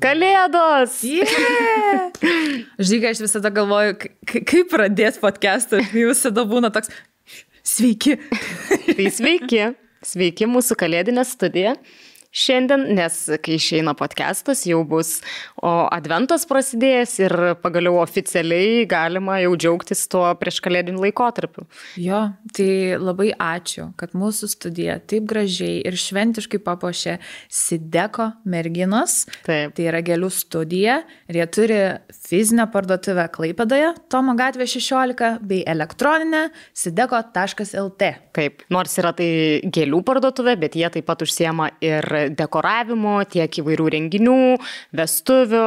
Kalėdos! Yeah! Žinai, aš visada galvoju, kaip pradėti podcastą, visada būna toks, sveiki. Tai sveiki, sveiki mūsų kalėdinė studija. Šiandien, nes kai išeina podcastas, jau bus adventas prasidėjęs ir pagaliau oficialiai galima jau džiaugtis tuo prieš kalėdinį laikotarpiu. Jo, tai labai ačiū, kad mūsų studija taip gražiai ir šventiškai papuošė Sideko merginos. Taip. Tai yra gėlių studija ir jie turi fizinę parduotuvę Klaipėdoje, Tomo gatvė 16, bei elektroninę sideko.lt. Taip, nors yra tai gėlių parduotuvė, bet jie taip pat užsiema ir dekoravimo, tiek įvairių renginių, vestuvių,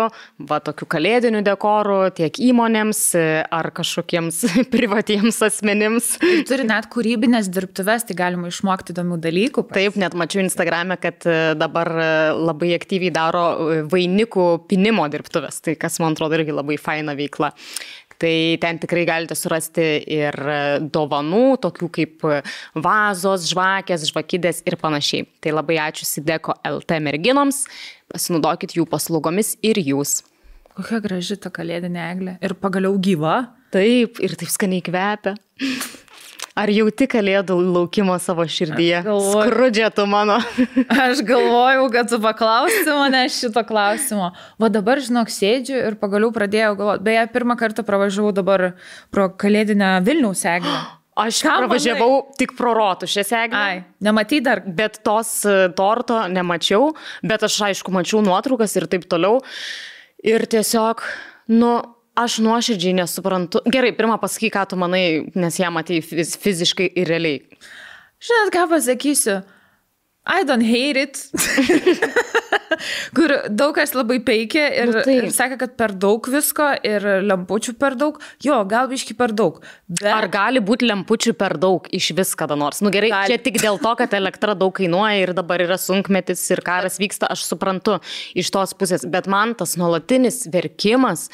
tokių kalėdinių dekorų, tiek įmonėms ar kažkokiems privatiems asmenims. Turi net kūrybinės dirbtuves, tai galima išmokti įdomių dalykų. Taip, net mačiau Instagrame, kad dabar labai aktyviai daro vainikų pinimo dirbtuves, tai kas man atrodo irgi labai faina veikla. Tai ten tikrai galite surasti ir dovanų, tokių kaip vazos, žvakės, žvakidės ir panašiai. Tai labai ačiū Sideko.lt merginoms, pasinaudokit jų paslaugomis ir jūs. Kokia graži ta kalėdinė eglė ir pagaliau gyva. Taip, ir taip skaniai kvepia. Ar jauti kalėdų laukimo savo širdyje? Skrudžia tu mano. Aš galvojau, kad tu paklausi mane šito klausimo. Va dabar, žinok, sėdžiu ir pagaliau pradėjau galvoti. Beje, pirmą kartą pravažiavau dabar pro kalėdinę Vilniaus eglę. Aš pravažiavau tik pro Rotušės eglę. Ai, nematai dar? Bet tos torto nemačiau, bet aš aišku mačiau nuotraukas ir taip toliau. Ir tiesiog, aš nuoširdžiai nesuprantu. Gerai, pirmą pasakyk, ką tu manai, nes ją matei fiziškai ir realiai. Žinot, ką pasakysiu? I don't hate it. Kur daug kas labai peikia ir sakė, kad per daug visko ir lempučių per daug. Jo, gal biški per daug. Bet... Ar gali būti lempučių per daug iš vis kada nors? Gerai, čia tik dėl to, kad elektra daug kainuoja ir dabar yra sunkmetis ir karas vyksta, aš suprantu iš tos pusės. Bet man tas nuolatinis verkimas,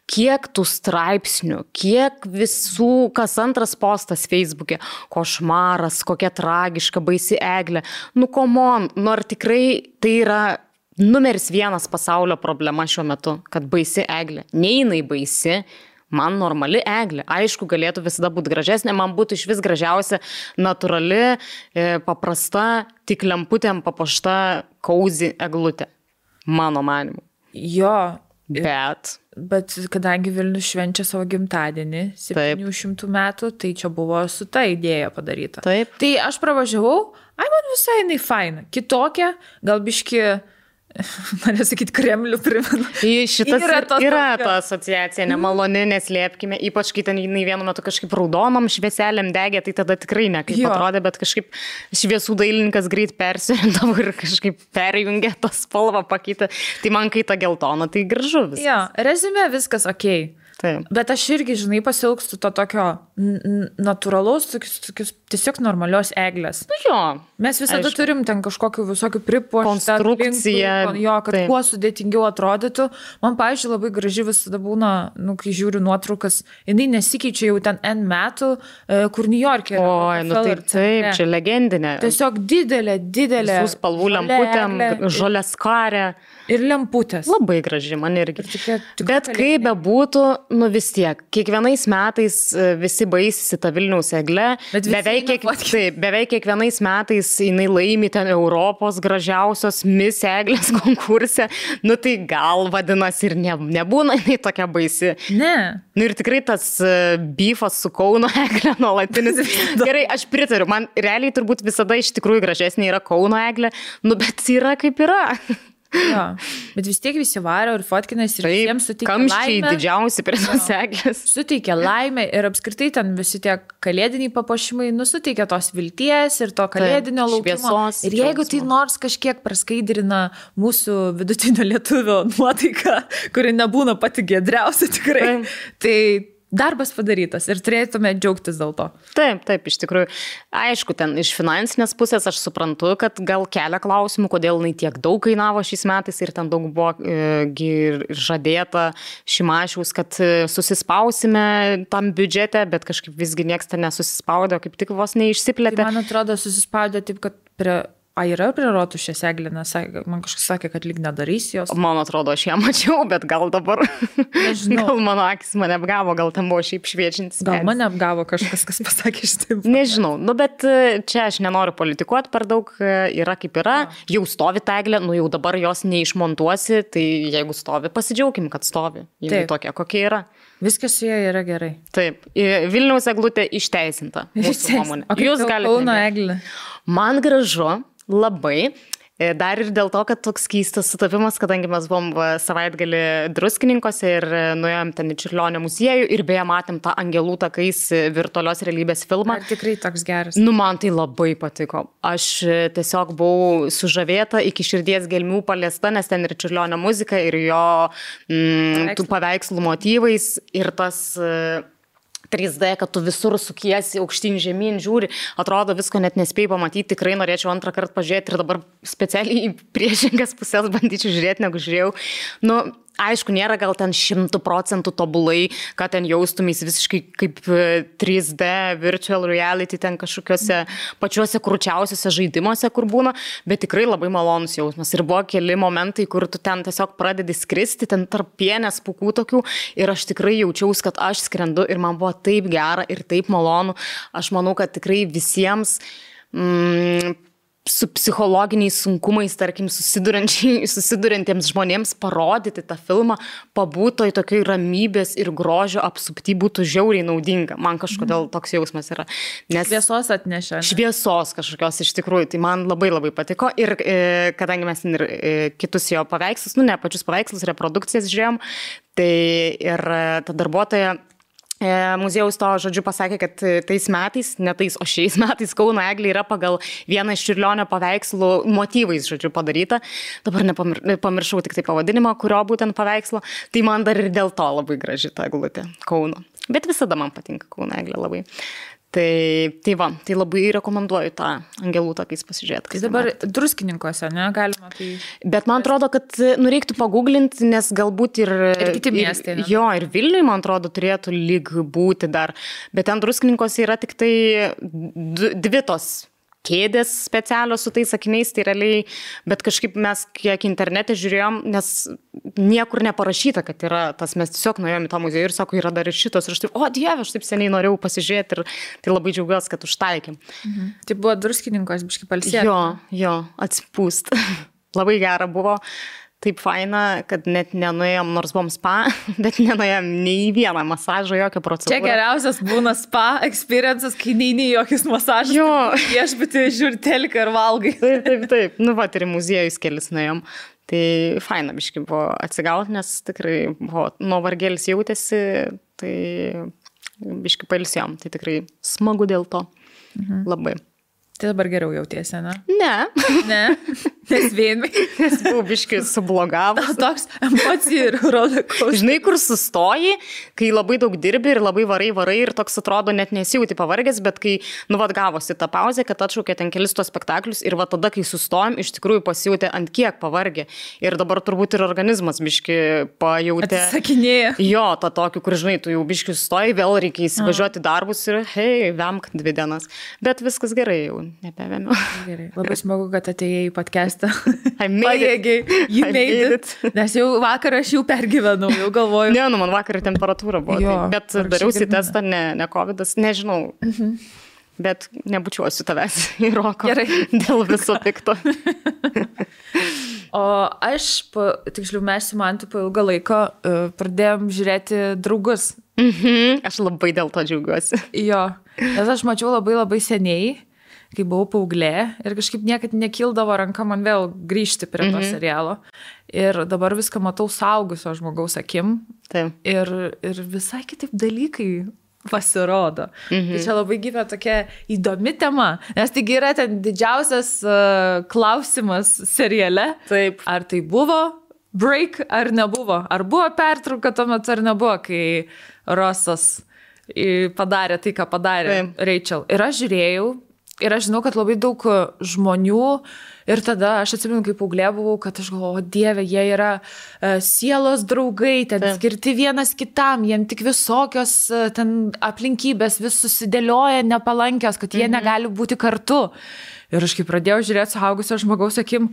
kiek tų straipsnių, kiek visų, kas antras postas Facebook'e, košmaras, kokia tragiška, baisi eglė. Come on, ar tikrai tai yra numeris 1 pasaulio problema šiuo metu, kad baisi eglė. Ne jinai baisi, man normali eglė. Aišku, galėtų visada būti gražesnė, man būtų iš vis gražiausia, natūrali, paprasta, tik lemputėm papuošta cozy eglutė. Mano manimu. Jo. Bet kadangi Vilnius švenčia savo gimtadienį 700 metų, tai čia buvo su ta idėja padaryta. Taip. Tai aš pravažiavau, man visai jinai faina. Kitokia, gal biški, norėjau sakyti, Kremlių primena. Šitas yra ta asociacija nemaloni, neslėpkime, ypač kai ten jinai vienu metu kažkaip raudonom švieselėm degė, tai tada tikrai ne kaip atrodė, bet kažkaip šviesų dailininkas greit persirindavo ir kažkaip perjungė tą spalvą pakeitė. Tai man kai ta geltona, tai gražu viskas. Jo, rezime viskas okei. Taip. Bet aš irgi, žinai, pasiilgstu to tokio natūralaus, tiesiog normalios eglės. Jo. Mes visada turim ten kažkokių visokių pripuoštą konstrukciją. Kad kuo sudėtingiau atrodytų. Man, pavyzdžiui, labai graži visada būna, kai žiūriu nuotraukas, jinai nesikeičia jau ten N metų, kur New York'e. Taip, čia legendinė. Tiesiog didelė. Visų spalvų lemputėm, žolės karė. Ir lemputės. Labai graži, man irgi. Bet kaip bebūtų, vis tiek, kiekvienais metais visi baisisi tą Vilniaus eglę. Beveik kiekvienais metais jinai laimi ten Europos gražiausios Miss eglės konkurse. Tai gal vadinasi ir nebūna jinai tokia baisi. Ne. Ir tikrai tas beefas su Kauno eglė nuolatinis. Gerai, aš pritariu, man realiai turbūt visada iš tikrųjų gražesnė yra Kauno eglė, bet yra kaip yra. Jo, bet vis tiek visi varo ir fotkinės ir visiems suteikia laimę. Kamščiai didžiausi prie tos eglės. Suteikia laimę ir apskritai ten visi tie kalėdiniai papuošimai suteikia tos vilties ir to kalėdinio laukimo. Šviesos, ir jeigu tai nors kažkiek praskaidrina mūsų vidutinio lietuvio nuotaiką, kuri nebūna pati giedriausia tikrai, tai darbas padarytas ir turėtume džiaugtis dėl to. Taip, iš tikrųjų. Aišku, ten iš finansinės pusės aš suprantu, kad gal kelia klausimų, kodėl jinai tiek daug kainavo šiais metais ir ten daug buvo žadėta Šimašiaus, kad susispausime tam biudžete, bet kažkaip visgi nieks ten nesusispaudė, kaip tik vos neišsiplėtė. Tai man atrodo susispaudė taip, kad prie yra prie Rotušės Eglė, nes man kažkas sakė, kad lyg nedarys jos. Man atrodo, aš ją mačiau, bet gal dabar. Nežinau. Gal mano akis mane apgavo, gal ten buvo šiaip šviečiantis. Gal mane apgavo kažkas, kas pasakė šitaip. Nežinau, bet čia aš nenoriu politikuoti per daug, yra kaip yra. Jau stovi ta Eglė, jau dabar jos neišmontuosi, tai jeigu stovi, pasidžiaugim, kad stovi. Ji tokia, kokia yra. Viskas su jie yra gerai. Taip. Vilniaus eglutė išteisinta. Mūsų nuomonė. O kaip Kauno Eglė? Man gražu, labai. Dar ir dėl to, kad toks keistas sutapimas, kadangi mes buvom savaitgalį Druskininkose ir nuėjom ten į Čiurlionio muziejų ir beje matėm tą Angelų takais virtualios realybės filmą. Ar tikrai toks geras? Man tai labai patiko. Aš tiesiog buvau sužavėta, iki širdies gelmių paliesta, nes ten ir Čiurlionio muzika, ir jo tų paveikslų motyvais, ir tas 3D, kad tu visur sukiesi, aukštyn žemyn, žiūri, atrodo visko net nespėjai pamatyti, tikrai norėčiau antrą kartą pažiūrėti ir dabar specialiai į priešingas pusės bandyčiau žiūrėti, negu žiūrėjau. Aišku, nėra gal ten 100% tobulai, kad ten jaustumės visiškai kaip 3D virtual reality ten kažkokiuose pačiuose krūčiausiuose žaidimuose, kur būna, bet tikrai labai malonus jausmas. Ir buvo keli momentai, kur tu ten tiesiog pradedi skristi, ten tarp pienės pūkų tokių ir aš tikrai jaučiausi, kad aš skrendu ir man buvo taip gera ir taip malonu. Aš manau, kad tikrai visiems su psichologiniais sunkumais, tarkim, susiduriantiems žmonėms parodyti tą filmą, pabūtoj tokioj ramybės ir grožio apsupty būtų žiauriai naudinga. Man kažkodėl toks jausmas yra. Nes šviesos atnešė. Šviesos kažkokios iš tikrųjų, tai man labai labai patiko. Ir kadangi mes ir kitus jo paveikslus, ne pačius paveikslus, reprodukcijas žiūrėjom, tai ir ta darbuotoja muziejaus to žodžiu pasakė, kad tais metais, ne tais, o šiais metais Kauno Eglė yra pagal vieną iš Čiurlionio paveikslų motyvais, žodžiu, padaryta. Dabar pamiršau tik tai pavadinimą, kurio būtent paveikslo. Tai man dar ir dėl to labai graži ta eglutė Kauno. Bet visada man patinka Kauno Eglė labai. Tai labai rekomenduoju tą Angelų takais pasižiūrėti. Tai dabar Druskininkose, ne, galima tai... Bet man atrodo, kad reiktų paguglinti, nes galbūt ir kiti miestai. Jo, ir Vilniui, man atrodo, turėtų lyg būti dar. Bet ten Druskininkose yra tik tai dvi tos kėdės specialios su tais sakiniais, tai realiai, bet kažkaip mes kiek internete žiūrėjom, nes niekur neparašyta, kad yra tas, mes tiesiog nuėjom į tą muziejų ir sako, yra dar ir šitos, ir aš taip, o Dieve, aš taip seniai norėjau pasižiūrėti ir tai labai džiaugiuosi, kad užtaikėm. Tai buvo Druskininkos biškai palsėti. Jo, atsipūst. Labai gera buvo. Taip faina, kad net nenuėjom, nors buvom spa, bet nenuėjom nei į vieną masažą, jokią procedūrą. Čia geriausias būna spa experiences, kai neini jokius masažus. Jo. Viešbutį žiūri teliką ir valgai. Taip. Ir į muziejus kelis nuėjom. Tai faina biškai buvo atsigauti, nes tikrai buvo nuovargėlis jautėsi, tai biškai pailsėjom. Tai tikrai smagu dėl to. Labai. Tai dabar geriau jautiesi, ne? Ne. Nes vienai. Nes buvau biškai sublogavus. Toks emocijų ir rollercoaster. Žinai, kur sustoji, kai labai daug dirbi ir labai varai ir toks atrodo net nesijauti pavargęs, bet kai, gavosi tą pauzę, kad atšaukė ten kelis tos spektaklius ir tada, kai sustojom, iš tikrųjų pasijutė ant kiek pavargė. Ir dabar turbūt ir organizmas biškai pajautė. Atsisakinėja. Jo, tą tokį, kur, žinai, tu jau biškai sustoji, vėl reikia įsivažiuoti darbus ir hei, vemk 2 dienas. Bet viskas gerai jau. Nebevėmiau. Gerai. Labai smagu, kad atėjai į podcastą. I made it. Nes jau vakar aš jau pergyvenau, jau galvoju. Ne, man vakar temperatūra buvo. Jo, bet dariausi testą, ne COVID'as, nežinau. Bet nebučiuosiu tavęs į roko. Gerai. Dėl viso pikto. O aš, tiksliau, mes su Mantu po ilgą laiko pradėjom žiūrėti Draugus. Aš labai dėl to džiaugiuosi. Jo, nes aš mačiau labai seniai, kai buvau paauglė ir kažkaip niekad nekildavo ranka man vėl grįžti prie to serialo. Ir dabar viską matau suaugusio žmogaus akim. Taip. Ir visai kitaip dalykai pasirodo. Tai čia labai gyvena tokia įdomi tema, nes taigi yra ten didžiausias klausimas seriale. Taip. Ar tai buvo break, ar nebuvo? Ar buvo pertrauka tuo metu, ar nebuvo, kai Rosas padarė tai, ką padarė Rachel. Ir aš žiūrėjau, ir aš žinau, kad labai daug žmonių Ir tada aš atsimenu, kaip paauglė buvau, kad aš galvoju, Dieve, jie yra sielos draugai, ten skirti vienas kitam, jiem tik visokios ten aplinkybės vis susidėlioja nepalankios, kad jie negali būti kartu. Ir aš kai pradėjau žiūrėti suaugusio žmogaus akim,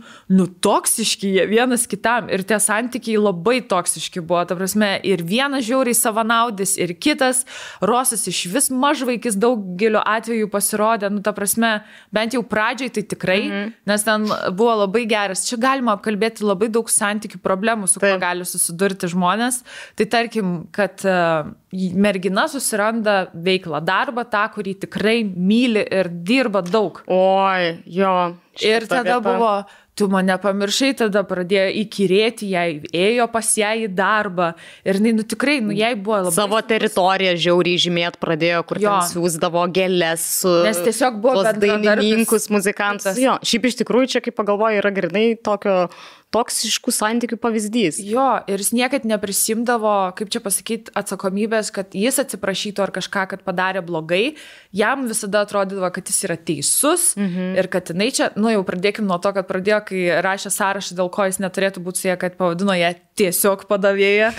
toksiški jie vienas kitam. Ir tie santykiai labai toksiški buvo. Ta prasme, ir vienas žiauriai savanaudis, ir kitas. Rosas iš vis mažvaikis daugeliu atveju pasirodė. Ta prasme, bent jau pradžiai tai tikrai, nes ten buvo labai geras. Čia galima apkalbėti labai daug santykių problemų, su kuo gali susidurti žmonės. Tai tarkim, kad mergina susiranda veiklą, darbą, tą, kurį tikrai myli ir dirba daug. Oi, jo. Ir tada buvo, tu mane pamiršai, tada pradėjo įkyrėti, jai ėjo pas ją į darbą. Ir tikrai, jai buvo labai... Savo teritoriją žiauriai žymėt pradėjo, kur ten siūsdavo gėlės su... Nes tiesiog buvo dainininkus, muzikantus. Jo, šiaip iš tikrųjų čia, kaip pagalvoju, yra grynai tokio toksiškų santykių pavyzdys. Jo, ir jis niekad neprisimdavo, kaip čia pasakyti, atsakomybės, kad jis atsiprašytų ar kažką, kad padarė blogai. Jam visada atrodydavo, kad jis yra teisus ir kad jinai čia, jau pradėkim nuo to, kad pradėjo, kai rašė sąrašą, dėl ko jis neturėtų būti su ją, kad pavadino ją tiesiog padavėja.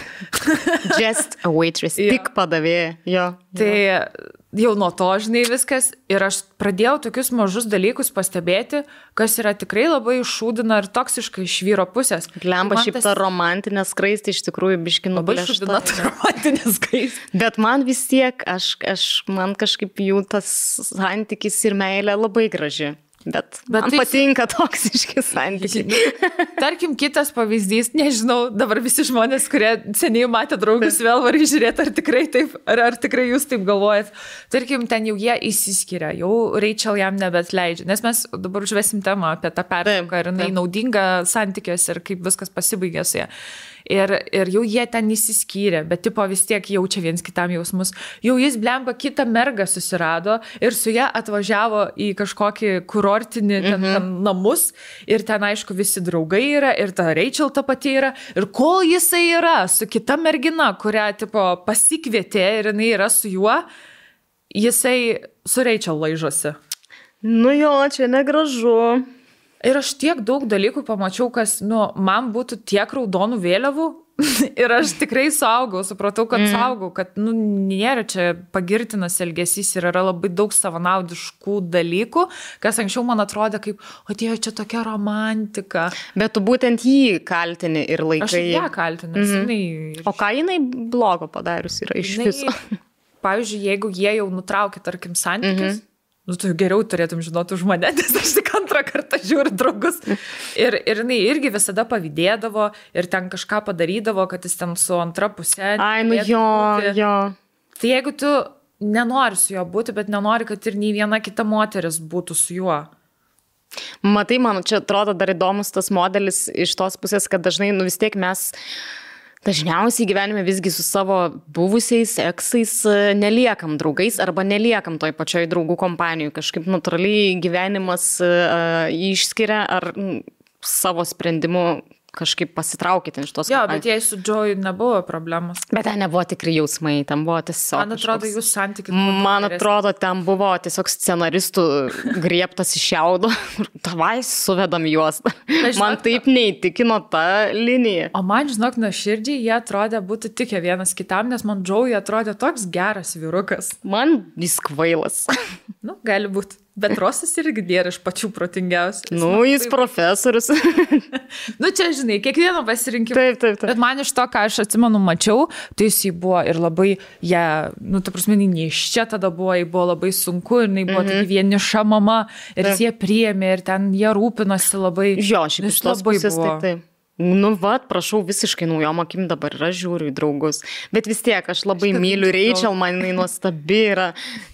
Just a waitress, tik padavėja. Jo. Tai jau nuo to, žinai, viskas. Ir aš pradėjau tokius mažus dalykus pastebėti, kas yra tikrai labai šūdina ir toksiška iš vyro pusės. Lemba šiaip ta romantinė skraistė iš tikrųjų biški nublėšta. Labai šūdina ta romantinė skraistė. Bet man vis tiek, man kažkaip jų tas santykis ir meilė labai graži. Bet man patinka toksiški santykiai. Tarkim, kitas pavyzdys, nežinau, dabar visi žmonės, kurie seniai matė draugus, vėl varai žiūrėti, ar tikrai taip, ar tikrai jūs taip galvojat. Tarkim, ten jau jie įsiskiria, jau Rachel jam nebetleidžia, nes mes dabar užvesim temą apie tą pertrauką ir jinai naudinga santykiuose ir kaip viskas pasibaigė su ją. Ir jau jie ten įsiskyrė, bet tipo vis tiek jaučia viens kitam jausmus. Jau jis blemba kitą mergą susirado ir su ją atvažiavo į kažkokį kurortinį ten namus ir ten aišku visi draugai yra ir ta Rachel ta pati yra. Ir kol jisai yra su kita mergina, kurią tipo pasikvietė ir jinai yra su juo, jisai su Rachel laižosi. Nu jo, čia negražu. Ir aš tiek daug dalykų pamačiau, kas, man būtų tiek raudonų vėliavų ir aš tikrai suaugau, supratau, kad suaugau, kad, nėra čia pagirtinas elgesys ir yra labai daug savanaudiškų dalykų, kas anksčiau man atrodė kaip, Dieve, čia tokia romantika. Bet tu būtent jį kaltini ir laikai. Aš ją kaltinu. O ką jinai blogo padarius yra iš viso? Pavyzdžiui, jeigu jie jau nutraukė, tarkim, santykis, tu geriau turėtum žinoti už mane, nes aš tik antrą kartą žiūriu draugus. Ir jinai irgi visada pavydėdavo ir ten kažką padarydavo, kad jis ten su antra pusė. Ai, jo. Tai jeigu tu nenori su juo būti, bet nenori, kad ir nei viena kita moteris būtų su juo. Matai, man čia atrodo dar įdomus tas modelis iš tos pusės, kad dažnai, vis tiek mes dažniausiai gyvenime visgi su savo buvusiais eksais neliekam draugais arba neliekam toj pačioj draugų kompanijų. Kažkaip natūraliai gyvenimas išskiria ar savo sprendimu kažkaip pasitraukite iš tos kompanijos. Jo, bet jei su Joey nebuvo problemos. Bet ten nebuvo tikrai jausmai, ten buvo tiesiog... Man atrodo, jūs santykis... Man atrodo, ten buvo tiesiog scenaristų griebtas iš šiaudo. Tavai suvedam juos. Man taip neįtikino ta linija. O man, žinok, nuoširdžiai jie atrodė būtų tikę vienas kitam, nes man Joey atrodė toks geras vyrukas. Man jis kvailas. Gali būti. Bet Rosas irgi nėra iš pačių protingiausių. Jis profesorius. Čia, žinai, kiekvieno pasirinkimo. Taip. Bet man iš to, ką aš atsimenu, mačiau, tai jis buvo ir labai, ta prasme, neiščia tada buvo, jai buvo labai sunku ir jinai buvo tokia vieniša mama ir jie priėmė ir ten jie rūpinosi labai. Jo, šiaip iš tos pusės taip. Prašau, visiškai naujom akim dabar yra žiūriu į draugus. Bet vis tiek, aš labai myliu Rachel, man jinai nuostabi yra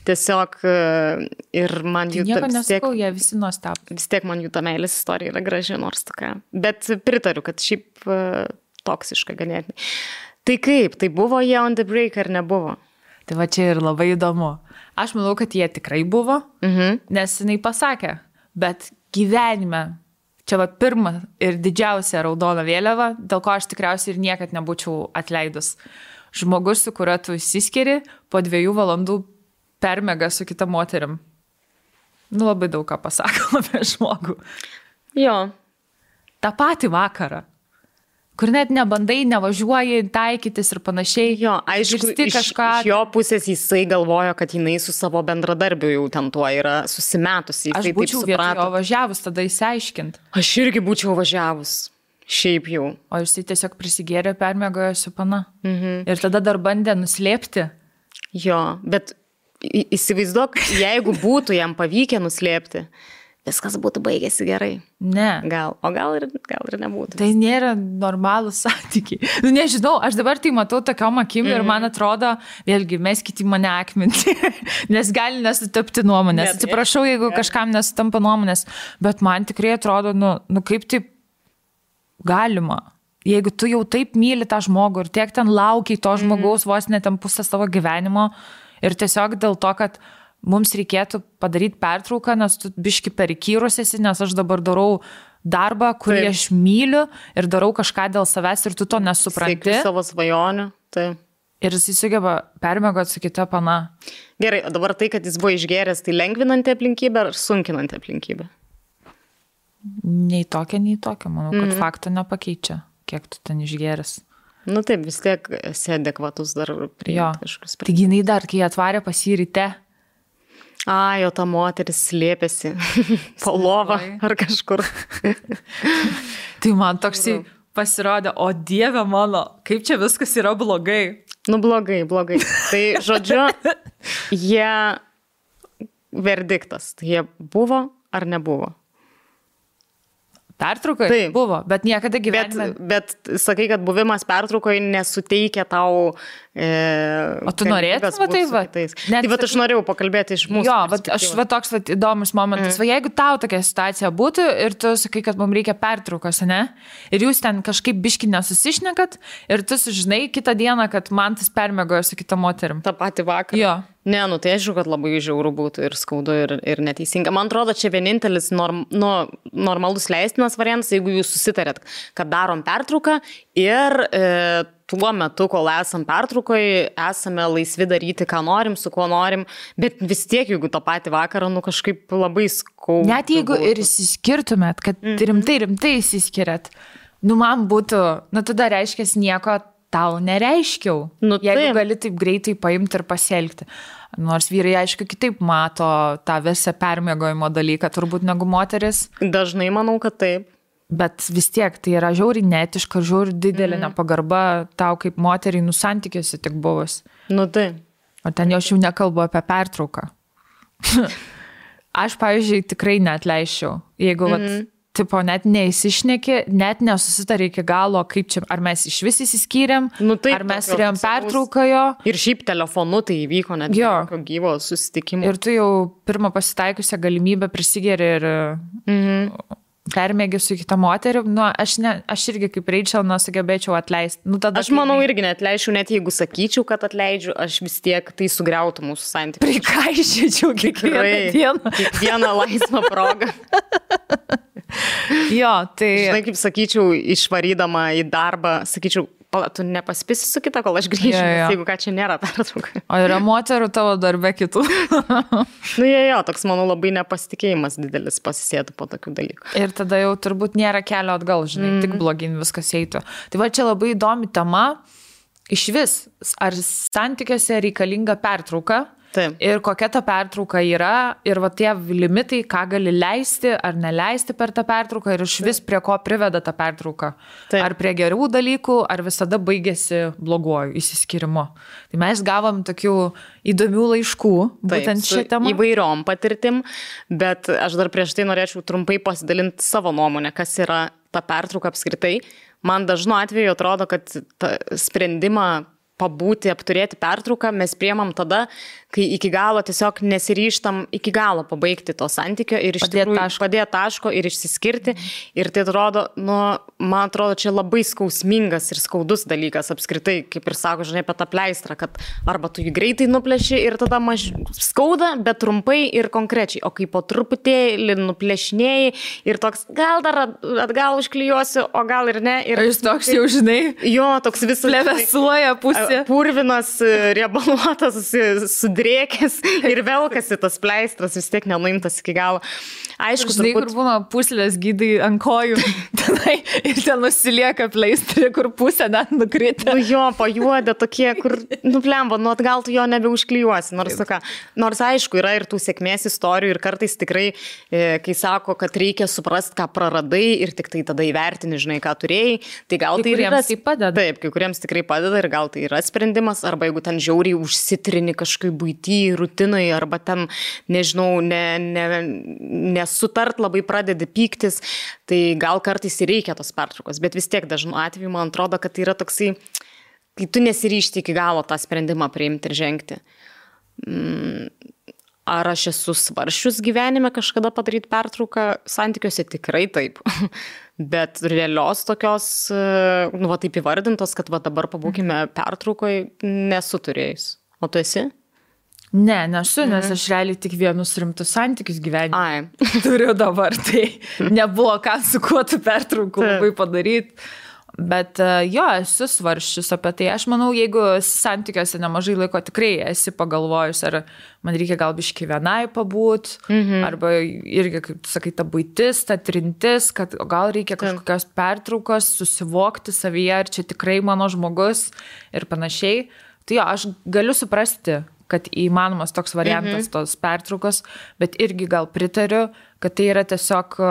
tiesiog ir man jų... Nieko nesakau, jie visi nuostabu. Vis tiek man jų ta meilės istorija yra graži, nors tokia. Bet pritariu, kad šiaip toksiška ganėtinai. Tai kaip, tai buvo jie on the break ar nebuvo? Tai va čia ir labai įdomu. Aš manau, kad jie tikrai buvo, nes jinai pasakė, bet gyvenime čia va pirma ir didžiausia raudona vėliava, dėl ko aš tikriausiai ir niekad nebūčiau atleidus. Žmogus, su kuriuo tu įsiskiri, po 2 valandų permega su kita moterim. Labai daug ką pasako apie žmogų. Jo. tą patį vakarą, kur net nebandai, nevažiuoji taikytis ir panašiai. Jo, aišku, iš jo pusės jisai galvojo, kad jinai su savo bendradarbiu jau ten tuo yra susimetusi. Aš būčiau vietoj jo važiavus, tada įsiaiškint. Aš irgi būčiau važiavus. Šiaip jau. O jisai tiesiog prisigėrė, permiegojo su pana. Ir tada dar bandė nuslėpti. Jo, bet įsivaizduok, jeigu būtų jam pavykę nuslėpti, viskas būtų baigėsi gerai. Ne. O gal ir nebūtų. Tai nėra normalūs santykiai. Nu, nežinau, aš dabar tai matau tokiom akim ir man atrodo, vėlgi, meskite mane akminti, nes gali nesutapti nuomonės. Atsiprašau, jeigu kažkam nesutampa nuomonės, bet man tikrai atrodo, nu kaip taip galima. Jeigu tu jau taip myli tą žmogų ir tiek ten laukiai to žmogaus vos net ten pusę savo gyvenimo ir tiesiog dėl to, kad mums reikėtų padaryti pertrauką, nes tu biški perikyrus esi, nes aš dabar darau darbą, kurį aš myliu ir darau kažką dėl savęs ir tu to nesupranti. Siekiu savo svajonių, tai. Ir jis sugeba permiegoti su kita pana. Gerai, o dabar tai, kad jis buvo išgėręs, tai lengvinanti aplinkybė ar sunkinanti aplinkybė? Nei tokia. Manau, kad fakto nepakeičia, kiek tu ten išgėręs. Nu taip, vis tiek esi adekvatus dar priimti kažkokius. Taigi jinai dar, kai atvarė pas jį ryte. Jo ta moteris slėpėsi po lovą ar kažkur. Tai man toksai pasirodė, o Dieve mano, kaip čia viskas yra blogai. Nu blogai. Tai žodžiu, verdiktas, jie buvo ar nebuvo? Pertraukai? Taip. Buvo, bet niekada gyvenime. Bet sakai, kad buvimas pertraukoje nesuteikia tau... O tu norėtum, tai va? Tai va, aš norėjau pakalbėti iš mūsų. Jo, toks įdomus momentas. Va, jeigu tau tokia situacija būtų ir tu sakai, kad mums reikia pertraukos, ne? Ir jūs ten kažkaip biški nesusišnekat ir tu sužinai kitą dieną, kad man tas permiegojo su kita moterim. Ta pati vakarą. Jo. Ne, tai aišku, kad labai žiauru būtų ir skaudu ir neteisinga. Man atrodo, čia vienintelis normalus leistinas variantas, jeigu jūs susitarėt, kad darom pertrauką ir tuo metu, kol esam pertraukoje, esame laisvi daryti, ką norim, su kuo norim, bet vis tiek, jeigu tą patį vakarą, kažkaip labai skaudu. Net jeigu ir įsiskirtumėt, kad rimtai įsiskiriat, man būtų, tada reiškia nieko tau nereiškiau, jeigu gali taip greitai paimti ir pasielgti. Nors vyrai, aišku, kitaip mato tą visą permiegojimo dalyką, turbūt negu moteris. Dažnai manau, kad taip. Bet vis tiek tai yra žiauriai neetiška, žiauriai didelė nepagarba tau kaip moteriai santykiuose tik buvus. Tai. O ten jau aš jau nekalbu apie pertrauką. Aš, pavyzdžiui, tikrai neatleiščiau, jeigu tipo, net neįsišneki, net nesusitari iki galo, kaip čia, ar mes iš vis įsiskyrėm, ar mes turėjom pertrauką jo. Ir šiaip telefonu tai įvyko net gyvo susitikimo. Ir tu jau pirmą pasitaikusią galimybę prisigeri ir permėgi su kita moterim. Aš irgi kaip Rachel nesugebėčiau atleisti. Aš manau irgi neatleičiau, net jeigu sakyčiau, kad atleidžiu, aš vis tiek tai sugriautų mūsų santykius. Prikaišyčiau kiekvieną dieną. Kiekvieną laisvą progą. Jo, tai... Žinai, kaip sakyčiau, išvarydama į darbą, sakyčiau, tu nepaspisi su kita, kol aš grįšiu, jeigu ką čia nėra pertrauka. O yra moterų tavo darbe kitų? Toks, manau, labai nepasitikėjimas didelis pasisėtų po tokių dalykų. Ir tada jau turbūt nėra kelio atgal, žinai, tik blogin viskas eitų. Tai va, čia labai įdomi tema. Iš vis, ar santykiuose reikalinga pertrauka? Taip. Ir kokia ta pertrauka yra, ir va tie limitai, ką gali leisti ar neleisti per tą pertrauką, ir iš vis prie ko priveda ta pertrauka. Taip. Ar prie gerų dalykų, ar visada baigėsi bloguoju įsiskirimu. Tai mes gavom tokių įdomių laiškų, būtent šią temą. Įvairiom patirtim, bet aš dar prieš tai norėčiau trumpai pasidalinti savo nuomonę, kas yra ta pertrauka apskritai. Man dažnu atveju atrodo, kad sprendimą pabūti, apturėti pertrauką mes priemam tada, kai iki galo tiesiog nesiryžtam iki galo pabaigti to santykio ir iš tikrųjų padėti taško ir išsiskirti. Ir tai atrodo, man atrodo, čia labai skausmingas ir skaudus dalykas apskritai, kaip ir sako, žinai, apie tą pleistrą, kad arba tu jį greitai nuplėši ir tada skauda, bet trumpai ir konkrečiai, o kai po truputėlį nuplėšinėjai ir toks, gal dar atgal užklijuosiu, o gal ir ne. Ir jis toks jau, žinai, jo, toks visas plevesuoja pusė. Purvinas, riebaluotas, sudrėkęs drėkis ir velkasi tas pleistras, vis tiek nenuimtas iki galo. Aišku, žinai, kur būna puslės gydai ant kojų tenai, ir ten nusilieka pleistrį, kur pusė net nukritė. Nu jo, pajuodė tokie, kur, blemba, nu atgal tu jo nebeužklijuosi. Nors aišku, yra ir tų sėkmės istorijų ir kartais tikrai, kai sako, kad reikia suprasti, ką praradai ir tik tai tada įvertini, žinai, ką turėjai, tai gal tai yra... Tai padeda. Taip, kai kuriems tikrai padeda ir gal tai yra sprendimas, arba jeigu ten žiauriai užsitrini kažkaip buitį, rutinai, arba ten, nežinau, nesutart labai pradedi pyktis, tai gal kartais ir reikia tos pertraukos, bet vis tiek dažnu atveju man atrodo, kad tai yra toksai, kai tu nesiryžti iki galo tą sprendimą priimti ir žengti. Ar aš esu svaršius gyvenime kažkada padaryti pertrauką? Santykiuose tikrai taip. Bet realios tokios, nu va taip įvardintos, kad va dabar pabūkime pertraukoje, nesu turėjus. O tu esi? Ne, nesu, nes aš realiai tik vienus rimtus santykius gyvenime turiu dabar, tai nebuvo ką su kuo tu pertraukų labai padaryti. Bet jo, esu svarsčius apie tai. Aš manau, jeigu santykiuose nemažai laiko tikrai esi pagalvojus, ar man reikia gal biškį vienai pabūt, arba irgi, kaip tu sakai, ta buitis, ta trintis, kad gal reikia kažkokios pertraukos, susivokti savyje, ar čia tikrai mano žmogus ir panašiai. Tai jo, aš galiu suprasti, kad įmanomas toks variantas tos pertraukos, bet irgi gal pritariu, kad tai yra tiesiog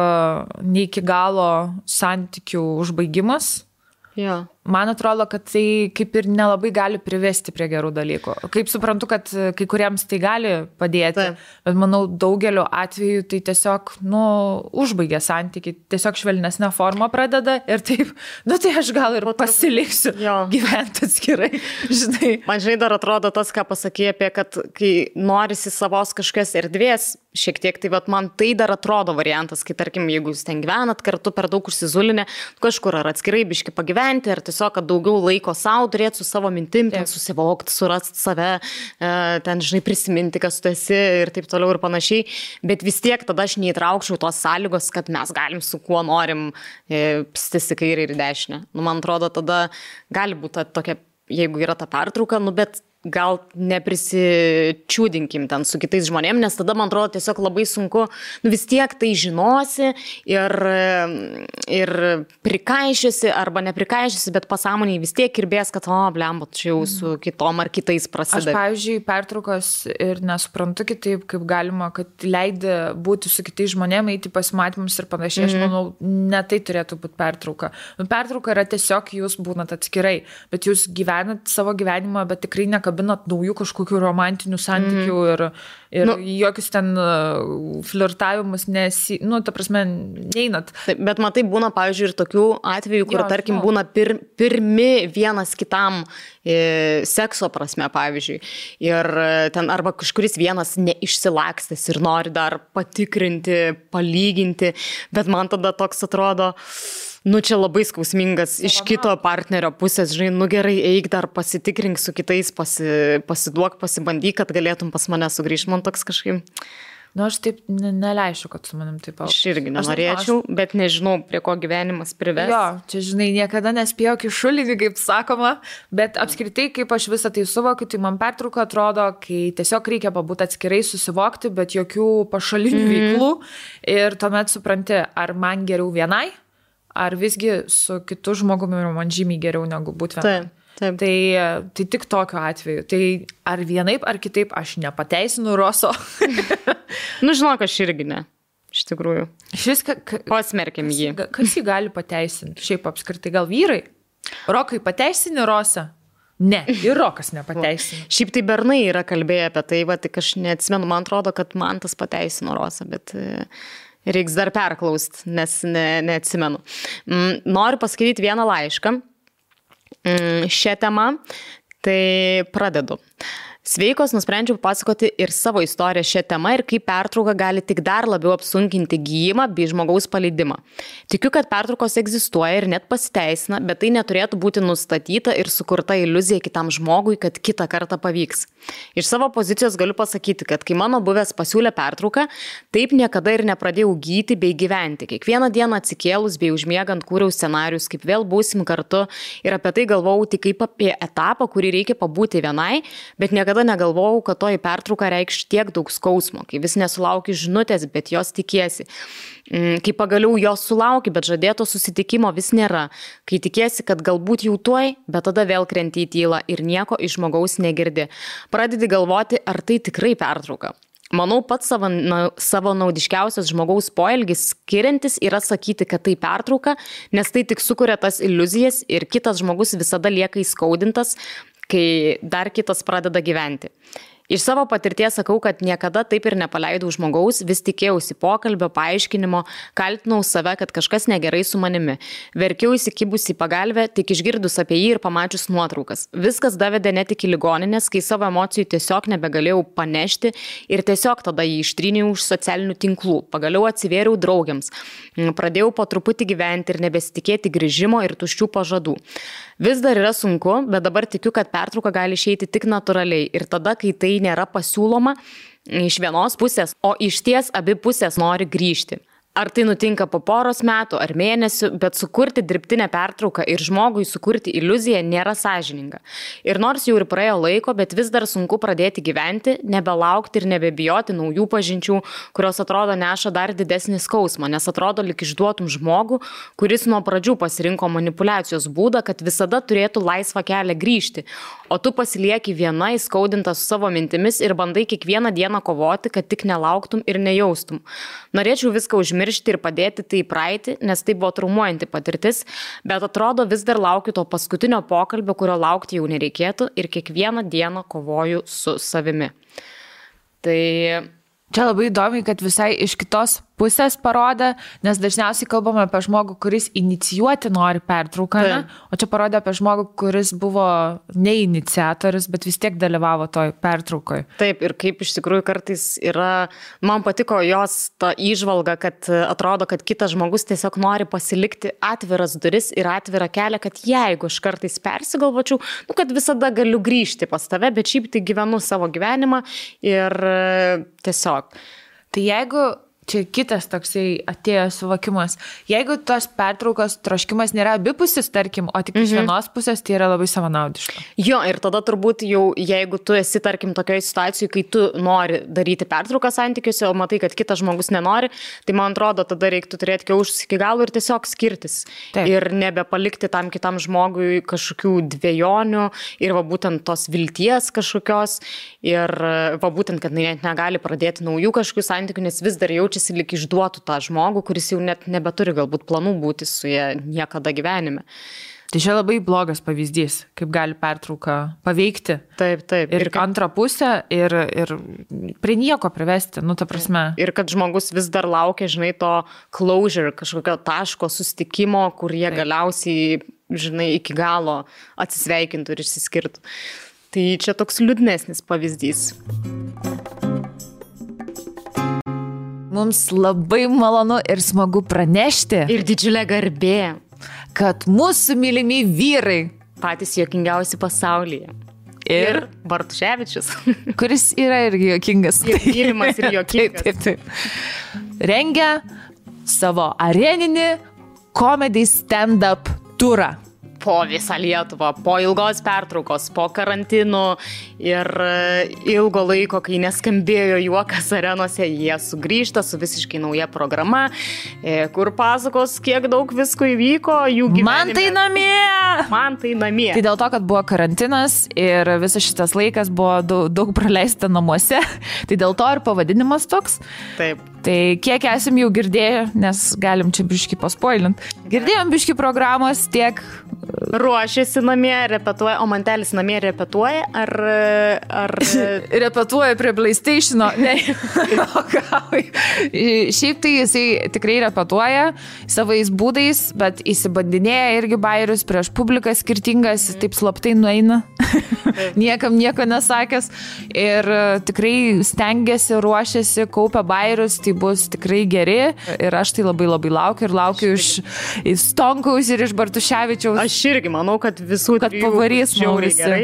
ne iki galo santykių užbaigimas. Jo. Man atrodo, kad tai kaip ir nelabai gali privesti prie gerų dalykų. Kaip suprantu, kad kai kuriems tai gali padėti, bet manau, daugeliu atveju tai tiesiog, užbaigia santykiai, tiesiog švelnesnę formą pradeda ir taip, tai aš gal ir pasiliksiu gyventi atskirai, žinai. Man žinai dar atrodo tas, ką pasakė apie, kad kai norisi savos kažkokios erdvės, šiek tiek, tai vat, man tai dar atrodo variantas, kai tarkim, jeigu jūs ten gyvenat kartu per daug užsizulinę, kažkur ar atskirai biški pagyventi, ar tiesiog, kad daugiau laiko savo turėti su savo mintim, ten susivokti, surasti save, ten, žinai, prisiminti, kas tu esi ir taip toliau ir panašiai, bet vis tiek tada aš neįtraukčiau tos sąlygos, kad mes galim su kuo norim pstis į kairę ir į dešinę. Man atrodo, tada gali būti tokia, jeigu yra ta pertrauka, bet gal neprisičiūdinkim ten su kitais žmonėm, nes tada, man atrodo, tiesiog labai sunku, vis tiek tai žinosi ir prikaišysi arba neprikaišysi, bet pasąmoniai vis tiek kirbės, kad, blemba, čia jau su kitom ar kitais prasideda. Aš, pavyzdžiui, pertraukos ir nesuprantu kitaip, kaip galima, kad leidi būti su kitais žmonėm, eiti pasimatymus ir panašiai. Aš manau, ne tai turėtų būti pertrauka. Pertrauka yra tiesiog jūs būnat atskirai, bet jūs gyvenat savo gyvenimą, bet tikrai nekabinat naujų kažkokių romantinių santykių ir jokius ten flirtavimus ta prasme, neinat. Bet matai, būna, pavyzdžiui, ir tokių atvejų, kur, tarkim, būna pirmi vienas kitam sekso prasme, pavyzdžiui. Ir ten arba kažkuris vienas neišsilakstęs ir nori dar patikrinti, palyginti, bet man tada toks atrodo, čia labai skausmingas iš kito partnerio pusės, žinai, gerai, eik dar pasitikrink su kitais, pasiduok, pasibandyk, kad galėtum pas mane sugrįžti. Man toks kažkaip... Aš taip neleisiu, kad su manim taip... Aš irgi nenorėčiau, bet nežinau, prie ko gyvenimas prives. Jo, čia, žinai, niekada nespėjau kišulinį, kaip sakoma, bet apskritai, kaip aš visą tai suvokiu, tai man pertrauka atrodo, kai tiesiog reikia pabūti atskirai, susivokti, bet jokių pašalinių veiklų ir tuomet supranti, ar man geriau vienai, ar visgi su kitu žmogumi man žymiai geriau negu būti vienai. Taip. Tai tik tokiu atveju. Tai ar vienaip, ar kitaip aš nepateisinu Roso. Žinok, aš irgi ne. Iš tikrųjų. Pasmerkim jį. Kas jį gali pateisinti? Šiaip apskritai gal vyrai? Rokai pateisini Rosą? Ne, ir Rokas nepateisino. Šiaip tai bernai yra kalbėję apie tai, tik aš neatsimenu, man atrodo, kad man tas pateisino Rosą, bet... Reiks dar perklausti, nes neatsimenu. Noriu paskaityti vieną laišką šią temą, tai pradedu. Sveikos, nusprendžiau pasakoti ir savo istoriją šią temą ir kaip pertrauka gali tik dar labiau apsunkinti gijimą bei žmogaus paleidimą. Tikiu, kad pertraukos egzistuoja ir net pasiteisina, bet tai neturėtų būti nustatyta ir sukurta iliuzija kitam žmogui, kad kitą kartą pavyks. Iš savo pozicijos galiu pasakyti, kad kai mano buvęs pasiūlė pertrauką, taip niekada ir nepradėjau gyti bei gyventi. Kiekvieną dieną atsikėlus bei užmiegant kūriau scenarius, kaip vėl būsim kartu ir apie tai galvojau tik kaip apie etapą, kurį reikia pabūti vienai, bet niekada niekada negalvojau, kad toji pertrauka reikš tiek daug skausmo, kai vis nesulauki žinutės, bet jos tikiesi. Kai pagaliau jos sulauki, bet žadėto susitikimo vis nėra. Kai tikiesi, kad galbūt jau tuoj, bet tada vėl krenti į tylą ir nieko iš žmogaus negirdi. Pradedi galvoti, ar tai tikrai pertrauka. Manau, pats savo naudiškiausias žmogaus poelgis skiriantis yra sakyti, kad tai pertrauka, nes tai tik sukuria tas iliuzijas ir kitas žmogus visada lieka įskaudintas, kai dar kitas pradeda gyventi. Iš savo patirties sakau, kad niekada taip ir nepaleidau žmogaus, vis tikėjausi pokalbio, paaiškinimo, kaltinau save, kad kažkas negerai su manimi. Verkiau įsikibusi į pagalbę, tik išgirdus apie jį ir pamačius nuotraukas. Viskas davedė net iki ligoninės, kai savo emocijų tiesiog nebegalėjau panešti ir tiesiog tada jį ištryniau už socialinių tinklų. Pagaliau atsivėriau draugiams. Pradėjau po truputį gyventi ir nebesitikėti grįžimo ir tuščių pažadų. Vis dar yra sunku, bet dabar tikiu, kad pertrauka gali išeiti tik natūraliai ir tada, kai tai nėra pasiūloma iš vienos pusės, o iš ties abi pusės nori grįžti. Ar tai nutinka po poros metų ar mėnesių, bet sukurti dirbtinę pertrauką ir žmogui sukurti iliuziją nėra sąžininga. Ir nors jau ir praėjo laiko, bet vis dar sunku pradėti gyventi, nebelaukti ir nebebijoti naujų pažinčių, kurios atrodo neša dar didesnį skausmą, nes atrodo lyg išduotum žmogų, kuris nuo pradžių pasirinko manipulacijos būdą, kad visada turėtų laisvą kelią grįžti, o tu pasilieki viena įskaudinta su savo mintimis ir bandai kiekvieną dieną kovoti, kad tik nelauktum ir nejaustum. Norėčiau viską užmiršti ir padėti tai į praeitį, nes tai buvo traumuojanti patirtis, bet atrodo vis dar laukiu to paskutinio pokalbio, kurio laukti jau nereikėtų ir kiekvieną dieną kovoju su savimi. Tai čia labai įdomi, kad visai iš kitos pusės parodė, nes dažniausiai kalbame apie žmogų, kuris inicijuoti nori pertrauką, o čia parodė apie žmogų, kuris buvo ne iniciatorius, bet vis tiek dalyvavo toj pertraukoje. Taip, ir kaip iš tikrųjų kartais yra, man patiko jos ta įžvalga, kad atrodo, kad kitas žmogus tiesiog nori pasilikti atviras duris ir atvirą kelią, kad jeigu aš kartais persigalvočiau, kad visada galiu grįžti pas tave, bet šiaip tai gyvenu savo gyvenimą ir tiesiog. Tai jeigu čia kitas toksai atėjo suvokimas. Jeigu tos pertraukos troškimas nėra abipusis, tarkim, o tik iš vienos pusės, tai yra labai savanaudiška. Jo, ir tada turbūt jau, jeigu tu esi, tarkim, tokioje situacijoje, kai tu nori daryti pertrauką santykiuose, o matai, kad kitas žmogus nenori, tai man atrodo, tada reiktų turėti kiaušus iki galo ir tiesiog skirtis. Taip. Ir nebepalikti tam kitam žmogui kažkokių dvejonių ir va būtent tos vilties kažkokios ir va būtent, kad net negali pradėti naujų kažkokių santykių, nes vis dar jaučiasi lyg išduotų tą žmogų, kuris jau net nebeturi galbūt planų būti su jie niekada gyvenime. Tai čia labai blogas pavyzdys, kaip gali pertrauka paveikti. Taip, taip. Ir antrą pusę ir prie nieko privesti, ta prasme. Ir kad žmogus vis dar laukia, žinai, to closure, kažkokio taško susitikimo, kur jie galiausiai, žinai, iki galo atsisveikintų ir išsiskirtų. Tai čia toks liūdnesnis pavyzdys. Mums labai malonu ir smagu pranešti. Ir didžiulė garbė. Kad mūsų mylimi vyrai. Patys juokingiausi pasaulyje. Ir Bartuševičius. Kuris yra irgi juokingas. Ir mylimas ir juokingas. Taip. Rengia savo areninį comedy stand-up turą. Po visą Lietuvą, po ilgos pertraukos, po karantinų ir ilgo laiko, kai neskambėjo juokas arenose, jie sugrįžta su visiškai nauja programa, kur pasakos, kiek daug visko įvyko jų gyvenime. Man tai namie. Tai dėl to, kad buvo karantinas ir visas šitas laikas buvo daug praleista namuose, tai dėl to ir pavadinimas toks. Taip. Tai kiek esam jau girdėję, nes galim čia biškį paspoilint. Girdėjom biškį programos tiek. Ruošiasi namie, repetuoja, o Mantelis namie repetuoja, ar... Repetuoja prie PlayStation'o, ne. Šiaip tai jisai tikrai repetuoja savais būdais, bet įsibandinėja irgi bairius prieš publiką skirtingas, taip slaptai nueina, niekam nieko nesakęs ir tikrai stengiasi, ruošiasi, kaupia bairius, tai bus tikrai geri ir aš tai labai labai laukiu iš Stonkaus ir iš Bartuševičiaus. Aš irgi manau, kad visų kad pavarys žiauriai gerai.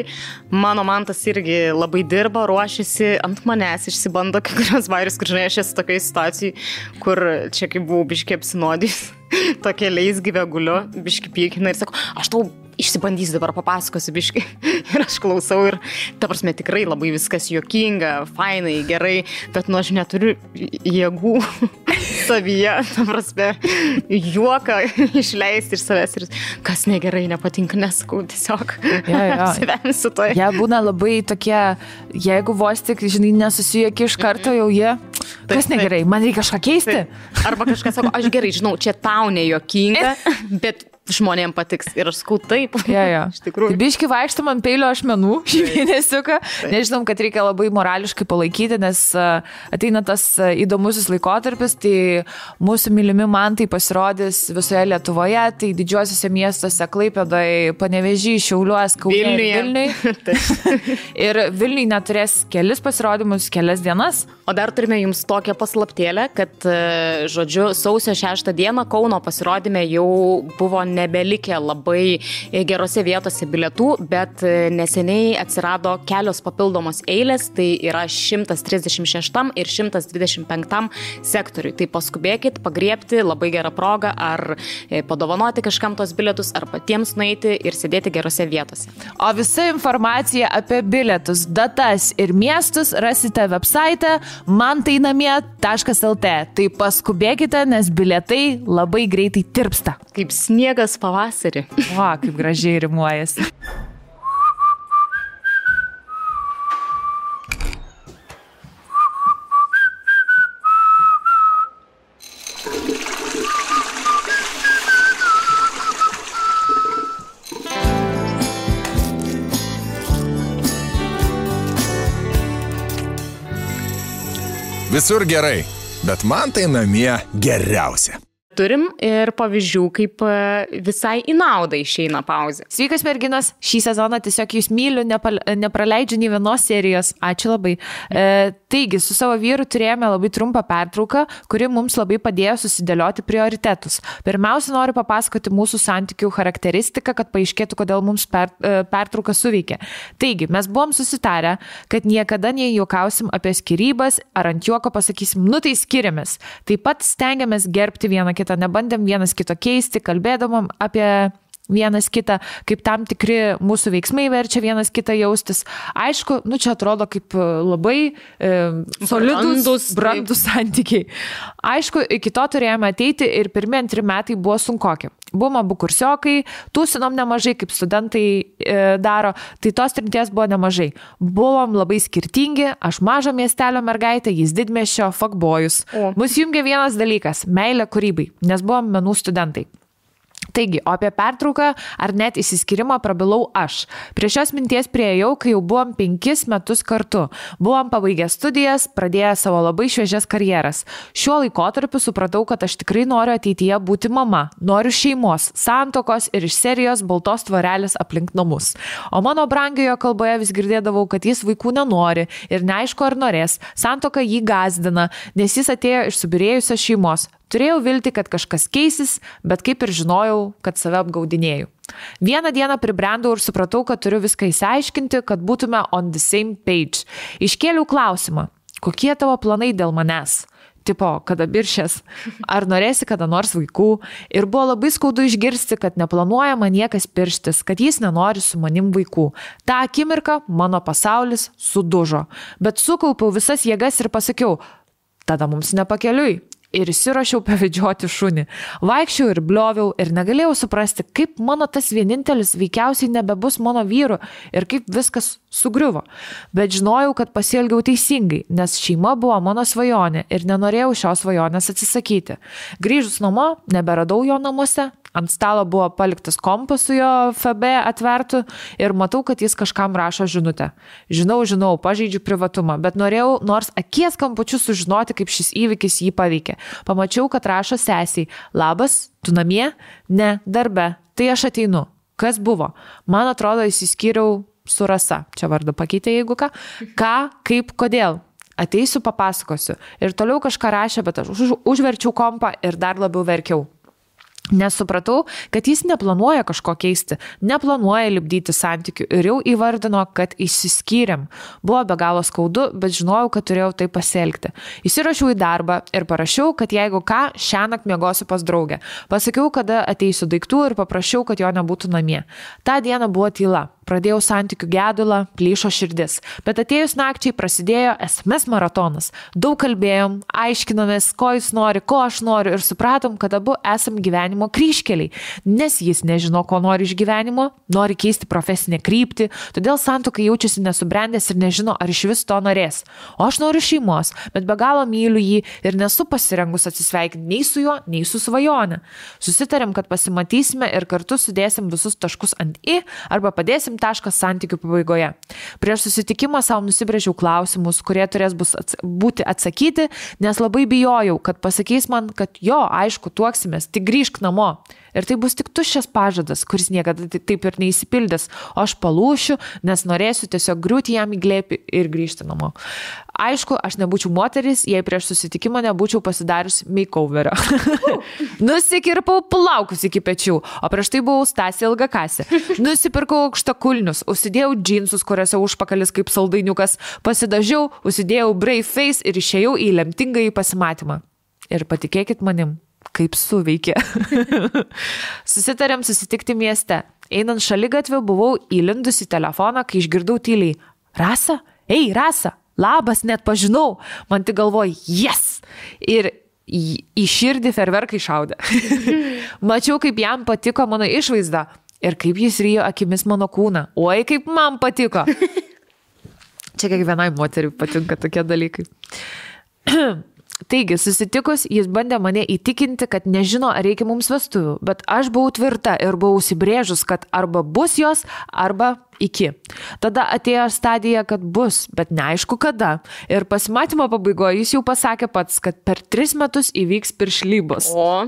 Mano mantas irgi labai dirba, ruošiasi, ant manęs išsibando kai kurios vairius, kur žinai, aš esu tokiai situacijai, kur čia kaip buvau biškiai apsinodys, tokia leisgyvė guliu, biškiai pykina ir sako, aš tau išsibandysiu dabar, papasakosiu biškai. Ir aš klausau ir, ta prasme, tikrai labai viskas juokinga, fainai, gerai, bet aš neturiu jėgų savyje, ta prasme, juoką išleisti iš savęs ir kas negerai, nepatinka, nesakau, tiesiog apsivemsiu to. Jie būna labai tokie, jeigu vos tik, žinai, nesusijuoki iš karto, jau jie, kas negerai, man reikia kažką keisti. Arba kažkas sako, aš gerai, žinau, čia tau nejuokinga, bet žmonėms patiks. Ir aš sakau taip. Iš tikrųjų. Tai biški vaikštam ant peilio ašmenų šį mėnesiuką. Nežinom, kad reikia labai morališkai palaikyti, nes ateina tas įdomusis laikotarpis, tai mūsų mylimi mantai pasirodys visoje Lietuvoje, tai didžiuosiuose miestuose Klaipėdoje, Panevėžy, Šiauliuos, Kaune ir Vilniuj. Ir Vilniuj neturės kelis pasirodymus, kelias dienas. O dar turime jums tokią paslaptėlę, kad, žodžiu, sausio 6 dieną Kauno pasirodyme jau buvo nebelikę labai gerose vietose bilietų, bet neseniai atsirado kelios papildomos eilės, tai yra 136 ir 125 sektoriui. Tai paskubėkit, pagriebti, labai gerą progą, ar padovanoti kažkam tos bilietus, ar patiems nueiti ir sėdėti gerose vietose. O visa informacija apie bilietus, datas ir miestus rasite website mantainamie.lt. Tai paskubėkite, nes bilietai labai greitai tirpsta. Kaip sniegas pavasarį. O, kaip gražiai rimuojasi. Visur gerai, bet man tai namie geriausia. Turim ir pavyzdžių, kaip visai į naudą išeina pauzė. Sveikas merginos, šį sezoną tiesiog jūs myliu, nepraleidžiu nei vienos serijos. Ačiū labai. Taigi, su savo vyru turėjome labai trumpą pertrauką, kuri mums labai padėjo susidėlioti prioritetus. Pirmiausia, noriu papasakoti mūsų santykių charakteristiką, kad paaiškėtų, kodėl mums pertrauka suveikė. Taigi, mes buvom susitarę, kad niekada nejuokausim apie skyrybas, ar ant juoko pasakysim, nu tai skiriamės. Taip pat stengiamės gerbti vieną kitą, nebandėm vienas kito keisti, kalbėdamom apie vienas kitą, kaip tam tikri mūsų veiksmai verčia vienas kitą jaustis. Aišku, nu čia atrodo kaip labai solidus, brandus santykiai. Aišku, iki to turėjome ateiti ir pirmi 2 metai buvo sunkoki. Buvom abu kursiokai, tūsinom nemažai, kaip studentai daro, tai tos trinties buvo nemažai. Buvom labai skirtingi, aš mažo miestelio mergaitė, jis didmiesčio fuckboyus. Mus jungė vienas dalykas – meilė kūrybai, nes buvom menų studentai. Taigi, o apie pertrauką ar net įsiskyrimą prabilau aš. Prie šios minties priėjau, kai jau buvom 5 metus kartu. Buvom pabaigę studijas, pradėję savo labai šviežias karjeras. Šiuo laikotarpiu supratau, kad aš tikrai noriu ateityje būti mama. Noriu šeimos, santuokos ir iš serijos baltos tvorelės aplink namus. O mano brangiojo kalboje vis girdėdavau, kad jis vaikų nenori ir neaišku ar norės. Santuoka jį gąsdina, nes jis atėjo iš subyrėjusios šeimos. Turėjau viltį, kad kažkas keisis, bet kaip ir žinojau, kad save apgaudinėjau. Vieną dieną pribrendau ir supratau, kad turiu viską įsiaiškinti, kad būtume on the same page. Iškėliau klausimą, kokie tavo planai dėl manęs? Tipo, kada biršės? Ar norėsi kada nors vaikų? Ir buvo labai skaudu išgirsti, kad neplanuoja man niekas pirštis, kad jis nenori su manim vaikų. Ta akimirka mano pasaulis sudužo. Bet sukaupiau visas jėgas ir pasakiau, tada mums nepakeliui. Ir įsirašiau pavedžioti šunį. Vaikščiau ir blioviau ir negalėjau suprasti, kaip mano tas vienintelis veikiausiai nebebus mano vyru ir kaip viskas sugriuvo. Bet žinojau, kad pasielgiau teisingai, nes šeima buvo mano svajonė ir nenorėjau šios svajonės atsisakyti. Grįžus namo, neberadau jo namuose. Ant stalo buvo paliktas kompas su jo FB atvertu ir matau, kad jis kažkam rašo žinutę. Žinau, pažeidžiu privatumą, bet norėjau nors akies kampučiu sužinoti, kaip šis įvykis jį paveikė. Pamačiau, kad rašo sesiai, labas, tu namie? Ne, darbe. Tai aš ateinu. Kas buvo? Man atrodo, įsiskyriau su Rasa. Čia vardu pakeitė, jeigu ką. Ką, kaip, kodėl? Ateisiu, papasakosiu. Ir toliau kažką rašė, bet aš užverčiau kompą ir dar labiau verkiau. Nes supratau, kad jis neplanuoja kažko keisti, neplanuoja lipdyti santykių ir jau įvardino, kad išsiskyrėm. Buvo be galo skaudu, bet žinojau, kad turėjau tai pasielgti. Įsirašiau į darbą ir parašiau, kad jeigu ką, šiąnakt miegosiu pas draugę. Pasakiau, kada ateisiu daiktų ir paprašiau, kad jo nebūtų namie. Ta diena buvo tyla. Pradėjau santykių gedulą, plyšo širdis. Bet atėjus nakčiai prasidėjo SMS maratonas. Daug kalbėjom, aiškinomės, ko jis nori, ko aš noriu ir supratom, kad abu esam gyvenimo kryžkeliai. Nes jis nežino, ko nori iš gyvenimo, nori keisti profesinę kryptį, todėl santuokai jaučiasi nesubrendęs ir nežino, ar iš vis to norės. O aš noriu šeimos, bet be galo myliu jį ir nesu pasirengus atsisveikinti nei su juo, nei su svajone. Susitarėm, kad pasimatysime ir kartu sudėsim visus taškus ant I arba padėsim taškas santykių pabaigoje. Prieš susitikimą savo nusibrėžiau klausimus, kurie turės būti atsakyti, nes labai bijojau, kad pasakys man, kad jo, aišku, tuoksimės, tik grįžk namo. Ir tai bus tik tuščias pažadas, kuris niekada taip ir neįsipildys, o aš palūšiu, nes norėsiu tiesiog griūti jam į glėbį ir grįžti namo. Aišku, aš nebūčiau moteris, jei prieš susitikimą nebūčiau pasidarius makeoverio. Nusikirpau plaukus iki pečių, o prieš tai buvau Stasė Ilgakasė. Nusipirkau aukštakulnius, užsidėjau džinsus, kuriuose užpakalis kaip saldainiukas, pasidažiau, užsidėjau brave face ir išėjau į lemtingąjį pasimatymą. Ir patikėkit manim, kaip suveikė. Susitarėm susitikti mieste. Einant šaligatviu buvau įlindus į telefoną, kai išgirdau tyliai: Rasa? Ei, Rasa! Labas, net pažinau. Man tik galvoju, yes! Ir į širdį ferverkai šaudė. Mačiau, kaip jam patiko mano išvaizda ir kaip jis ryjo akimis mano kūną. Oi, kaip man patiko. Čia kiekvienai moteriai patinka tokie dalykai. Taigi, susitikus, jis bandė mane įtikinti, kad nežino, ar reikia mums vestuvių, bet aš buvau tvirta ir buvau užsibrėžus, kad arba bus jos, arba iki. Tada atėjo stadija, kad bus, bet neaišku kada. Ir pasimatymo pabaigoje jis jau pasakė pats, kad per 3 metus įvyks piršlybos. O.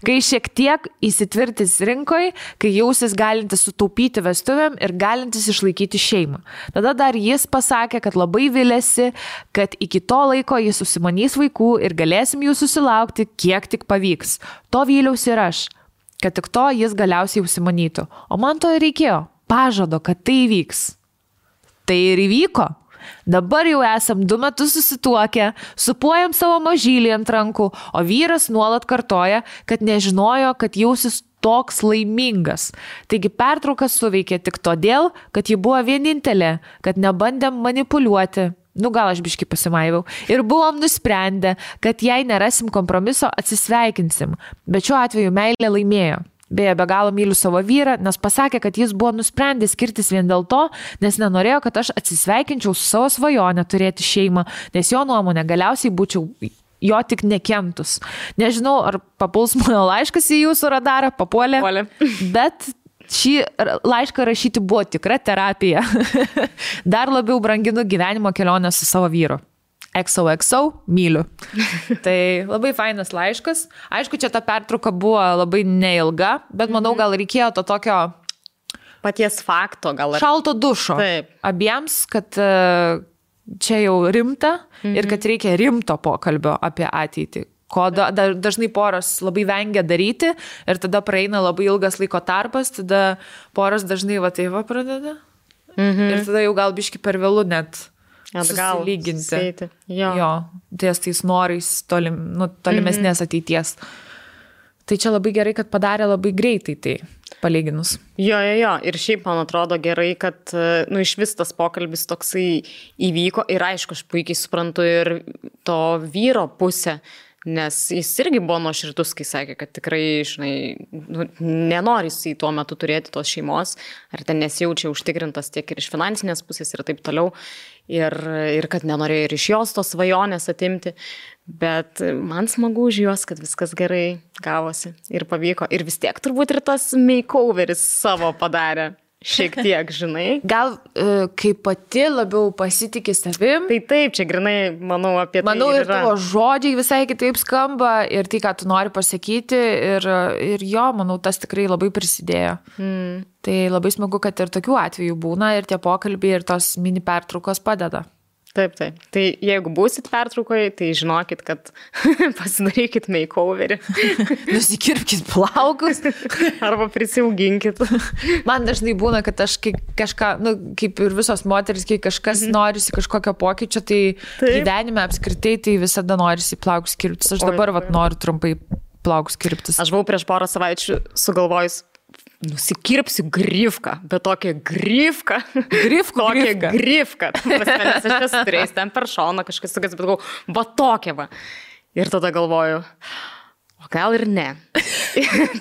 Kai šiek tiek įsitvirtis rinkoje, kai jausis galintis sutaupyti vestuvėm ir galintis išlaikyti šeimą. Tada dar jis pasakė, kad labai vilėsi, kad iki to laiko jis susimanys vaikų ir galėsim jų susilaukti, kiek tik pavyks. To vyliausi ir aš, kad tik to jis galiausiai užsimanytų. O man to ir reikėjo. Pažado, kad tai įvyks. Tai ir įvyko. Dabar jau esam 2 metus susituokę, supuojam savo mažylį ant rankų, o vyras nuolat kartoja, kad nežinojo, kad jausis toks laimingas. Taigi pertraukas suveikė tik todėl, kad ji buvo vienintelė, kad nebandėm manipuliuoti. Gal aš biškį pasimaiviau. Ir buvom nusprendę, kad jei nerasim kompromiso, atsisveikinsim. Bet šiuo atveju meilė laimėjo. Beje, be galo myliu savo vyrą, nes pasakė, kad jis buvo nusprendęs skirtis vien dėl to, nes nenorėjo, kad aš atsisveikinčiau su savo svajonę turėti šeimą, nes jo nuomonė galiausiai būčiau jo tik nekentus. Nežinau, ar papuls mano laiškas į jūsų radarą, papuolė. Bet šį laišką rašyti buvo tikra terapija. Dar labiau branginu gyvenimo kelionę su savo vyru. XOXO, myliu. Tai labai fainas laiškas. Aišku, čia ta pertrauka buvo labai neilga, bet manau, gal reikėjo to tokio paties fakto, gal šalto dušo. Taip. Abiems, kad čia jau rimta ir kad reikia rimto pokalbio apie ateitį. Ko dažnai poros labai vengia daryti ir tada praeina labai ilgas laiko tarpas, tada poros dažnai pradeda. Ir tada jau gal biški per vėlu net susilyginti. Jo, ties tais norais tolimesnės ateities. Tai čia labai gerai, kad padarė labai greitai tai palyginus. Jo. Ir šiaip man atrodo gerai, kad iš vis tas pokalbis toksai įvyko ir aišku, aš puikiai suprantu ir to vyro pusę. Nes jis irgi buvo nuoširdus, kai sakė, kad tikrai, nenori jis tuo metu turėti tos šeimos, ar ten nesijaučia užtikrintas tiek ir iš finansinės pusės ir taip toliau, ir kad nenorėjo ir iš jos tos svajonės atimti, bet man smagu už juos, kad viskas gerai gavosi ir pavyko, ir vis tiek turbūt ir tas makeoveris savo padarė. Šiek tiek, Gal kai pati labiau pasitikė savim. Tai taip, čia grinai, manau, apie tai manau, ir tavo žodžiai visai kitaip skamba ir tai, ką tu nori pasakyti ir jo, manau, tas tikrai labai prisidėjo. Tai labai smagu, kad ir tokių atvejų būna ir tie pokalbiai ir tos mini pertraukos padeda. Taip. Tai jeigu būsit pertraukoje, tai žinokit, kad pasidarykit makeoverį. Nusikirpkit plaukus. Arba prisiauginkit. Man dažnai būna, kad aš kažką, kaip ir visos moteris, kai kažkas norisi kažkokio pokyčio, tai gyvenime apskritai tai visada norisi plaukus kirptis. Aš dabar noriu trumpai plaukus kirptis. Aš buvau prieš porą savaičių sugalvojus, nusikirpsiu grifką, bet tokią grifką. Grifką. Nes aš esu turėjęs ten per šoną kažkas tokias, bet galvoju, va tokia va. Ir tada galvoju, o gal ir ne.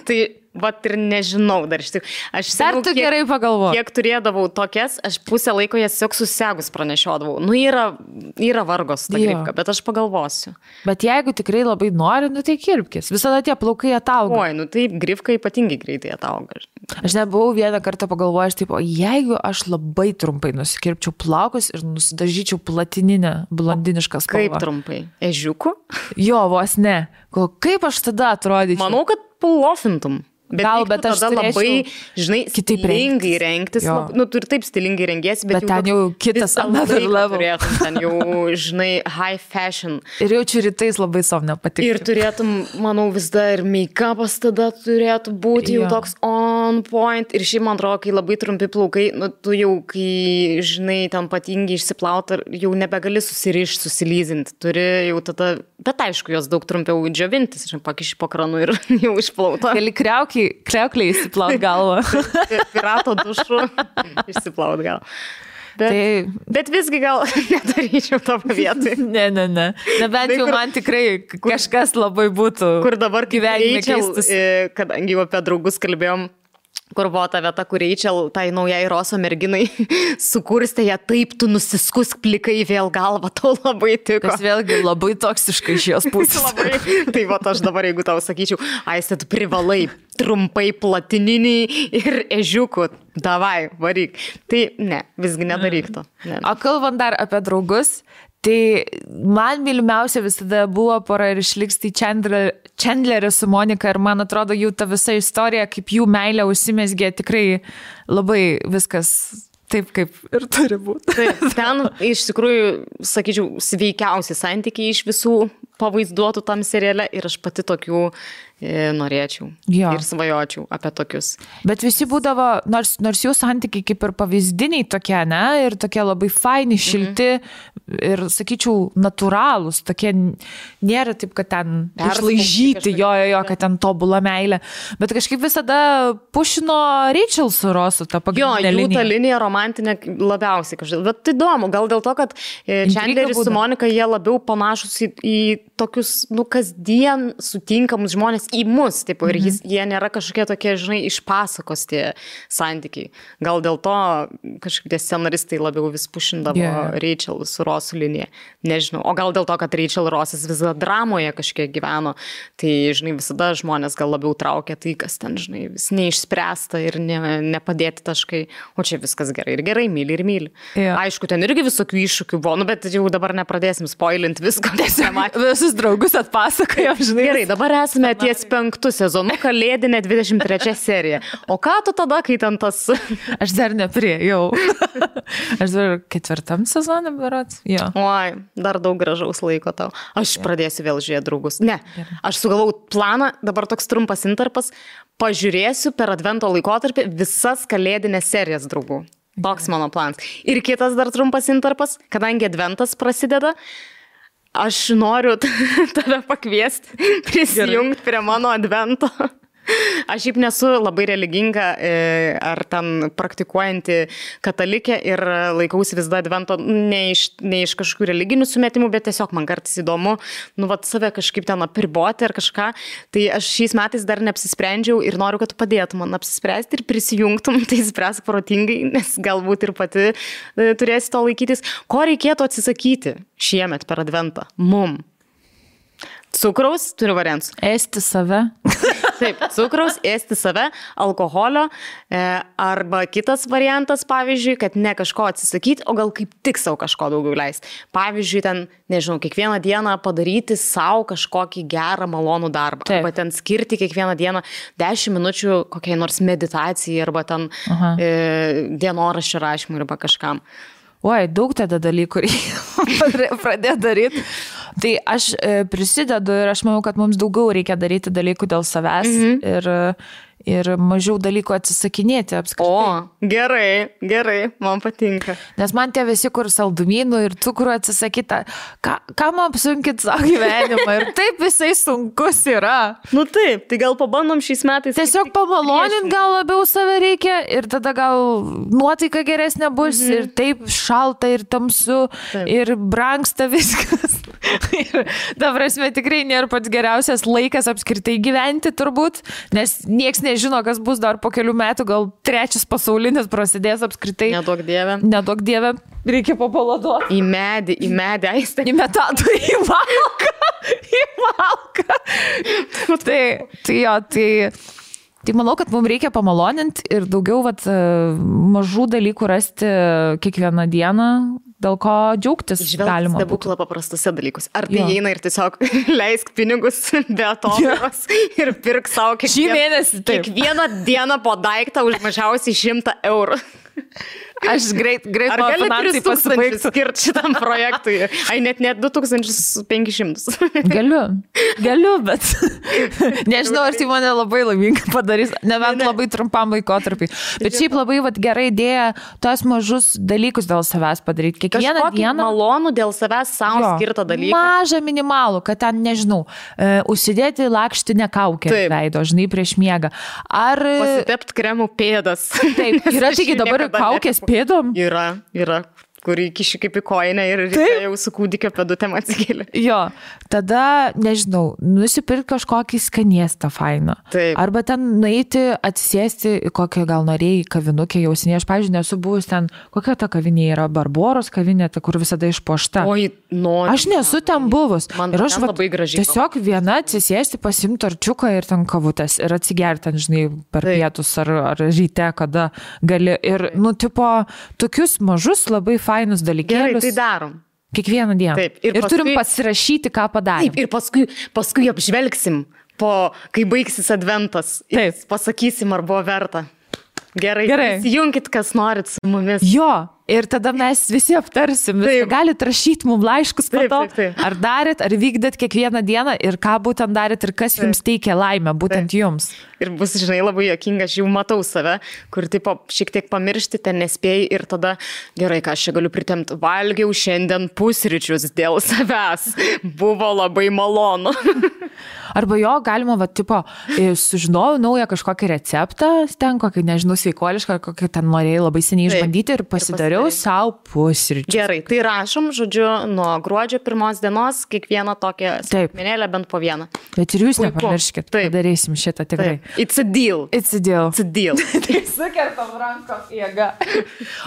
Tai vat ir nežinau dar iš tikrųjų. Aš tu gerai pagalvoju. Kiek turėdavau tokias, aš pusę laiko jas tiesiog susegus pranešiodavau. Yra vargos ta grifka, bet aš pagalvosiu. Bet jeigu tikrai labai nori, tai kirpkis. Visada tie plaukai atauga. Oi, tai grifka ypatingai greitai atauga. Aš nebuvau vieną kartą pagalvojęs, taip, o jeigu aš labai trumpai nusikirpčiau plaukus ir nusidažyčiau platininę, blondinišką spalvą. Kaip trumpai? Ežiuku? Jo, vos ne. Kaip aš tada atrodyčiau? Manau, kad pulofintum. Bet aš tada labai, žinai, stilingai rengtis. Tu ir taip stilingai rengiesi, bet ten jau kitas another level. Turėtum ten jau, žinai, high fashion. Ir jaučiu rytais labai savo nepatikti. Ir turėtum, manau, vis dar ir make-upas tada turėtų būti jau toks on point. Ir šiaip, man atrodo, kai labai trumpi plaukai, tu jau, kai, žinai, ten patingi išsiplauti, jau nebegali susirišti, susilyzinti. Turi jau tada, bet aišku, jos daug trumpiau džiovintis, pakiši po kranu ir jau išplauta. Gali kriaukliai išsiplaut galvą. Pirato dušu išsiplaut galvą. Bet visgi gal nedaryčiau tavo vietoj. Ne. Nebent jau man tikrai kažkas labai būtų. Kur dabar gyvenime keistus. Kadangi jau apie draugus kalbėjom, kur buvo ta vieta, kur Rachel, tai naujai Roso merginai, sukurstė ją taip, tu nusiskusk plikai vėl galvą, tau labai tiko. Kas vėlgi labai toksiškai iš jos pusės. Tai va, aš dabar, jeigu tau sakyčiau, Aiste, tu privalai trumpai platininį ir ežiukų, davai, varyk. Tai ne, visgi nedaryk to. Ne. O kalbant dar apie draugus, tai man mylimiausia visada buvo pora ir išliks tai Chandleris su Monika ir man atrodo jų ta visa istorija, kaip jų meilė užsimezgė, tikrai labai viskas taip, kaip ir turi būti. Taip, ten iš tikrųjų, sakyčiau, sveikiausi santykiai iš visų pavaizduotų tam seriale ir aš pati tokių norėčiau ir svajočiau apie tokius. Bet visi būdavo, nors jų santykiai kaip ir pavyzdiniai tokie, ne, ir tokie labai faini, šilti ir, sakyčiau, natūralūs, tokie nėra taip, kad ten išlaižyti, kad ten tobula meilė, bet kažkaip visada pušino Rachel su Rosu tą pagrindinę liniją. Jų ta linija romantinė labiausiai kažkaip, bet įdomu, gal dėl to, kad Chandleris su Monika, jie labiau panašus į tokius, kasdien sutinkamus žmonės į mus, taip, ir jie nėra kažkokie tokie, žinai, iš pasakos tie santykiai. Gal dėl to kažkaip tie scenaristai labiau vis pušindavo Rachel su Rosu liniją. Nežinau. O gal dėl to, kad Rachel ir Rosas visada dramoje kažkiek gyveno, tai, žinai, visada žmonės gal labiau traukia tai, kas ten, žinai, vis neišspręsta ir nepadėti taškai. O čia viskas gerai ir gerai, myli ir myli. Aišku, ten irgi visokių iššūkių buvo, bet jau dabar nepradėsim spoilint visko. Visus draugus atpasakojom, žinai. Gerai, dabar esame ties 5 sezonu, kalėdinė 23 serija. O ką tu tada, kai ten tas... Aš dar nepriejau. Aš dar 4 sezonė berods. Oi, dar daug gražaus laiko tau. Aš pradėsiu vėl žiūrėti draugus. Ne, aš sugalvau planą, dabar toks trumpas interpas, pažiūrėsiu per advento laikotarpį visas kalėdinės serijas draugų. Toks mano planas. Ir kitas dar trumpas interpas, kadangi adventas prasideda, aš noriu tave pakviesti, prisijungti prie mano advento. Aš šiaip nesu labai religinga ar ten praktikuojanti katalikė ir laikausi vis dar advento ne iš kažkokių religinių sumetimų, bet tiesiog man kartais įdomu, save kažkaip ten apriboti ar kažką. Tai aš šiais metais dar neapsisprendžiau ir noriu, kad tu padėtum man apsispręsti ir prisijungtum, tai spręsk protingai, nes galbūt ir pati turėsi to laikytis. Ko reikėtų atsisakyti šiemet per adventą? Cukraus, turiu variantus. Ėsti save. Taip, cukraus, ėsti save, alkoholio, arba kitas variantas, pavyzdžiui, kad ne kažko atsisakyti, o gal kaip tik savo kažko daugiau leisti. Pavyzdžiui, ten, nežinau, kiekvieną dieną padaryti savo kažkokį gerą, malonų darbą. Taip. Arba ten skirti kiekvieną dieną 10 minučių kokiai nors meditacijai, arba ten dienoraščio rašymui, arba kažkam. Oi, daug tada dalykų reikia pradėti daryti. Tai aš prisidedu ir aš manau, kad mums daugiau reikia daryti dalykų dėl savęs ir mažiau dalykų atsisakinėti apskritai. O, gerai, man patinka. Nes man tie visi, kur saldumynų ir cukrų atsisakyta, kam apsunkit savo gyvenimą ir taip visai sunkus yra. Nu taip, tai gal pabandom šiais metais. Tiesiog pamalonint gal labiau save reikia ir tada gal nuotaika geresnė bus ir taip šalta ir tamsu ir brangsta viskas. Ir ta prasme tikrai nėra pats geriausias laikas apskritai gyventi turbūt, nes nieks nežino, kas bus dar po kelių metų, gal trečias pasaulinis prasidės apskritai. Neduok dieve. Neduok dieve, reikia papaladuoti. Į medį, aistę. Į metatą, į malką. Tai manau, kad mums reikia pamaloninti ir daugiau mažų dalykų rasti kiekvieną dieną, dėl ko džiaugtis galima. Stebuklą paprastose dalykus. Ar tai eina ir tiesiog leisk pinigus be atodaros ir pirk savo kiekvieną dieną po daiktą už mažiausiai 100 eurų. Aš greit Ar gali 3,000 skirti šitam projektui? Ai, net 2,500. Galiu, bet nežinau, ar tai mane labai laimingai padarys, nebent labai trumpam laikotarpį. Bet šiaip labai gera idėja tos mažus dalykus dėl savęs padaryti. Kiekvieną dieną. Malonų dėl savęs savo skirtą dalyką. Mažą minimalų, kad ten, nežinau, užsidėti lakštinę kaukę veido, žinai, prieš miegą. Ar pasitept kremų pėdas. Taip, yra tik dabar kaukės pėdom? Yra, kur įkiši kaip į koinę ir jau su kūdikio pėdutėm atsikėlė. Jo, tada, nežinau, nusipirkti kažkokį skaniestą fainą. Taip. Arba ten nueiti, atsisėsti į kokią gal norėjai kavinukę jau seniai. Aš, pavyzdžiui, nesu buvus ten, kokia ta kavinė yra, Barboros kavinė, ta, kur visada išpuošta. Oi, noriu. Aš nesu ten buvus. Man ir aš labai gražiai. Tiesiog viena atsisėsti, pasimti arčiuką ir ten kavutės ir atsigerti, žinai, per pietus ar ryte, kada gali. Ir, tokius mažus labai fainus dalykėlius. Gerai, tai darom. Kiekvieną dieną. Taip. Ir turim pasirašyti, ką padarėm. Taip, ir paskui apžvelgsim, kai baigsis adventas. Taip. Pasakysim, ar buvo verta. Gerai. Įsijunkit, kas norit su mumis. Jo. Ir tada mes visi aptarsim. Galit rašyti mums laiškus po to. Taip. Ar darėt, ar vykdėt kiekvieną dieną ir ką būtent darėt ir kas jums teikia laimę, būtent jums. Ir bus, žinai, labai juokinga, aš jau matau save, kur šiek tiek pamiršti, ten nespėjai ir tada, gerai, ką aš čia galiu pritemti, valgiau šiandien pusryčius dėl savęs. Buvo labai malonu. Arba galima, sužinojau naują kažkokį receptą, ten kokį, nežinau, sveikuolišką, kokį ten norėjai labai seniai išbandyti ir pasidariau savo pusryčius. Gerai, tai rašom, žodžiu, nuo gruodžio 1 dienos kiekvieną tokią smulkmenėlę bent po vieną. Bet ir jūs nepamirškit, padarysim šitą tikrai. It's a deal. Tai sukertam rankom jėga.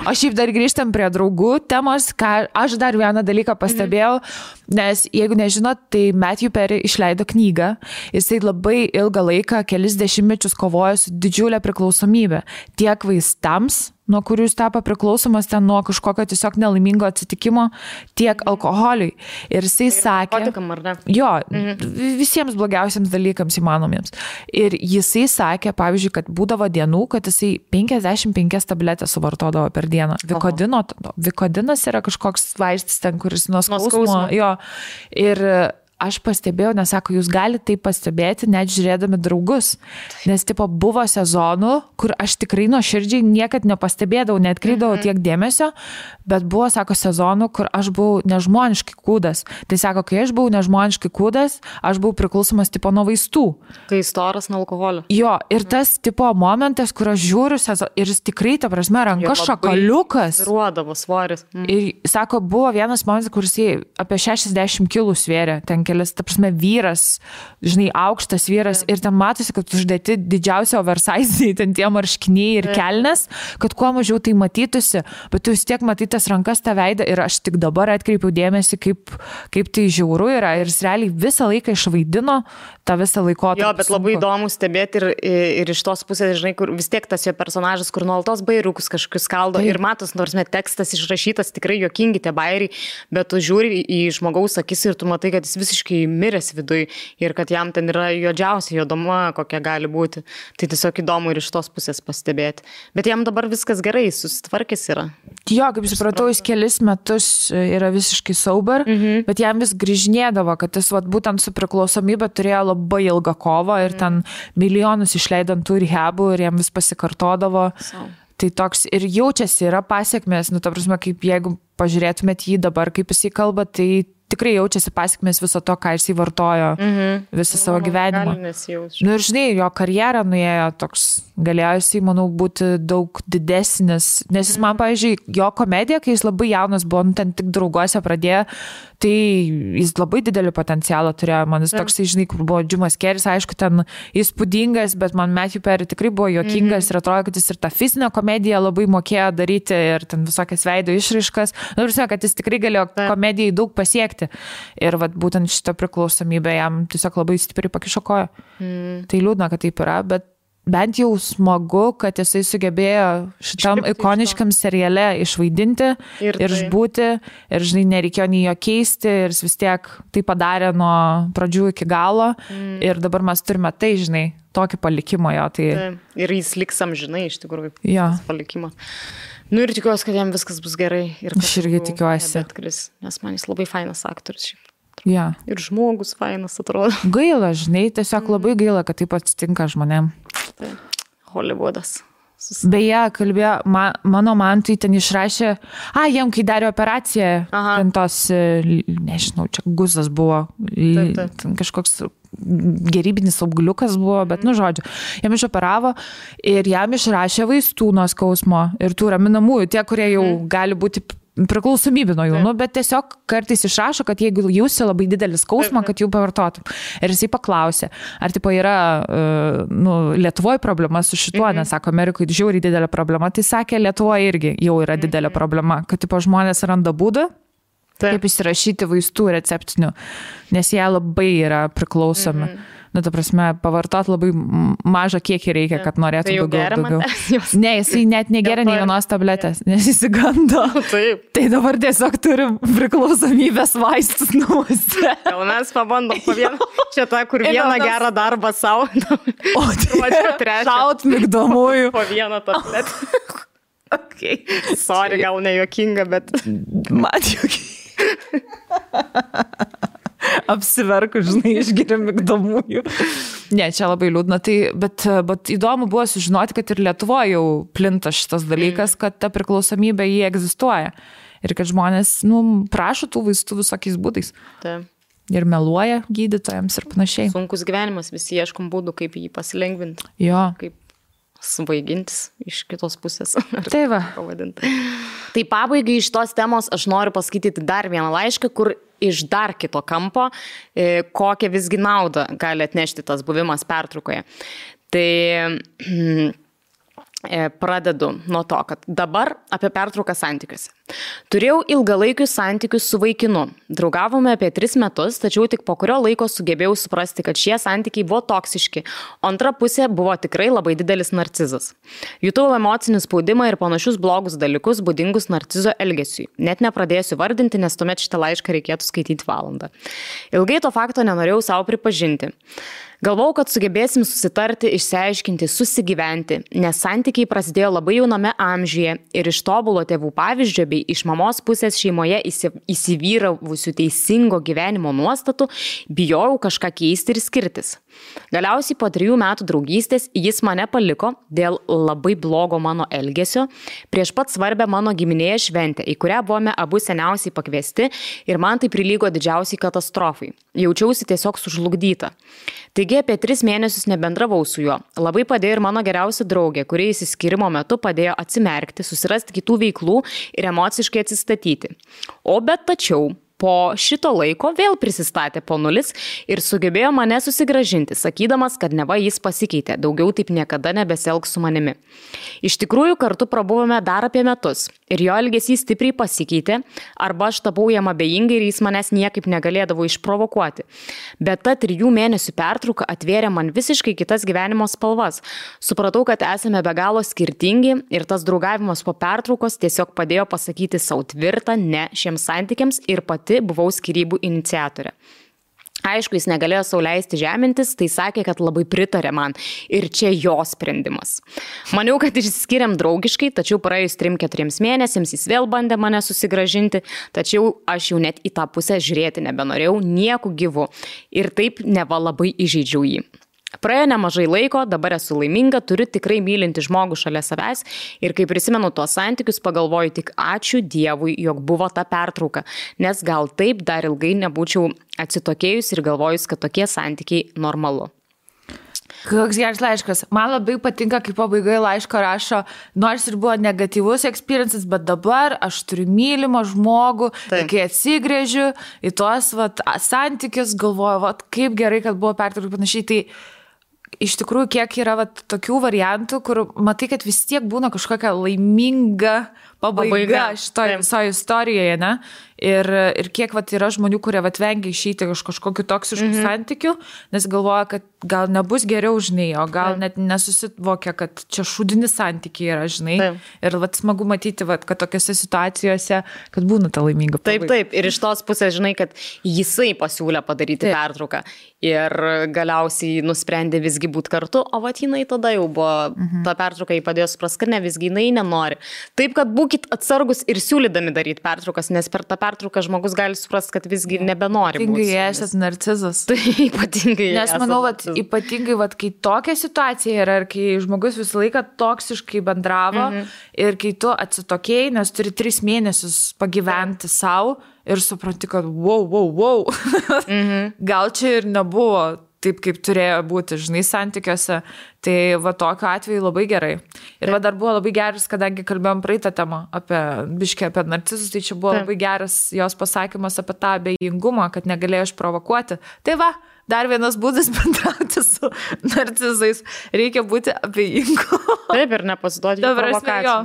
O šiaip dar grįžtam prie draugų temos, ką aš dar vieną dalyką pastebėjau, nes jeigu nežinot, tai Matthew Perry išleido knygą. Jisai labai ilgą laiką, kelis dešimtmečius kovojo su didžiulė priklausomybė tiek vaistams, nuo kurių jis tapo priklausomas ten nuo kažkokio tiesiog nelaimingo atsitikimo, tiek alkoholiui. Ir jisai sakė, visiems blogiausiams dalykams įmanomiems. Ir jisai sakė, pavyzdžiui, kad būdavo dienų, kad jisai 55 tabletės suvartodavo per dieną. Vikodinas yra kažkoks vaistas ten, kuris nuo skausmo. Ir aš pastebėjau, nes sako, jūs galite tai pastebėti, net žiūrėdami draugus. Nes buvo sezonų, kur aš tikrai nuoširdžiai niekad nepastebėdavau, neatkreipdavau tiek dėmesio, bet buvo, sako, sezonų, kur aš buvau nežmoniškai kūdas. Tai sako, kai aš buvau nežmoniškai kūdas, aš buvau priklausomas nuo vaistų. Kai storas nuo alkoholio. Jo, ir tas momentas, kur aš žiūriu ir jis tikrai, ta prasme, ranka šakaliukas. Ruodavo svoris. Ir sako, buvo vienas momentas, kur jis apie 60 kilų svėrė, ten kelis, ta prasme, vyras, žinai, aukštas vyras, ir ten matosi, kad uždėti didžiausia oversize, ten tie marškiniai ir kelnes, kad kuo mažiau tai matytųsi, bet tu vis tiek matytas rankas tą veidą ir aš tik dabar atkreipiau dėmesį, kaip tai žiauru yra, ir jis realiai visą laiką išvaidino tą visą laikotarpį. Jo, bet labai įdomu stebėti ir iš tos pusės, žinai, kur vis tiek tas jo personažas, kur nuolatos bairiukus kažkokius kaldo ir matos, nors tekstas išrašytas, tikrai juokingi tie bairiai, bet tu žiūri į žmogaus akis ir tu matai, kad jis visiškai miręs viduj ir kad jam ten yra juodžiausia juodoma, kokia gali būti. Tai tiesiog įdomu ir iš tos pusės pastebėti. Bet jam dabar viskas gerai, susitvarkęs yra. Jo, kaip supratau, jis kelis metus yra visiškai sober, bet jam vis grįžinėdavo, kad jis būtent su priklausomybė turėjo labai ilgą kovą ir ten milijonus išleidant tų rehabų ir jam vis pasikartodavo. Tai toks ir jaučiasi, yra pasiekmės, ta prasme, kaip jeigu pažiūrėtumėt jį dabar, kaip jisai kalba, tai tikrai jaučiasi pasiekmės viso to, ką jisai vartojo visą savo gyvenimą. Ir žinai, jo karjerą nuėjo toks, galėjo jisai, manau, būti daug didesnis, nes jis man, pavyzdžiui, jo komedija, kai jis labai jaunas buvo, ten tik drauguose pradėjo, tai jis labai didelį potencialą turėjo, man jis toksai, žinai, kur buvo Jimas Carrey's, aišku, ten įspūdingas, bet man Matthew Perry tikrai buvo juokingas ir atrodo, kad jis ir tą fizinę komediją labai mokėjo daryti ir ten visokias veido išraiškas, kad jis tikrai galėjo komedijai daug pasiekti. Ir būtent šitą priklausomybę jam tiesiog labai stipriai pakišo koją. Tai liūdna, kad taip yra, bet bent jau smagu, kad jisai sugebėjo šitam ikoniškam seriale išvaidinti ir išbūti. Ir, žinai, nereikėjo nei jo keisti ir jis vis tiek tai padarė nuo pradžių iki galo. Ir dabar mes turime tai, žinai, tokį palikimą jo. Tai... Ir jis liks amžinai, iš tikrųjų, palikimą. Ir tikiuosi, kad jam viskas bus gerai. Aš irgi tikiuosi. Nes man jis labai fainas aktorius šiaip. Ja. Ir žmogus fainas atrodo. Gaila, žinai, tiesiog labai gaila, kad taip atsitinka žmonėm. Hollywoodas. Beje, kalbėjo, mano mantui ten išrašė, jam kai darė operaciją, ten tos, nežinau, čia guzas buvo, ten kažkoks gerybinis augliukas buvo, bet, žodžiu, jam išoperavo ir jam išrašė vaistų nuo skausmo ir tų raminamųjų, tie, kurie jau gali būti priklausomybė nuo jų, bet tiesiog kartais išrašo, kad jeigu jūsi labai didelį skausmą, kad jų pavartotum. Ir jisai paklausė, ar tipo yra Lietuvoje problema su šituo, nes sako, Amerikoje žiauriai didelė problema, tai sakė, Lietuvoje irgi jau yra didelė problema, kad tipo žmonės randa būdą, kaip įsirašyti vaistų receptinių, nes jie labai yra priklausomi. Ta prasme, pavartot labai mažą kiekį reikia, kad norėtų daugiau. Ne, jisai net negeria nei vienos tabletės, nes įsigando. Tai dabar tiesiog turim priklausomybės vaistus namuose. Gal mes pabandom po vieną, čia ta, kur vieną gerą darbą savo. O tai šaut migdomųjų. Po vieną tabletę. Sorry, gal ne juokinga, bet... Man juokinga. Apsiverku, žinai, išgeria migdomųjų. Ne, čia labai liūdna. Tai, bet įdomu buvo sužinoti, kad ir Lietuvoje jau plinta šitas dalykas, kad ta priklausomybė jį egzistuoja. Ir kad žmonės, prašo tų vaistų visokiais būdais. Taip. Ir meluoja gydytojams ir panašiai. Sunkus gyvenimas, visi ieškom būdų, kaip jį pasilengvinti. Jo. Kaip svaigintis iš kitos pusės. Tai va. Tai pabaigai iš tos temos aš noriu paskaityti dar vieną laišką, kur iš dar kito kampo, kokią visgi naudą gali atnešti tas buvimas pertraukoje. Tai pradedu nuo to, kad dabar apie pertrauką santykiuose. Turėjau ilgalaikius santykius su vaikinu. Draugavome apie 3 metus, tačiau tik po kurio laiko sugebėjau suprasti, kad šie santykiai buvo toksiški, o antra pusė buvo tikrai labai didelis narcizas. Jutau emocinį spaudimą ir panašius blogus dalykus būdingus narcizo elgesiui. Net nepradėsiu vardinti, nes tuomet šitą laišką reikėtų skaityti valandą. Ilgai to fakto nenorėjau savo pripažinti. Galvau, kad sugebėsim susitarti, išsiaiškinti, susigyventi, nes santykiai prasidėjo labai jauname amžiuje ir iš tobulo tėvų pavyzdžio bei iš mamos pusės šeimoje įsivyravusių teisingo gyvenimo nuostatų bijojau kažką keisti ir skirtis. Galiausiai po 3 metų draugystės jis mane paliko dėl labai blogo mano elgesio prieš pat svarbę mano giminėje šventę, į kurią buvome abu seniausiai pakviesti ir man tai prilygo didžiausiai katastrofai. Jaučiausi tiesiog sužlugdyta. Taigi apie 3 mėnesius nebendravau su juo. Labai padėjo ir mano geriausia draugė, kuri išsiskyrimo metu padėjo atsimerkti, susirasti kitų veiklų ir emociškai atsistatyti. Tačiau po šito laiko vėl prisistatė po nulis ir sugebėjo mane susigrąžinti, sakydamas, kad neva jis pasikeitė, daugiau taip niekada nebesielgs su manimi. Iš tikrųjų, kartu prabuvome dar apie metus ir jo elgesys stipriai pasikeitė, arba aš tapau jam abejingai ir jis manęs niekaip negalėdavo išprovokuoti. Bet ta 3 mėnesių pertrauka atvėrė man visiškai kitas gyvenimo spalvas. Supratau, kad esame be galo skirtingi ir tas draugavimas po pertraukos tiesiog padėjo pasakyti savo tvirtą ne šiems santykiams ir pati buvau skyrybų iniciatorė. Aišku, jis negalėjo sau leisti žemintis, tai sakė, kad labai pritarė man ir čia jo sprendimas. Maniau, kad išsiskiriam draugiškai, tačiau praėjus 3-4 mėnesiams jis vėl bandė mane susigražinti, tačiau aš jau net į tą pusę žiūrėti nebenorėjau nieku gyvu ir taip neva labai įžeidžiau jį. Praėjo nemažai laiko, dabar esu laiminga, turiu tikrai mylinti žmogų šalia savęs ir kai prisimenu tuos santykius, pagalvoju tik ačiū Dievui, jog buvo ta pertrauka, nes gal taip dar ilgai nebūčiau atsitokėjus ir galvojus, kad tokie santykiai normalu. Koks geras laiškas. Man labai patinka, kai pabaigoje laiško rašo, nors ir buvo negatyvus experiences, bet dabar aš turiu mylimą žmogų, ir kai atsigrėžiu į tuos santykius, galvoju, kaip gerai, kad buvo pertrauka panašiai, tai iš tikrųjų, kiek yra tokių variantų, kur matai, kad vis tiek būna kažkokia laiminga pabaiga šitoje visoje istorijoje, ne? Ir kiek yra žmonių, kurie vengia išeiti iš kažkokių toksiškų santykių, nes galvoja, kad gal nebus geriau, žinai, o gal net nesusivokia, kad čia šūdinis santykiai yra, žinai. Ir smagu matyti, kad tokiose situacijose, kad būna ta laiminga pabaiga. Taip, ir iš tos pusės, žinai, kad jisai pasiūlė padaryti pertrauką ir galiausiai nusprendė visgi būti kartu, o jinai tada jau buvo, ta pertrauka jį padėjo supras, kad ne, visgi jinai nenori. Taip, kad būkit atsargus ir siūlydami daryti pertraukas, nes per tą pertrauką žmogus gali suprast, kad visgi nebenori būti. Ypatingai esat narcizas. Tai ypatingai. Nes manau, ypatingai, kai tokia situacija yra ir kai žmogus visą laiką toksiškai bendravo ir kai tu atsitokėjai, nes turi 3 mėnesius pagyventi savo ir supranti, kad wow. Gal čia ir nebuvo taip, kaip turėjo būti, žinai, santykiuose. Tai tokiu atveju labai gerai. Ir dar buvo labai geras, kadangi kalbėjom praeitą temą apie narcizus, tai čia buvo labai geras jos pasakymas apie tą abejingumą, kad negalėjo išprovokuoti. Tai dar vienas būdas bendrauti su narcizais. Reikia būti abejingu. Taip, ir nepasiduoti jų provokacijų.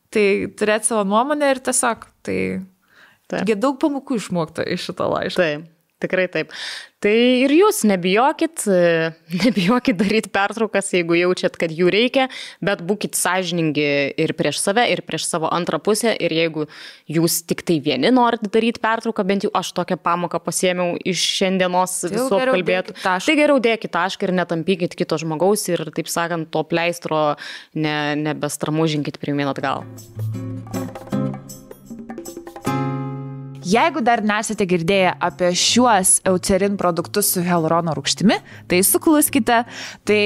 Tai turėti savo nuomonę ir tiesiog, tai daug pamokų išmokta iš šito laiško. Taip. Tikrai taip. Tai ir jūs nebijokit daryti pertraukas, jeigu jaučiat, kad jų reikia, bet būkit sąžiningi ir prieš save, ir prieš savo antrą pusę, ir jeigu jūs tik tai vieni norit daryti pertrauką, bent jau aš tokią pamoką pasiėmiau iš šiandienos visų apkalbėtų, tai geriau dėkit tašką ir netampykit kito žmogaus ir, taip sakant, to pleistro nebestramužinkit pirmyn atgal. Jeigu dar nesate girdėję apie šiuos Eucerin produktus su hialurono rūgštimi, tai sukluskite. Tai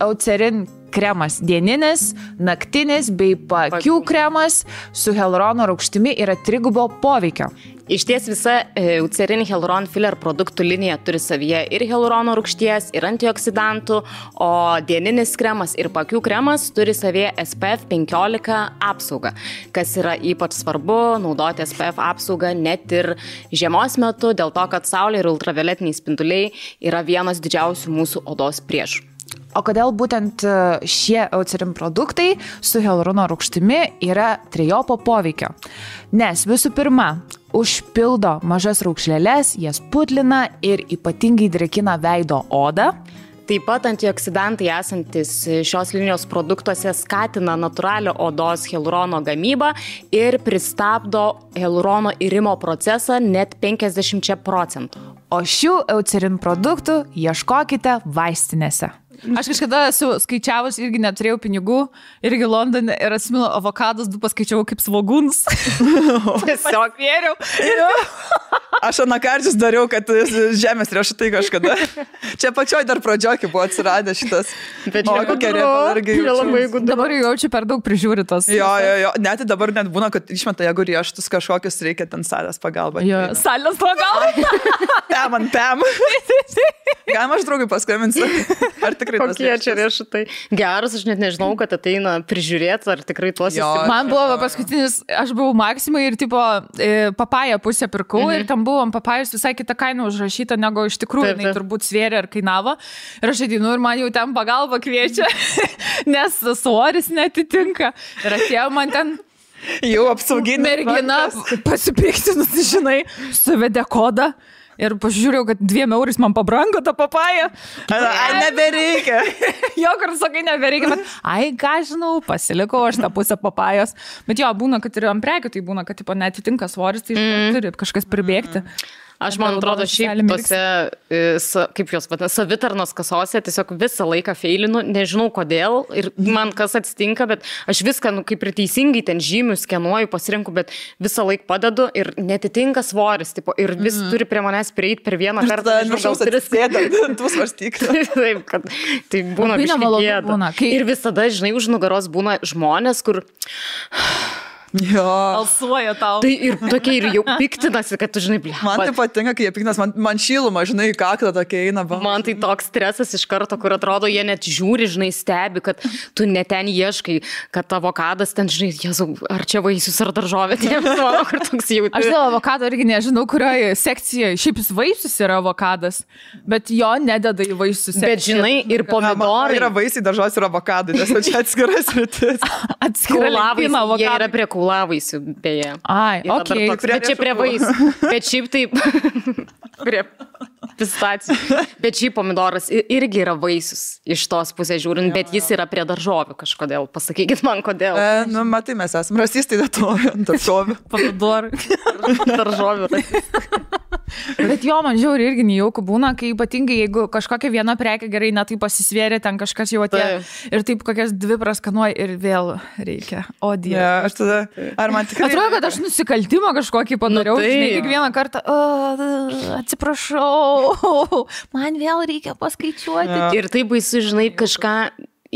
Eucerin kremas dieninis, naktinis bei paakių kremas su hialurono rūgštimi yra 3 poveikio. Iš ties visa Eucerin Hyaluron Filler produktų linija turi savyje ir hialurono rūgšties, ir antioksidantų, o dieninis kremas ir paakių kremas turi savyje SPF 15 apsaugą. Kas yra ypač svarbu, naudoti SPF apsaugą net ir žiemos metu, dėl to, kad saulė ir ultravioletiniai spinduliai yra vienas didžiausių mūsų odos priešų. O kodėl būtent šie Eucerin produktai su hialurono rūgštimi yra 3 poveikio? Nes visų pirma, užpildo mažas raukšleles, jas putlina ir ypatingai drėkina veido odą. Taip pat antioksidantai esantis šios linijos produktuose skatina natūralią odos hialurono gamybą ir pristabdo hialurono irimo procesą net 50%. O šių Eucerin produktų ieškokite vaistinėse. Aš kažkada esu skaičiavus, irgi neturėjau pinigų, irgi Londone ir atsimenu, avokadus 2 paskaičiavau kaip svogūnus. Tiesiog vėriau. Aš anakarčius dariau, kad žemės riešutai kažkada. Čia pačioj dar pradžiokį buvo atsiradę šitas. Bet dabar jaučiu per daug prižiūritos. Jo. Net dabar net būna, kad išmeta, jeigu riešutus kažkokius reikia ten salės pagalba. Salės pagalba? Pem. Galima aš draugui paskambinsiu. Ar tikrai tos kokie čia riešutai? Geras, aš net nežinau, kad ateina prižiūrėti, ar tikrai tuos įsivaizduoju. Man buvo paskutinis, aš buvau Maksimai ir tipo papają pusę pirkau ir tam buvo papajus visai kitą kainą užrašyta, negu iš tikrųjų jinai turbūt svėrė ar kainavo. Ir aš ateinu ir man jau ten pagalba kviečia, nes svoris netitinka. Ir atėjo man ten jau apsauginė mergina pasipiktinus, žinai, suvedė kodą. Ir pažiūrėjau, kad 2 eurais man pabrango tą papają. Nebereikia. Jo, kur sakai, nebereikia. Bet, ką žinau, pasilikau aš tą pusę papajos. Bet jo, būna, kad ir ant prekių, tai būna, kad tipo, netitinka svoris, tai turi kažkas pribėgti. Aš, man atrodo, šiaip tose, kaip jos vadina, savitarnos kasose tiesiog visą laiką feilinu, nežinau kodėl ir man kas atsitinka, bet aš viską, kaip ir teisingai ten žymiu, skenuoju, pasirinku, bet visą laiką padedu ir netitinka svoris, tipo, ir vis turi prie manęs prieiti per vieną kartą. Gal tris sėdant, tu svarstyk. Taip, kad tai būna biškį gėda. Ir visada, žinai, už nugaros būna žmonės, kur... Jo. Alsuoja tau. Tai ir tokie ir jau piktinasi, kad tu, žinai, blė. Man tai patinka, kai jie piktinas, man šyluma, žinai, kaklą tokia eina. Man tai toks stresas iš karto, kur atrodo, jie net žiūri, žinai, stebi, kad tu net ten ieškai, kad avokadas ten, žinai, Jėzau, ar čia vaisius ar daržovė, tai manau, kur toks jau. Aš dėl avokado irgi nežinau, kurioje sekcijoje, šiaip jis vaisius yra avokadas, bet jo nededa į vaisius. Bet žinai, ir pomidorai. Yra vaisiai, daržovės ir avokadai, nes čia atskiras rytis. Jie yra prie kaulavaisių, beje. Ai, okei. Bet čia prie vaisių. Bet šiaip taip, prie pistacijų. Bet šiaip pomidoras irgi yra vaisius iš tos pusės žiūrint, bet jis yra prie daržovių kažkodėl. Pasakykit man, kodėl. Matai, mes esame rasistai, daržovių. Pomidorai. Daržovių. Bet jo, man žiauri irgi nejaukų būna, kai ypatingai, jeigu kažkokia viena prekė gerai, na tai pasisvėrė, ten kažkas jau atėjo ir taip kokias dvi praskanuoja ir vėl reikia. O Dieve. Ja, aš tada, ar man tikrai... Atrodo, kad aš nusikaltimą kažkokį padariau, žinai, kiekvieną kartą, atsiprašau, man vėl reikia paskaičiuoti. Ja. Ir tai baisu, žinai, kažką...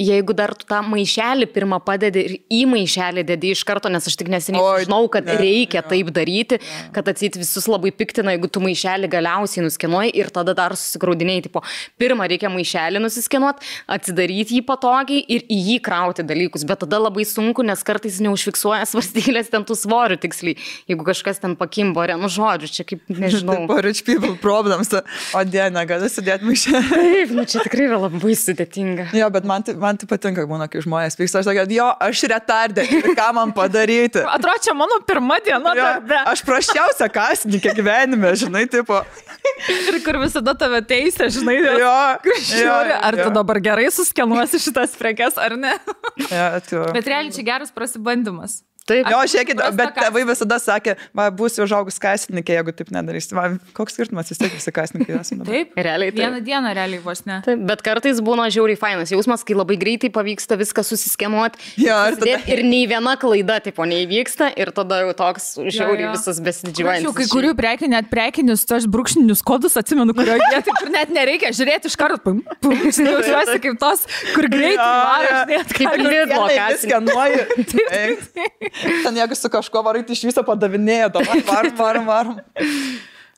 Jeigu dar tu tą maišelį pirmą padedi ir į maišelį dedi iš karto, nes aš tik neseniai žinau, kad reikia taip daryti, kad atseit visus labai piktina, jeigu tu maišelį galiausiai nuskenuoji ir tada dar susigraudiniai, tipo, pirmą reikia maišelį nusiskenuoti, atsidaryti jį patogiai ir į jį krauti dalykus, bet tada labai sunku, nes kartais neužfiksuoja svarstylės ten tų svorių tiksliai, jeigu kažkas ten pakimbo, nu žodžiu, čia kaip, nežinau. Tai rich people problems, o diena, gali sudėti maišelį. Taip, nu čia tikrai yra labai sudėtinga. Jo, bet man tai patinka, būna, kai žmonės pyksta, aš sakau, jo, aš retardė, ką man padaryti. Atrodo, čia mano pirma diena darbe. Aš praščiausia kasininkė gyvenime, žinai, tipo. Ir kur visada tave teisė, žinai, ar tu dabar gerai suskenuosi šitas prekes, ar ne? Bet realiai čia geras prasibandymas. Taip. Jo, žiūrėkit, bet tėvai visada sakė, va, būsiu užaugus kasininkė, jeigu taip nedarysi. Va, koks skirtumas, vis tiek visi kasininkai esame. Taip, realiai. Vieną dieną realiai vos ne. Taip, bet kartais būna žiauriai fainas jausmas, kai labai greitai pavyksta viską susiskenuoti. Ja, ir nei viena klaida, tipo, neįvyksta ir tada jau toks žiauriai visas besididžiuojantis. Kai kurių prekių, net prekinius, tos brūkšninius kodus atsimenu, kurioje vietoje, kur net nereikia žiūrėti iš karto. Jaučiuosi kaip tos, kur greitai varai. Ten jeigu su kažko varai, tai iš viso padavinėjo, varom.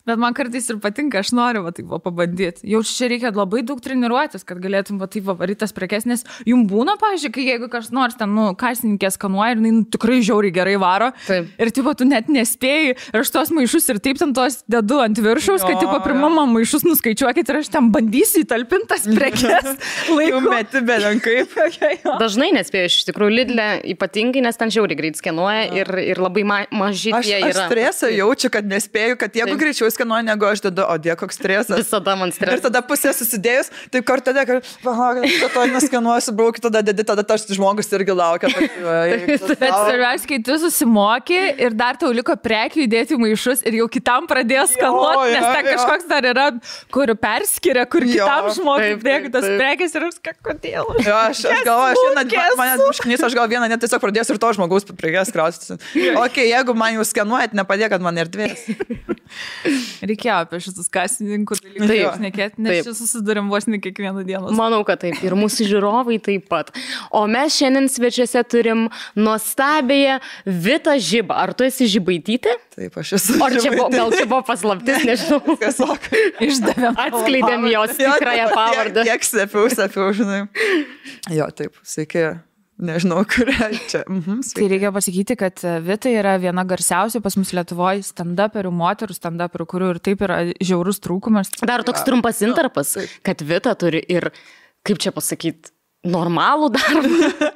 Bet man kartais ir patinka, aš noriu taip pabandyti. Jau čia reikia labai daug treniruotis, kad galėtum taip varyti tas prekes, nes jums būna, pavyzdžiui, kai jeigu kas nors ten, kasininkė skanuoja ir tikrai žiauriai gerai varo. Taip. Ir tipo, tu net nespėjai ir aš tos maišus ir taip ten tos dedu ant viršaus, kad tipo, pirmama maišus nuskaičiuokit ir aš ten bandysiu įtalpintas prekes. Laiku meti belenkaip. Dažnai nespėjau, iš tikrųjų, Lidle ypatingai, nes ten žiauriai greit skenuoja ir labai maži tie yra. Aš stresą jaučiu, kad nespėjau, kad jeigu greičiau skenuoju, negu aš dedu, o die, koks stresas. Visada man stresas. Ir tada pusė susidėjus, taip kartą, kad to neskenuosiu, braukiu, tada dedi, tada tas žmogus irgi laukia. Bet svarbiausia, kai tu susimoki ir dar tau liko prekių įdėti maišus ir jau kitam pradėjo skanuoti, nes ten kažkoks dar yra, kur perskiria, kur kitam žmogui dėkų tas prekės ir aš kodėl. Jo, aš galvoju, aš gal vieną net tiesiog pradėsiu ir to žmogaus prekės krausti. Ok, jeigu man jau skenuojat, nepadėkat man erdvės. Reikėjo apie šitus kasininkų dalykus šnekėti, nes čia susidurėm vos ne kiekvieną dieną. Manau, kad taip. Ir mūsų žiūrovai taip pat. O mes šiandien svečiuose turim nuostabėje Vitą Žibą. Ar tu esi Žibaitytė? Taip, aš esu. Ar gal čia buvo paslaptis, nežinau. Tiesiog išdavėm. Atskleidėm jos tikrąją pavardę. Tiek sepiau, žinai. Jo, taip, sveiki. Nežinau, kurią čia. Tai reikia pasakyti, kad Vita yra viena garsiausių pas mus Lietuvoje stand-uperių, moterų stand-uperių, kurių ir taip yra žiaurus trūkumas. Dar toks trumpas intarpas, kad Vita turi ir, kaip čia pasakyti, normalų darbą.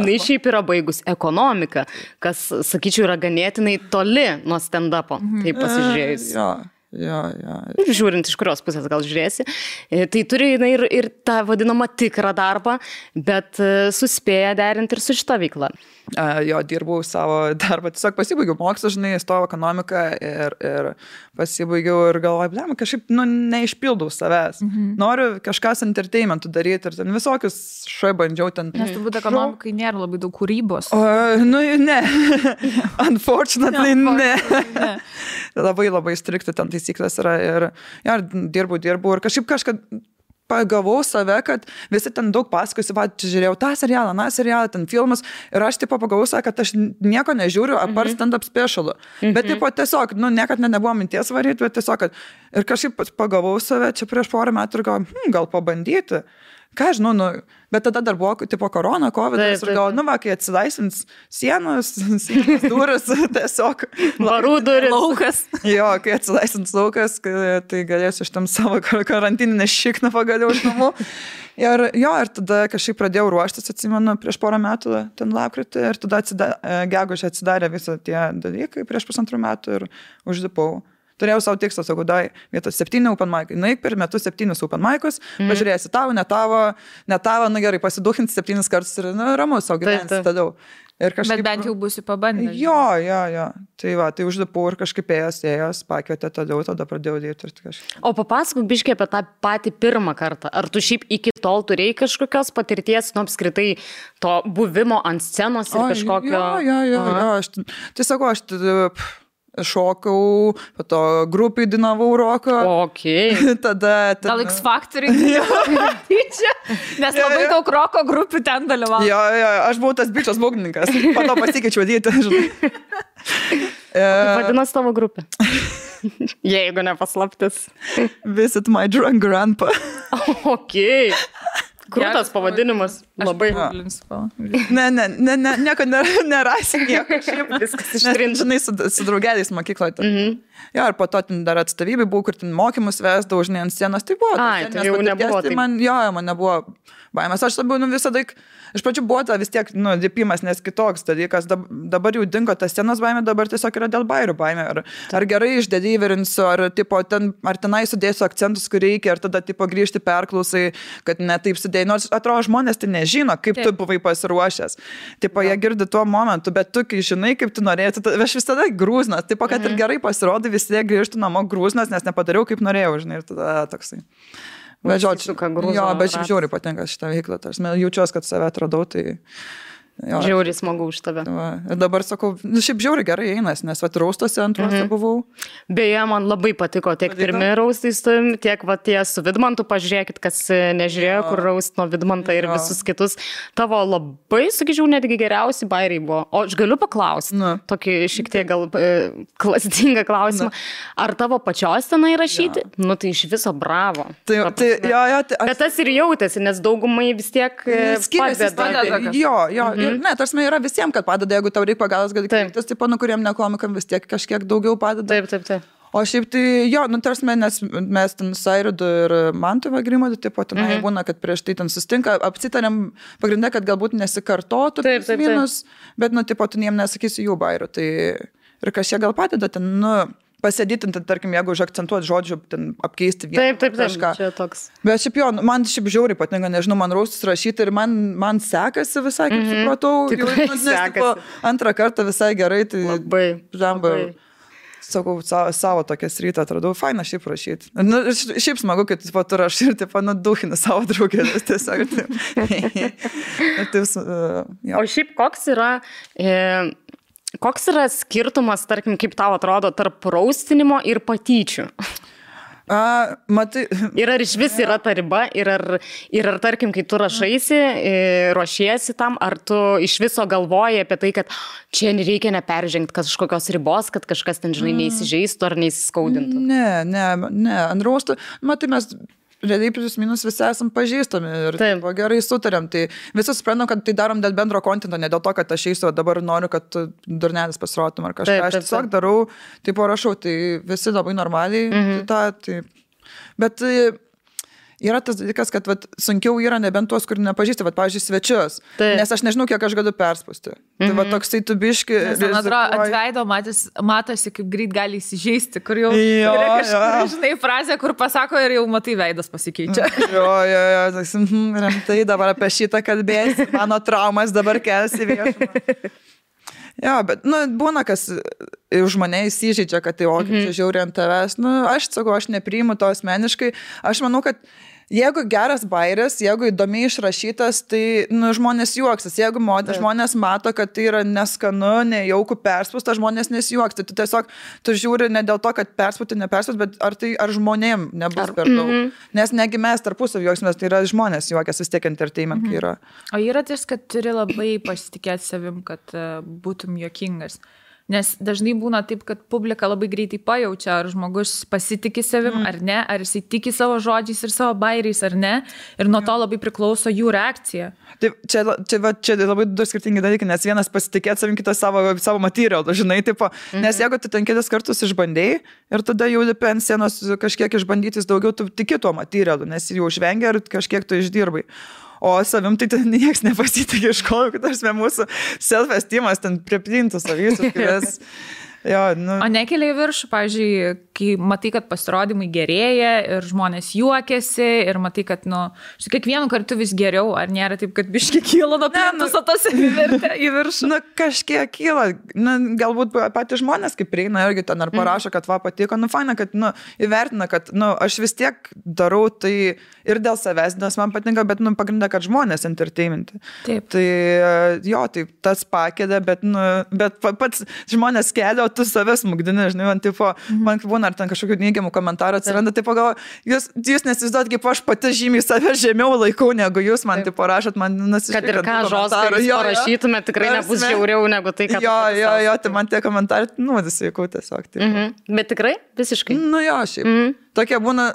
Jis šiaip yra baigus ekonomiką, kas, sakyčiau, yra ganėtinai toli nuo stand-upo, taip pasižiūrėjus. Žiūrint, iš kurios pusės gal žiūrėsi. Tai turi ir tą vadinamą tikrą darbą, bet suspėja derinti ir su šita veikla. Jo, dirbau savo darbą, tiesiog pasibaigiau mokslą, žinai, stojau ekonomiką ir pasibaigiau ir galvoju, blema, kažkaip, neišpildau savęs. Noriu kažkas entertainmentų daryti ir ten visokius bandžiau ten. Nes turbūt ekonomikai nėra labai daug kūrybos. Ne. Unfortunately, ne. Labai strikti ten taisyklės yra ir dirbau ir kažkaip pagavau save, kad visi ten daug pasakosi, žiūrėjau tą serialą, ten filmus ir aš pagavau save, kad aš nieko nežiūriu, apart stand-up specialų. Bet tiesiog, niekad nebuvo minties varyti, bet tiesiog, ir kažkaip pagavau save čia prieš porą metų ir gal pabandyti. Ką žinau, bet tada dar buvo korona, kovidas ir galvoju, kai atsilaisvins sienos duris, tiesiog varų duris. Laukas. Jo, kai atsilaisvins laukas, tai galėsiu iš tam savo karantininę šikną pagaliau iš namų. Ir tada kažkaip pradėjau ruoštis, atsimenu, prieš porą metų, ten lapkritį, ir tada gegužę atsidarė visą tie dalykai prieš 1,5 metų ir uždipau. Turėjau savo tikslą, sakau, vietos 7 open mic'ai. Naik per metus 7 open mic'us, pažiūrėsi tavo, ne tavo, gerai, pasiduhinti 7 kartus ir ramus, savo gyvensi tada. Bet bent jau būsi pabandęs. Jo. Tai uždipau ir kažkaip ėjęs, pakvietė tada pradėjau dirbti. O papasakok biškiai apie tą patį pirmą kartą. Ar tu šiaip iki tol turėjai kažkokios patirties, apskritai to buvimo ant scenos ir kažkokio... Jo. Tai sakau, aš šokau, po to grupai dainavau roką. Okay. Tada... Gal X Factory? Nes labai daug roko grupių ten dalyvavo. Jo, aš buvau tas bičias būgnininkas. Po to pasikeičiau dėti, žinai. Vadinasi tavo grupė. Jeigu nepaslaptis. Visit my drunk grandpa. Okay. Krūtas pavadinimas. Labai. Nieko nerasi, nieko. Viskas ištrinta. Žinai, su draugeliais mokykloje. Jo, ir po to dar atstovybė buvo, kur ten mokymus vesdavau, žinai, ant scenos. Tai buvo. Tai jau nebuvo. Man nebuvo baimės. Aš labiau visada, iš pradžių buvo vis tiek, dipimas, nes kitoks dalykas. Dabar jau dingo tas scenos baimė, dabar tiesiog yra dėl bairių baimė. Ar gerai išdelyverinsiu, ar tenai sudėsiu akcentus, kur reikia, ar tada grįžti perklausai, kad ne taip sudėjai. Nors atrodo, žmonės tai nežino, kaip tu buvai pasiruošęs. Jie girdi tuo momentu, bet tu, kai žinai, kaip tu norėjai, aš visada grūznas. Kad ir gerai pasirodai, vis tiek grįžtų namo grūznas, nes nepadariau, kaip norėjau, žinai, ir tada toksai. Bet šiaip žiauriai patinka šitą veiklą. Jaučiuosi, kad save atradau, tai... Žiauriai smagu už tave. Ir dabar sakau, šiaip žiauriai gerai einas, nes raustuose antruose buvau. Beje, man labai patiko tiek pirmi raustai su tavim, tiek tie su Vidmantu, pažiūrėkit, kas nežiūrėjo, kur raust nuo Vidmantą ir visus kitus. Tavo labai, sakyčiau, netgi geriausi bairiai buvo. O aš galiu paklausti, tokį šiek tiek gal klastingą klausimą. Ar tavo pačios tenai rašyti? Tai iš viso bravo. Bet tas ir jautėsi, nes daugumai vis tiek padeda. Jo. Ne, tarsi yra visiems, kad padeda, jeigu tau reikia pagalbos, gali kreiptis, kuriem nekomikam vis tiek kažkiek daugiau padeda. Taip. O šiaip tai, tarsi nes mes ten Sairidu ir Mantu Vagrimadu, tenai būna, kad prieš tai ten sustinka, apsitarėm pagrindę, kad galbūt nesikartotų minus, bet, tu jiem nesakysi jų bairių. Tai ir kažkiek gal padeda ten, pasėdėti, tarkim, jeigu užakcentuoti žodžių, ten apkeisti vieną. Taip, čia toks. Bet šiaip man žiauriai patinka, nežinau, man raustus rašyti ir man sekasi visai, kaip supratau. Tikrai sekasi. Antrą kartą visai gerai, tai labai. Sakau, savo tokią sritą atradau, faina šiaip rašyti. Šiaip smagu, kad tu rašai ir duhini savo draugėlės tiesiog. O šiaip koks yra skirtumas, tarkim, kaip tau atrodo, tarp raustinimo ir patyčių? Matai. Ir ar iš vis yra ta riba, ir ar tarkim, kai tu rašaisi, ruošiesi tam, ar tu iš viso galvoji apie tai, kad čia reikia neperžengti kažkokios ribos, kad kažkas ten, žinai, neįsižeistų ar neįsiskaudintų? Ne, ant raustų, matai, mes realiai plius minus visi esam pažįstami ir gerai sutarėm. Tai visi suprantam, kad tai darom dėl bendro kontento, ne dėl to, kad aš eisiu, dabar noriu, kad durnelis pasirodytum ar kažką. Aš tiesiog darau, rašau, tai visi labai normaliai. Bet yra tas dalykas, kad vat, sunkiau yra nebent tuos, kur nepažįsti, vat, pavyzdžiui, svečius. Nes aš nežinau, kiek aš galiu perspausti. Tai va toksai tu biški. Man atrodo, ant veido matosi, kaip greit gali įsižeisti, kur jau žinai frazę, kur pasako ir jau matai veidas pasikeičia. Rimtai dabar apie šitą kalbėsi, mano traumas dabar kelsi viešumą. Jo, bet, būna, kas už mane įsižeidžia, kad tai, kaip čia žiauri ant tavęs. Aš sakau, aš nepriimu to asmeniškai. Aš manau, kad jeigu geras bairis, jeigu įdomiai išrašytas, tai žmonės juoksis. Jeigu žmonės mato, kad tai yra neskanu, nejaukų perspūsta, žmonės nesijuoks. Tai tu tiesiog, tu žiūri ne dėl to, kad perspūti, neperspūti, bet ar žmonėm nebus per daug. Nes negi mes tarpusavį juoksimės, tai yra žmonės juokiasi, vis tiek entertainment yra. O yra ties, kad turi labai pasitikėti savim, kad būtum juokingas. Nes dažnai būna taip, kad publika labai greitai pajaučia, ar žmogus pasitikė savim ar ne, ar jisai tiki savo žodžiais ir savo bairiais ar ne. Ir nuo to labai priklauso jų reakcija. Taip, čia labai du skirtingi dalykai, nes vienas pasitikėti savim, kitas savo materialą, žinai, tipo, nes jeigu tu ten kelis kartus išbandėjai ir tada jau lipi ant scenos kažkiek išbandytis daugiau, tu tiki tuo materialu, nes jau žvengia ir kažkiek tu išdirbai. O savim tai nieks nepasitikė, iš ko, kad mūsų self-estimas ten priplintų savysus. O nekelia į viršų, pavyzdžiui, kai matai, kad pasirodymai gerėja ir žmonės juokiasi ir matai, kad, kiekvienu kartu vis geriau, ar nėra taip, kad biški kyla nuo plentus, o tas įvertė į viršų? Kažkiek kyla. Galbūt patys žmonės, kaip prieina irgi ten ar parašo, kad patiko, faina, kad įvertina, kad aš vis tiek darau tai ir dėl savęs, nes man patinka, bet pagrinda, kad žmonės entertainmenti. Taip. Tai tai tas pakėdė, bet pats žmonės kelia, tu savęs smugdini, žinai, man būna, ar ten kažkokių neigiamų komentarų atsiranda, tai pagalvoju, jūs nesizduot, kaip aš pati žymiai save žemiau laikau, negu jūs man rašot, man nasiškai. Kad ir ką žodžius parašytume, tikrai nebus žiauriau negu tai, ką tai man tie komentarai, disveikau tiesiog. Bet tikrai, visiškai. Šiaip. Tokie būna,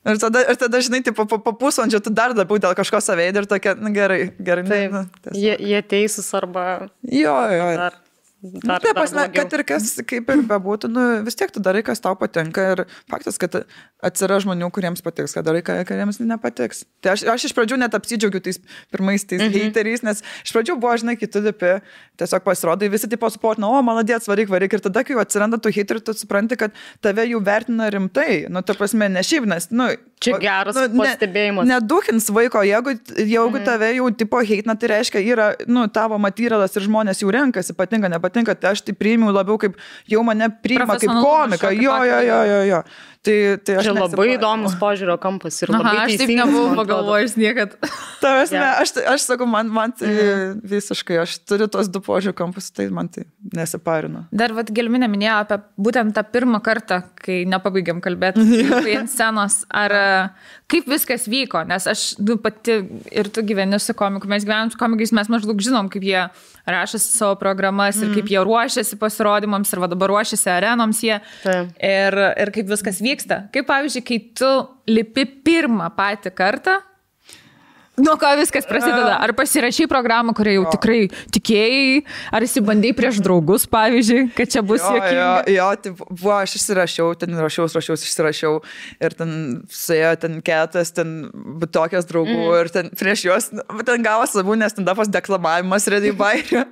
Ir tada, žinai, po pusvalandžio tu dar labiau dėl kažko saveidį ir tokia, gerai. Taip, jie teisūs arba... Taip, kad ir kas kaip ir bebūtų, vis tiek tu darai, kas tau patinka ir faktas, kad atsiras žmonių, kuriems patiks, kad darai, kuriems nepatiks. Tai aš iš pradžių net apsidžiaugiu tais pirmais heiteriais, nes iš pradžių buvo, žinai, kiti dipi, tiesiog pasirodai, visi tipo suportina, maladėts, varyk, ir tada, kai atsiranda tų heiterių, tu supranti, kad tave jau vertina rimtai, ta prasme, ne šiaip, nes, čia geras pastebėjimas. Neduhins vaiko, jeigu tave jau tipo heitina, tai reiškia, yra, tavo materialas ir žmonės jau renkasi, patinka, nepatinka, tai aš tai priimiu labiau kaip, jau mane priima kaip komiką, jo. Tai aš čia labai įdomus požiūrio kampas ir labai teisingas. Aš taip nebuvau pagalvojus niekad. Aš sakau, man tai visiškai, aš turiu tos du požiūrio kampus, tai man tai nesiparinu. Dar Gelminė minėjo apie būtent tą pirmą kartą, kai nepabaigiam kalbėti ant scenos, ar kaip viskas vyko, nes aš pati ir tu gyveni su komiku, mes gyvenam su komikais, mes maždaug žinom, kaip jie rašosi savo programas ir kaip jie ruošiasi pasirodymams ir dabar ruošiasi arenoms jie ir kaip viskas vyksta. Kaip pavyzdžiui, kai tu lipi pirmą patį kartą, nuo ko viskas prasideda? Ar pasirašai programą, kurią jau tikrai tikėjai, ar įsibandai prieš draugus, pavyzdžiui, kad čia bus juokinga? Tai buvo, aš išsirašiau, išsirašiau ir ten suėjo ten ketas, ten tokias draugų ir ten prieš juos, ten gavo savų, nes ten dapas deklamavimas redai bairio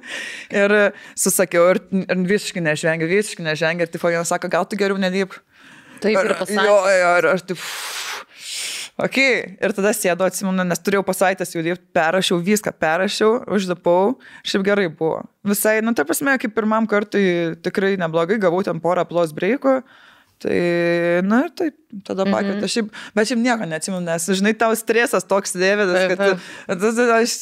ir susakiau ir visiškai nežengia ir tipo vienas sako, gal tu geriau nelyp. Taip ir pasakė. Ir aš taip... Ok, ir tada sėdu, atsimenu, nes turėjau pasaitęs jau dirbti, perrašiau, užlipau, šiaip gerai buvo. Visai, ta prasme, kaip pirmam kartui tikrai neblogai, gavau ten porą plus breikų, tai, ir taip, tada pakvietė, bet šiaip nieko neatsimenu, nes, žinai, tau stresas toks dėvėdas, kad aš,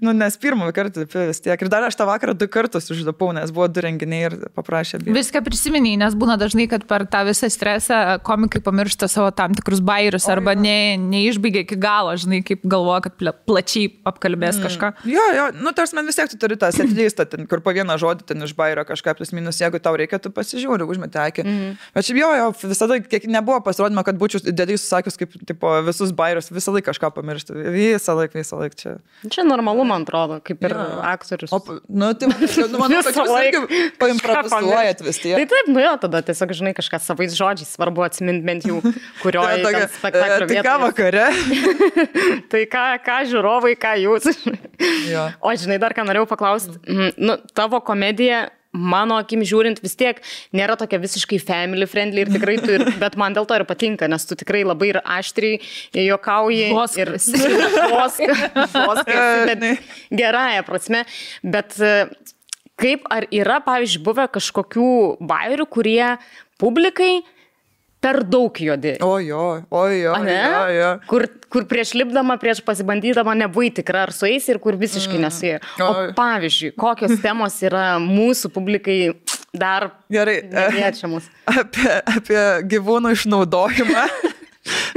nes pirmą kartą vis tiek, ir dar aš tą vakarą 2 kartus užlipau, nes buvo 2 renginiai ir paprašė. Viską prisiminiai, nes būna dažnai, kad per tą visą stresą komikai pamiršta savo tam tikrus bairius arba neišbaigia iki galo, žinai, kaip galvoja, kad plačiai apkalbės kažką. Jo, tarsi man vis tiek tu turi tą setlistą, kur po vieną žodį ten iš bairio kažką plus minus, jeigu tau reikia, tu pasižiūri, užmeti akį. Bet šiaip jo, Jo, visada, kiek nebuvo pasirodymo, kad būčiau dėdai susakius, kaip tipo, visus bairius, visą laiką kažką pamiršti. Visą laiką čia. Čia normalu, man atrodo, kaip ir aktorius. Tai manau, kad jūs paimprovizuojat vis tiek. Tai taip, jo, tada tiesiog, žinai, kažką savais žodžiais svarbu atsiminti bent jau, kurioje spektaklio vietoje. Tai ką vakare? Tai ką žiūrovai, ką jūs. O žinai, dar ką norėjau paklausti. Tavo komedija, mano akim žiūrint, vis tiek nėra tokia visiškai family friendly ir tikrai bet man dėl to ir patinka, nes tu tikrai labai ir aštriai juokauji. Bet gerąją prasme. Bet kaip ar yra, pavyzdžiui, buvę kažkokių bairių, kurie publikai per daug juodi. Jo. Kur prieš lipdama, prieš pasibandydama nebuvai tikra ar su eis ir kur visiškai nesijai. O pavyzdžiui, kokios temos yra mūsų publikai dar neliečiamos? Apie gyvūnų išnaudojimą.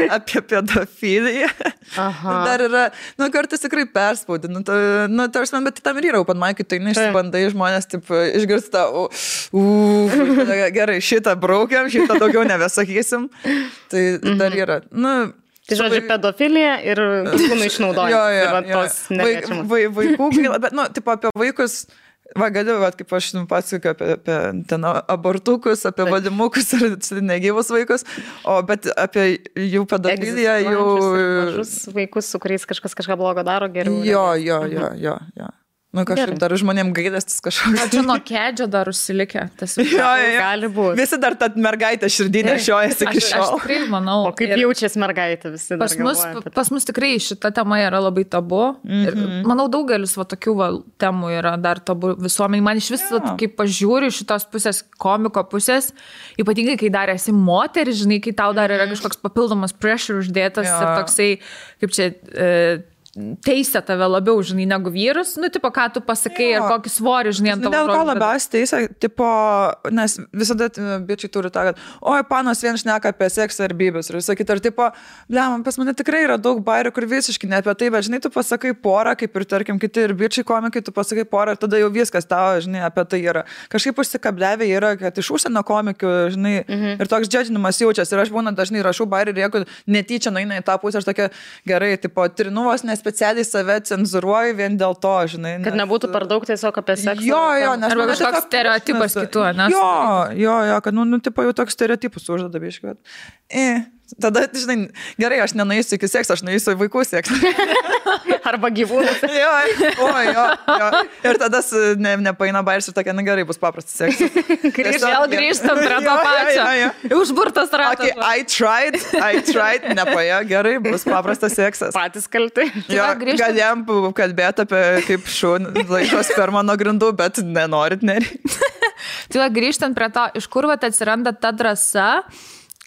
Apie pedofiliją. Dar yra, kartais tikrai perspaudi. Bet tam ir yra open mic, tai neišsibandai žmonės, taip, išgirsta, gerai, šitą braukiam, šitą daugiau nebesakysim. Tai dar yra. Tai žodžiu, pedofilija ir gyvūnų išnaudojimas. Vaikų, bet, apie vaikus. Galiu, kaip aš pasakoju apie ten abortukus, apie vadimukus ir negyvus vaikus, bet apie jų pedofiliją, jų... Mažus vaikus, su kuriais kažką blogo daro, geriau. Jo. Kažkaip dar žmonėm gailestis kažkoks. Čia nuo kedžio dar užsilikę. Gali būti. Visi dar tą mergaitę širdinę šiojasi iki šiol. Aš tikrai manau. O kaip jaučiasi mergaitė visi? Pas mus tikrai šita tema yra labai tabu. Ir manau, daugelis tokių temų yra dar tabu visuomeniai. Man iš viso, kai pažiūriu šitos pusės, komiko pusės, ypatingai, kai dar esi moteris, žinai, kai tau dar yra kažkoks papildomas pressure uždėtas ir toksai, kaip čia... teisė tave labiau, žinai, negu vyrus, tipo, ką tu pasakai ir kokį svorį, žinai, ant tavo žodžių. Dėl ko labiausiai teisė, tipo, nes visada bičiai turi tą, kad, panos vien šneka apie seksą ir bybės ir visą kitą, ir tipo, pas mane tikrai yra daug bairių, kur visiškai ne apie tai, bet, žinai, tu pasakai porą, kaip ir, tarkim, kiti ir bičiai komikai, tu pasakai porą ir tada jau viskas tavo, žinai, apie tai yra. Kažkaip užsikabliavę yra, kad iš užsienio komikių, žinai, ir toks džedžinimas jaučiasi. Ir aš būna dažnai rašau bairį ir jeigu netyčia nueina į tą pusę, aš tokia gerai, tipo, trinuvos specialiai save cenzuruoju vien dėl to, žinai. Kad nebūtų per daug tiesiog apie seksą. Jo, nes... Arba kažkoks stereotipas kitų, ne? Jo, kad, tipo, jau toks stereotipus uždeda biškai. Tada, žinai, gerai, aš nenueisiu iki seksą, aš nueisiu į vaikų seksą. Arba gyvūnus. Jo. Ir tada nepaina bairis ir tokia, gerai, bus paprastas seksas. Vėl grįžtam prie to pačio. Užburtas ratas. I tried, nepaėjo, gerai, bus paprastas seksas. Patys kalti. Galėjom kalbėti apie kaip šūn laikos per mano grindų, bet nenorit, nereikia. Tai grįžtant prie to, iš kur atsiranda ta drąsa,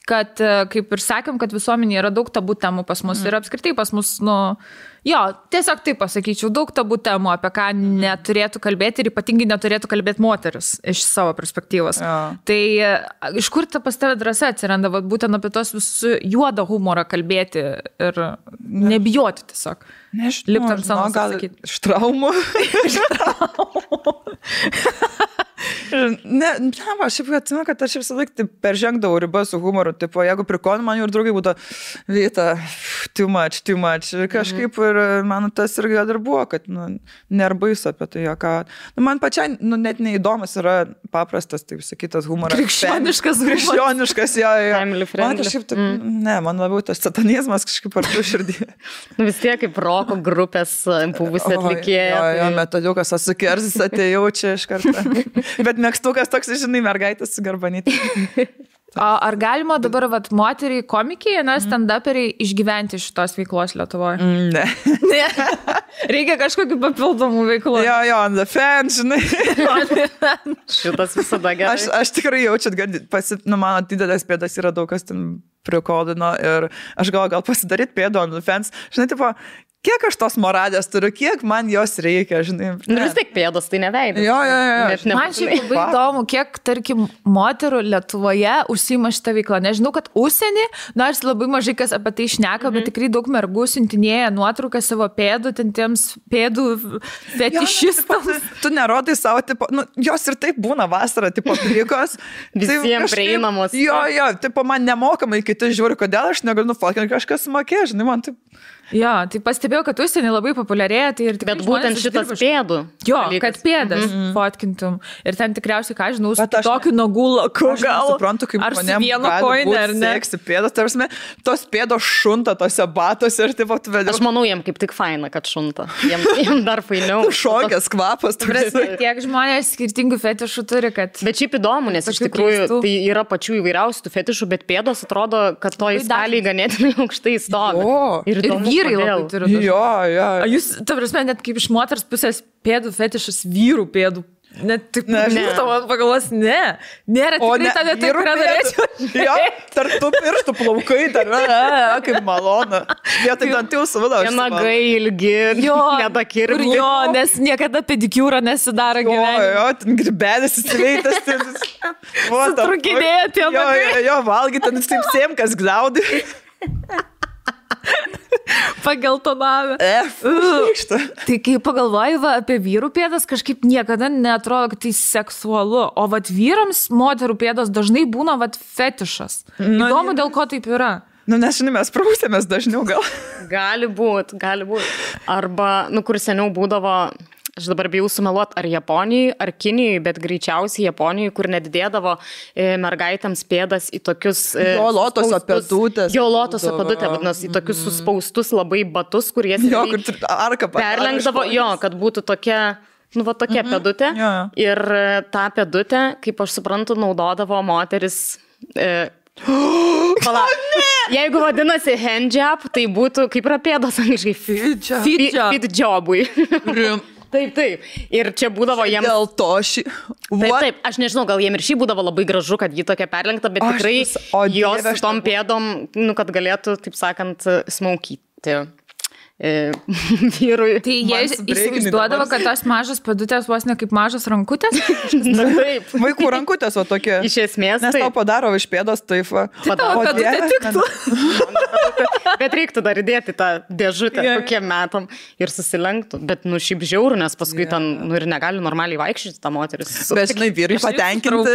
kad, kaip ir sakėm, kad visuomenėje yra daug tabų temų pas mus ir apskritai pas mus, tiesiog taip pasakyčiau, daug tabų temų, apie ką neturėtų kalbėti ir ypatingai neturėtų kalbėti moteris iš savo perspektyvos. Tai iš kur pas tave drąsa atsiranda, būtent apie tos visų juodą humorą kalbėti ir nebijoti tiesiog. Nežinau, gal iš traumų. Aš atsimenu, kad aš visą laiką peržengdavau ribą su humoru. Tipo, jeigu prikonu, man jau ir draugai būtų Vita, too much. Ir kažkaip ir man tas ir gal ir buvo, kad nerbais apie tai joką. Man pačiai net neįdomus yra paprastas, taip sakytas, humoras. Krikščioniškas, jo. Man kažkaip, man labiau tas satanizmas kažkaip ar tu širdį. Vis tiek kaip roko grupės buvusi atlikėja. Jo, metaliukas, asukerzis atėjau čia iš karto. Bet mėgstukas toks, žinai, mergaitės su garbanyti. Ar galima dabar, moteriai komikiai, stand-uperiai išgyventi šitos veiklos Lietuvoje? Ne. Reikia kažkokių papildomų veiklų. Jo, on the fans, žinai. Šitas visada gerai. Aš tikrai jaučiu, kad mano didelės pėdas yra daug kas ten prikodino ir aš gal pasidaryt pėdą on the fans. Žinai, tipo, kiek aš tos moradės turiu, kiek man jos reikia, žinai. Vis tiek pėdos, tai neveidas. Jo. Man šiaip labai įdomu, kiek, tarkim, moterų Lietuvoje užsiima šitą veiklą. Nežinau, kad užsienį, nors labai mažai kas apie tai šneka, bet tikrai daug mergų siuntinėja nuotrauką savo pėdų, ten tiems pėdų fetišistams. Tu nerodai savo, tipo, jos ir taip būna vasarą, tipo, plikos. Visiems prieinamos. Jo, tipo, man nemokamai kiti žiūri, kodėl aš negaliu nufotkinti, kažkas mokė, žinai, man taip. Jo, tai pastebėjau, kad užsienį labai populiarėja, tai ir tikrai bet būtent šitas pėdų. Jo, kad pėdas fotkintum. Ir ten tikriausiai, ką žinau, su tokiu nagų laku gal. Aš suprantu, kaip manėm gali būti seksi pėdas, tarsi, tos pėdos šunta tose batose ir taip atvedė. Aš manau, jiem kaip tik faina, kad šunta. Jiem dar fainiau. Šokės kvapas. Tiek žmonės skirtingų fetišų turi, kad... Bet šiaip įdomu, nes iš tikrųjų tai yra pačių įvairiausių fetišų, bet pėdos atrodo, kad to įstalį ganėtinai aukštai stovi. Ir vyrai labai turi. Jo. Jūs, ta prasme, net kaip iš moters pusės pėdų fetišas vyrų pėdų. Net taip, nežinau, man pagalvos, nėra tikrai ta vieta, kurią norėčiau. Jo, tarp tų pirštų plaukai, kaip malona. Vietoj dantų suvada. Nagai ilgi, nedakirmi. Jo, nes niekada pedikiūro nesidaro gyvenime. Jo, ten gribėlis įsiveitas. Sutrukinėja tie nagai. Jo, valgy, ten taip sėmkas gliaudai. Pageltonavę. Tai kai pagalvoju apie vyrų pėdas, kažkaip niekada neatrodo, kad tai seksualu. O vat vyrams moterų pėdos dažnai būna vat fetišas. Įdomu, dėl ko taip yra. Nes, žinai, mes prausėmės dažniau gal. Gali būt. Arba, kur seniau būdavo... Aš dabar bijau sumeluoti, ar Japonijai, ar Kinijai, bet greičiausiai Japonijai, kur nedidėdavo mergaitėms pėdas į tokius... Jo, lotoso pėdutės. Jo, lotoso pėdutė, vadinasi, į tokius suspaustus labai batus, kur jie perlenkdavo, kad būtų tokia... tokia pėdutė. Ir tą pėdutę, kaip aš suprantu, naudodavo moteris... Jeigu vadinasi handjob, tai būtų, kaip yra pėdos angliškai, fit jobui. Taip. Ir čia būdavo jiems... Dėl to Taip, aš nežinau, gal jiems ir šį būdavo labai gražu, kad jį tokia perlenkta, bet tikrai jos su tom pėdom, kad galėtų, taip sakant, smaukyti. Vyrui. Tai jie įsivaizduodavo, kad tos mažas pėdutės vos ne kaip mažas rankutės? Taip. Vaikų rankutės, o tokie. Iš esmės. Nes tau padaro iš pėdos, taip. Tavo pėdutė tiktų. Bet reiktų dar įdėti tą dėžutę kokiem metam ir susilenktų. Bet, šiaip žiaurų, nes paskui ten, ir negali normaliai vaikščioti tą moteris. Bet, žinai, vyrai patenkinti.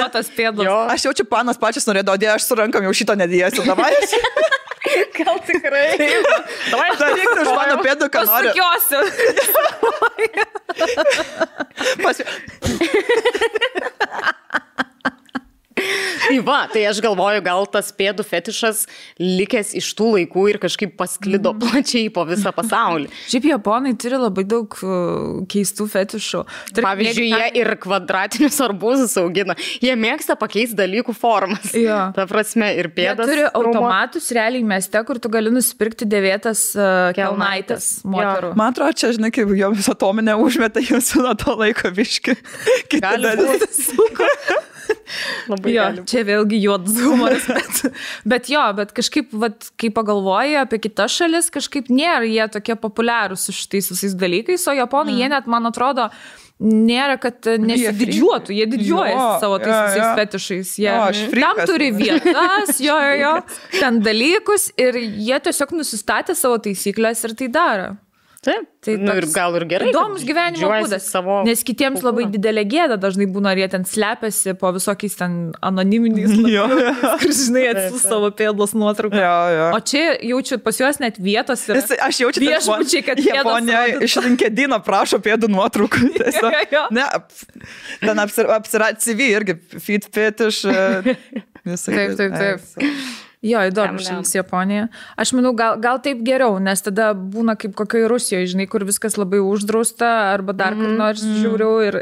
Aš jaučiu, panas pačias norėdavo, aš su rankam jau šito nedėjęsiu. Davai. Gal tikrai. Davai, daryk už mano pėdų, ką nori. Pasukiosiu. Tai va, tai aš galvoju, gal tas pėdų fetišas likęs iš tų laikų ir kažkaip pasklido plačiai po visą pasaulį. Šiaip japonai turi labai daug keistų fetišų. Pavyzdžiui, jie ir kvadratinius arbūzus augina. Jie mėgsta pakeisti dalykų formas. Ta prasme, ir pėdas. Jie turi automatus realiai mieste, kur tu gali nusipirkti dėvėtas kelnaites moterų. Man atrodo, čia, žinai, kaip joms atominę užmetą, jūs nuo to laiko viški. Gali būti. Jo, čia vėlgi juodas humoras, bet kažkaip, kai pagalvoji apie kitas šalis, kažkaip nėra jie tokie populiarūs su šitais visais dalykais, o japonai, jie net, man atrodo, nėra, kad nesididžiuotų, jie didžiuojasi savo tais visais fetišais, jie tam turi vietas, ten dalykus ir jie tiesiog nusistatė savo taisyklės ir tai daro. Taip, ir gal ir gerai. Įdomus gyvenimo būdas, nes kitiems labai didelė gėda dažnai būna, ar jie ten slepiasi po visokiais ten anoniminiais kur, žinai, atsiūs savo pėdos nuotrauką. O čia jaučiu pas juos net vietos ir aš jaučiu viešbučiai, kad Japonija iš LinkedIno prašo pėdų nuotraukų. Ne, ten apsirat CV irgi feed fetish. Taip. Jo, įdomu šalis Japonija. Aš manau, gal taip geriau, nes tada būna kaip kokioj Rusijoje, žinai, kur viskas labai uždrausta arba dar kur nors žiūriau ir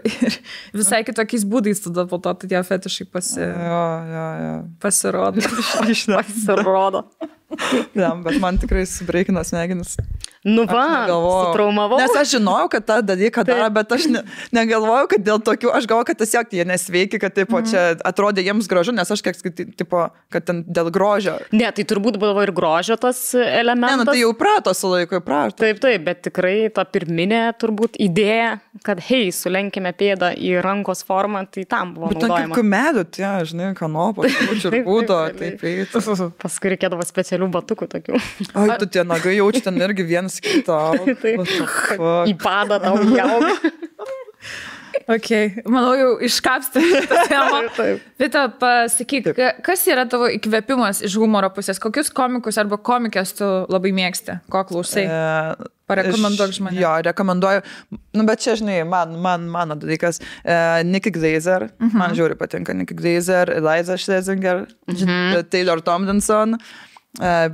visai kitokiais būdais tada po to tie fetišai pasirodo. Pasirodo. Bet man tikrai subreikino smegenis. Nu va, sutraumavau. Nes aš žinojau, kad tą dalyką daro, bet aš negalvojau, kad dėl tokių, aš galvoju, kad tiesiog jie nesveiki, kad tipo, čia atrodė jiems gražu, nes aš kiek tipo, kad ten dėl grožio. Ne, tai turbūt buvo ir grožio tas elementas. Ne, nu tai jau prato su laiku, prato. Taip, bet tikrai ta pirminė turbūt idėja, kad hei, sulenkime pėdą į rankos formą, tai tam buvo naudojama. Bet kaip medų, tie, žinai, kanopos, čirpūdo, taip. Paskui reikėdavo specialių batukų tokių. Ai, tu tie nagai jauči ten irgi vienas kitą. Į padą tau jaug. Ok, manau, jau iškapstė šitą temą. Vita, pasakyk, kas yra tavo įkvėpimas iš humoro pusės? Kokius komikus arba komikės tu labai mėgsti? Ko klausai? Parekomenduok žmonėms. Jo, rekomenduoju. Nu, bet čia, žinai, mano dalykas. Nikki Glaser. Man žiūri patinka Nikki Glaser, Eliza Schlesinger, Taylor Tomlinson.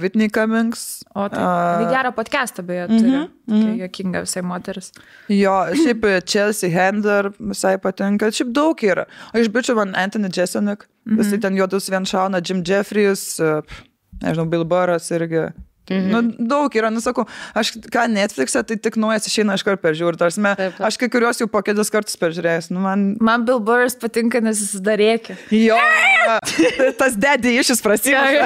Whitney Cummings. O tai gerą podcastą beje turi. Jokinga visai moteris. Jo, šiaip Chelsea Handler visai patinka. Šiaip daug yra. O iš bičių man Anthony Jeselnik. Visai ten juodus vien šauna. Jim Jeffries, nežinau, Bill Burras irgi. Nu, daug yra, nusakau, aš ką Netflix'e, tai tik naujas išeina iš karto peržiūrį. Aš kai kuriuos jau po kelis kartus peržiūrėjęs. Nu, man Bill Burras patinka, nes jis dar rėkia. Jo, tas daddy išis prasidėjo.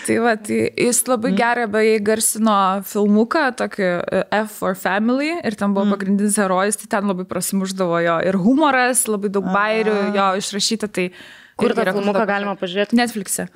Tai va, tai jis labai gerai beje garsino filmuką, tokį F for Family, ir ten buvo pagrindinis herojus, tai ten labai prasimuždavo jo. Ir humoras, labai daug bairių jo išrašyta. Tai kur tą filmuką galima pažiūrėti? Netflix'e.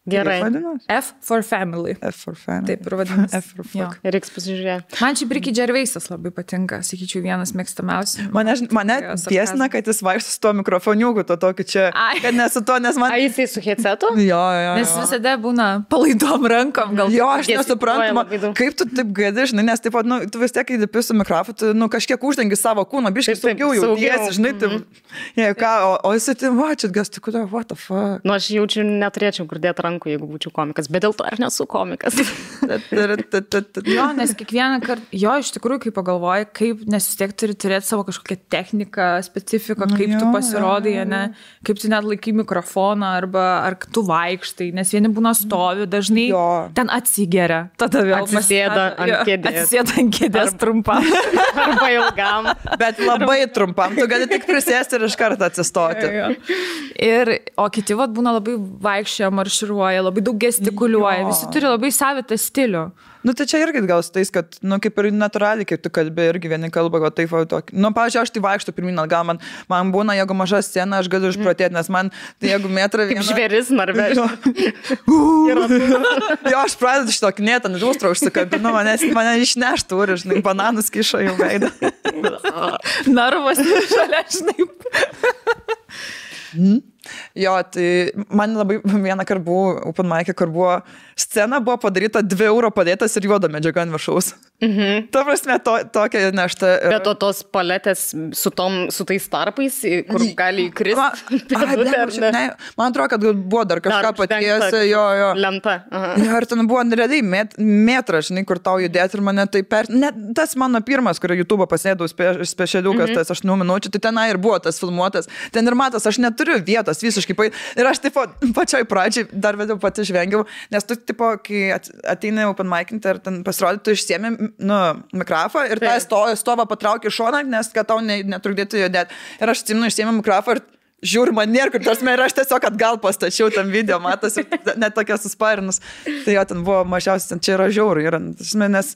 Gerai. F for Family. F for Family. Taip, ir vadinasi. F for Fuck. Reiks pasižiūrėti. Man šiaip Ricky Gervaisas labai patinka, sakyčiau, vienas mėgstamiausių. Mane tiesina, kad jis vaikšto su tuo mikrofoniuku, to tokį čia, kad nesu to, nes man... A, jisai su headsetu? Jo. Nes visada būna palaidom rankom, gal. Jo, aš nesuprantu, kaip tu taip gali, žinai, nes taip pat, nu, tu vis tiek, kai dipi su mikrofonu, tu, nu, kažkiek uždengi savo kūną, biškai saugiau jautiesi, žinai, o jisai tai, va, čia gas, tai kodėl, what the fuck. Nu, aš jaučiu, neturėčiau kur dėti rankų, jeigu būčiau komikas, bet dėl to aš nesu komikas. Jo, nes kiekvieną kartą, jo, iš tikrųjų, kai pagalvoji, kaip, nes vis tiek turi turėti savo kažkokią techniką, specifiką, kaip tu pasirodai, ne, kaip tu net laikai mikrofoną, arba ar tu vaikštai, nes vieni būna stovi, dažnai ten atsigeria, tada vėl atsisėda ant kėdės trumpam. Arba ilgam. Bet labai trumpam, tu gali tik prisėsti ir iš karto atsistoti. O kiti vat būna labai vaikščia, marširuoja, labai daug gestikuliuoja, visi turi labai savitą stilių. Nu, tai čia irgi gal su tais, kad, nu, kaip ir natūraliai, kaip tu kalbi, irgi vieni kalba, gal taip, tokį. Nu, pavyzdžiui, aš tai vaikštų pirmin atgal, man būna, jeigu maža scena, aš galiu išprotėti, nes man, tai jeigu metrą vieną... Kaip žvėris narvežė. Jo, aš pradedu šito knėtą, net užtrą užsikabinu, mane išneštų, ir, žinai, bananus kišo jau veidą. Narvas šalia, žinai. Jo, tai man labai vieną kartą buvo open mic'e, kur buvo scena, buvo padaryta 2 eurų padėtas ir juoda medžiaga ant viršaus. Ta prasme, tokia nešta. Bet tos paletės su tais tarpais, kur gali įkristi. Man atrodo, kad buvo dar kažką patiesi, jo. Lenta. Ir ten buvo realiai metras, žinai, kur tau judėti ir mane tai tas mano pirmas, kurio YouTube pasėdau specialiukas, tas 8 minučių, tai tenai ir buvo tas filmuotas. Ten ir matas, aš neturiu vietos visiškai. Ir aš taip pačioj pradžiai dar vėliau pati žvengiau, nes tu, tipo, kai ateina open mic'inti ir ten pasirodė, tu išsiemi, nu, mikrofą ir tą stovą patrauki šoną, nes kad tau netrukdėtų judėti. Ir aš atsimenu, išsiemi mikrofą ir žiūri man nėr, kur tas ir aš tiesiog atgal pastačiau tam video, matosi, net tokia susparinus. Tai jo, ten buvo mažiausiai, čia yra žiauru. Nes,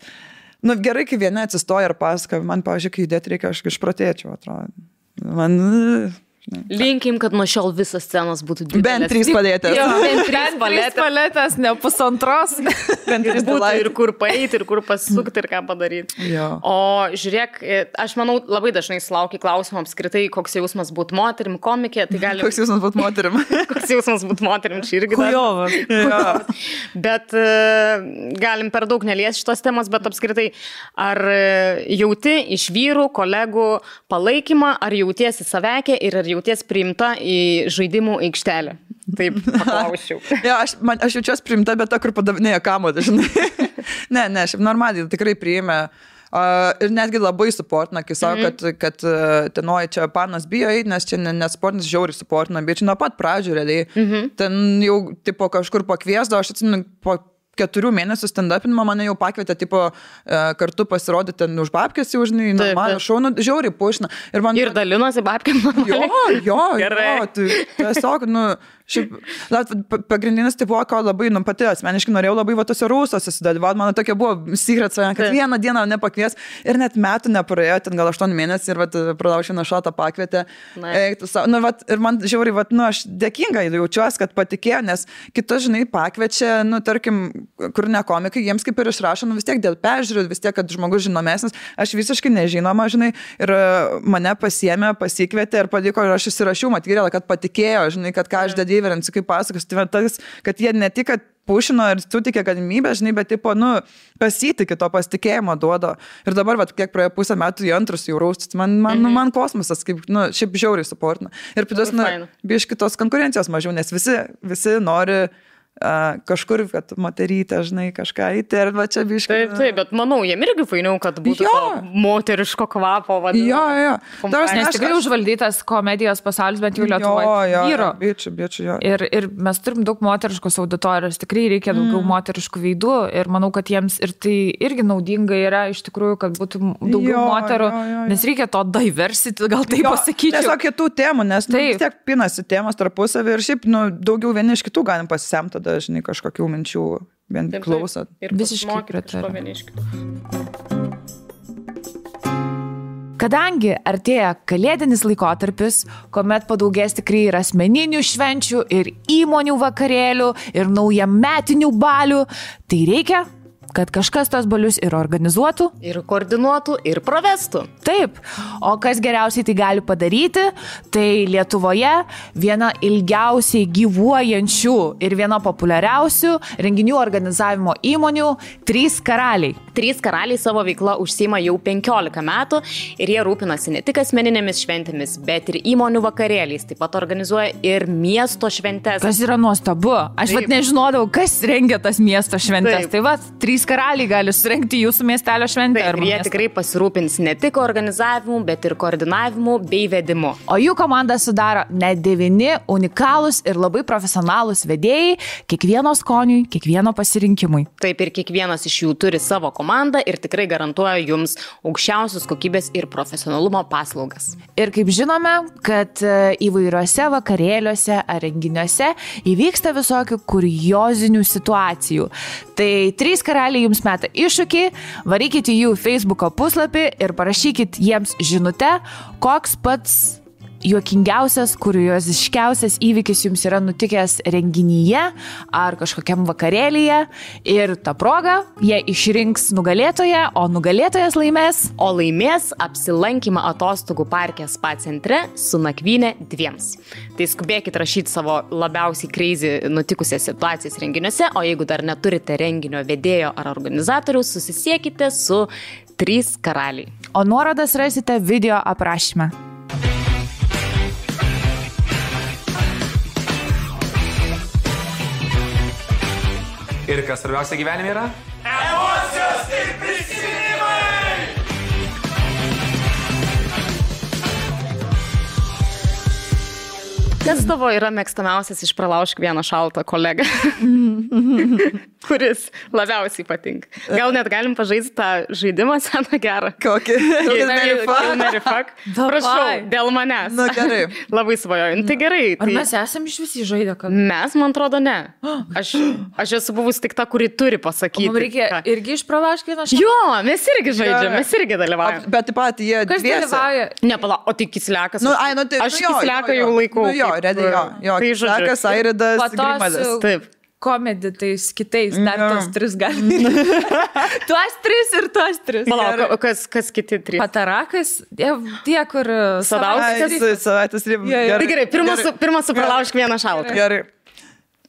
nu, gerai, kai vieni atsistoja ir pasaka, man, pavyzdžiui, kai judėti reikia, aš išprotėčiau, atrodo. Man... Linkim, kad nuo šiol visas scenas būtų didelės. Bent 3 paletės. Bent 3 paletės, ne pusantros. Bent 3 būtų ir kur paeiti, ir kur pasukti, ir ką padaryti. O žiūrėk, aš manau, labai dažnai sulaukia klausimų apskritai, koks jausmas būti moterim, komikė. Tai gali... Koks jausmas būti moterim? Koks jausmas būti moterim, čia irgi. Kujovas. Bet galim per daug neliesti šitos temos, bet apskritai, ar jauti iš vyrų, kolegų palaikymą, ar jautiesi savekė ir ar jauties priimta į žaidimų aikštelę? Taip, paklausiau. Ja, aš jaučiuosi priimta, bet ta, kur padavinėja kamuolį, žinai. Ne, šiaip normaliai tikrai priėmė. Ir netgi labai suportina, kai savo, kad tenoj čia panas bijo eiti, nes čia nesportinis žiauriai suportina, bet čia nuo pat pradžių realiai. Ten jau tipo kažkur pakviesdavo, aš atsimenu, 4 mėnesių stand-upinimo mane jau pakvietė, tipo, kartu pasirodyti ten už babkės, jau žinai, normalų šaunų, žiauriai pušina. Ir dalinosi babkėm normaliai. Jo, tai tiesiog, šiaip, pagrindinis tai buvo, ko labai, pati asmeniškai norėjau labai va tose rūsose sudalyvauti, mano tokia buvo secret, kad vieną dieną nepakvies ir net metų nepraėjo, ten gal 8 mėnesių ir va Pralaušiną šatą pakvietė. Ir man žiauriai, aš dėkinga jaučiuosi, kad patikėjo, nes kitus, žinai, pakviečia, tarkim, kur ne komikai, jiems kaip ir išrašo, vis tiek dėl peržiūrų, vis tiek, kad žmogus žinomesnis, aš visiškai nežinoma, žinai, ir mane pasiėmė, pasikvietė ir padiko, ir aš įsirašiau, matyrėlą, kad patikėjo, žinai, kad ką aš dedėjau, kaip pasakas, tai tas, kad jie ne tik, kad pušino ir sutikė galimybę, žinai, bet tipo, pasitikė to pasitikėjimo duodo. Ir dabar, kiek praėjo pusę metų į antrus jau raustus, man kosmosas, kaip, šiaip žiauriai suportina. Ir plius, biški tos konkurencijos mažiau, nes visi nori kažkur, kad moterytė, žinai, kažką įti ir va čia biškai. Taip, bet manau, jiem irgi fainiau, kad būtų to moteriško kvapo vadinamo. Jo. Nes tikrai užvaldytas komedijos pasaulis, bent jau Lietuvoje. Jo, bičiu, jo. Ir mes turim daug moteriškos auditorijos, tikrai reikia daugiau moteriškų veidų ir manau, kad jiems ir tai irgi naudinga yra iš tikrųjų, kad būtų daugiau moterų, nes reikia to diversity, gal taip pasakyčiau. Tiesiog kitų temų, nes vis tiek pinasi temos tarpusavį ir šiaip daugiau vieni iš kitų galim pasisemti. Dažnai kažkokių minčių vien klausot. Ir visiškai pritariu. Kadangi artėja kalėdinis laikotarpis, kuomet padaugės tikrai ir asmeninių švenčių, ir įmonių vakarėlių, ir naujametinių balių, tai reikia, kad kažkas tos balius ir organizuotų, ir koordinuotų, ir pravestų. Taip, o kas geriausiai tai gali padaryti, tai Lietuvoje viena ilgiausiai gyvuojančių ir viena populiariausių renginių organizavimo įmonių 3 karaliai. 3 karaliai savo veiklą užsiima jau 15 metų ir jie rūpinasi ne tik asmeninėmis šventėmis, bet ir įmonių vakarėliais, taip pat organizuoja ir miesto šventes. Kas yra nuostabu. Aš nežinodavau, kas rengia tas miesto šventes. Tai 3 karaliai gali surengti jūsų miestelio šventę. Taip, ir jie tikrai pasirūpins ne tik organizavimu, bet ir koordinavimu bei vedimu. O jų komandą sudaro net 9 unikalūs ir labai profesionalūs vedėjai, kiekvieno skoniui, kiekvieno pasirinkimui. Taip, ir kiekvienas iš jų turi savo komandą ir tikrai garantuoja jums aukščiausios kokybės ir profesionalumo paslaugas. Ir kaip žinome, kad įvairiuose vakarėliuose ar renginiuose įvyksta visokių kuriozinių situacijų. Tai 3 karaliai jums meta iššūkį, varykite jų Facebooko puslapį ir parašykit jiems žinutę, koks pats juokingiausias, kurioziškiausias įvykis jums yra nutikęs renginyje ar kažkokiam vakarėlyje ir tą progą jie išrinks nugalėtoją, o nugalėtojas laimės. O laimės apsilankymą atostogų parke spa centre su nakvynė 2. Tai skubėkit rašyti savo labiausiai crazy nutikusias situacijas renginiuose, o jeigu dar neturite renginio vedėjo ar organizatoriaus, susisiekite su 3 karaliai. O nuorodas rasite video aprašyme. Ir kas svarbiausia gyvenime yra? Emocijos ir prisiminimai! Kas tavo yra mėgstamiausias iš Pralaužk vieną šaltą kolegą, kuris labiausiai patinka? Gal net galim pažaisti tą žaidimą seną gerą? Kokį? Mary fuck. Prašau, dėl manęs. Na gerai. Labai svajoju. Tai gerai. Ar mes esam iš visi žaidę? Mes, man atrodo, ne. Aš esu buvus tik ta, kuri turi pasakyti. Mums reikia irgi iš Pralaužk vieną šaltą? Jo, mes irgi žaidžiam, mes irgi dalyvaujam. Bet taip pat jie Kas dalyvauja? Ne, pala, o tai Kislekas. Aš Kisleką jau laikau. Redai, jo. Tai Kislekas, Airidas, Grimalis. Taip. Komedi tais kitais, dar tos 3 gali. Tuos 3 ir tuos 3. Palauk, kas kiti 3? Patarakas, tie, kur... Savaitės ribų. Tai gerai, pirmas su Pralaužk vieną šaltą. Gerai.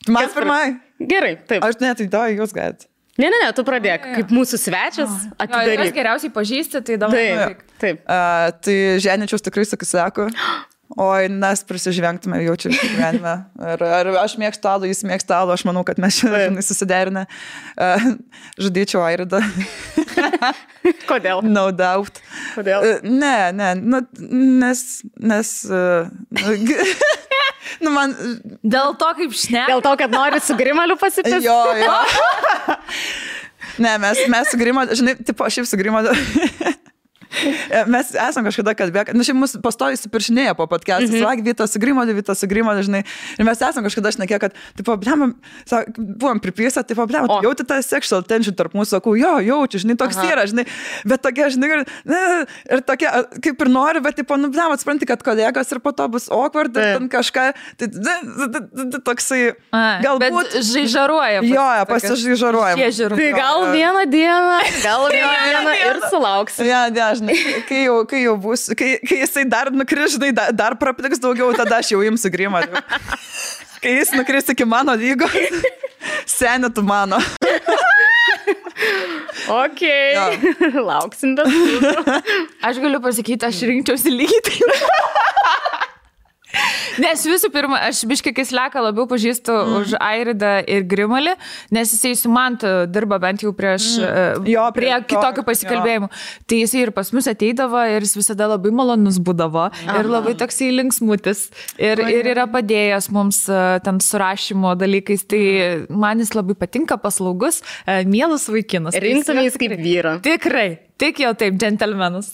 Man pirmai. Gerai, taip. Aš net įdau, jūs galite. Ne, tu pradėk. Kaip mūsų svečias, atidaryk. Kas geriausiai pažįsti, tai dabar. Taip. Tai Ženičiaus tikrai sakysiu. Oi, mes prisižvengtume jaučiu gyvenime. Ar aš mėgstu alų, jis mėgstu alų, aš manau, kad mes šiandien susiderinę. Žudyčiau Airidą. Kodėl? No doubt. Kodėl? Ne, nes... Nu, man... Dėl to, kaip šneka. Dėl to, kad nori su Grimaliu pasipis. Jo. Ne, mes su Grimaliu, žinai, tipo, šiaip su Grimaliu. Mes esam kažkada kalbėję, nu šiaip mus pastoviai supiršinėja po podcast'ą, sak, Vytas su Grimaliu, žinai, ir mes esam kažkada šnekėję, kad, tipo, blema, buvom pripysę, tipo, blema, jauti tą sexual tension tarp mūsų, sakau, jaučiu, žinai, toks yra, žinai, bet tokia, žinai, ir tokia, kaip ir nori, bet, tipo, nu, blema, atspranti, kad kolegos ir po to bus awkward, ir ten kažką, tai toksai, galbūt... Bet žaižaruoja. Jo, pasižaižaruoja. Tai gal vieną dieną ir sulauksi. Ja, žinai, kai jau bus, kai jisai dar nukris, žinai, dar prapliks daugiau, tada aš jau imsiu Grimaliu. Kai jis nukris iki mano lygos, seni tu mano. Okay. Ja. Lauksim bet. Aš galiu pasakyti, aš rinkčiausi lygiai taip. Nes visų pirma, aš biškai Kisleką labiau pažįstu už Airidą ir Grimalį, nes jisai su Mantu dirba bent jau prie kitokių pasikalbėjimų. Tai jisai ir pas mus ateidavo ir jis visada labai malonus būdavo ir labai toksai linksmutis ir yra padėjęs mums ten surašymo dalykais. Tai man jis labai patinka, paslaugus, mielas vaikinas. Rinktumės kaip vyrą. Tikrai. Tik jau taip, džentelmenas.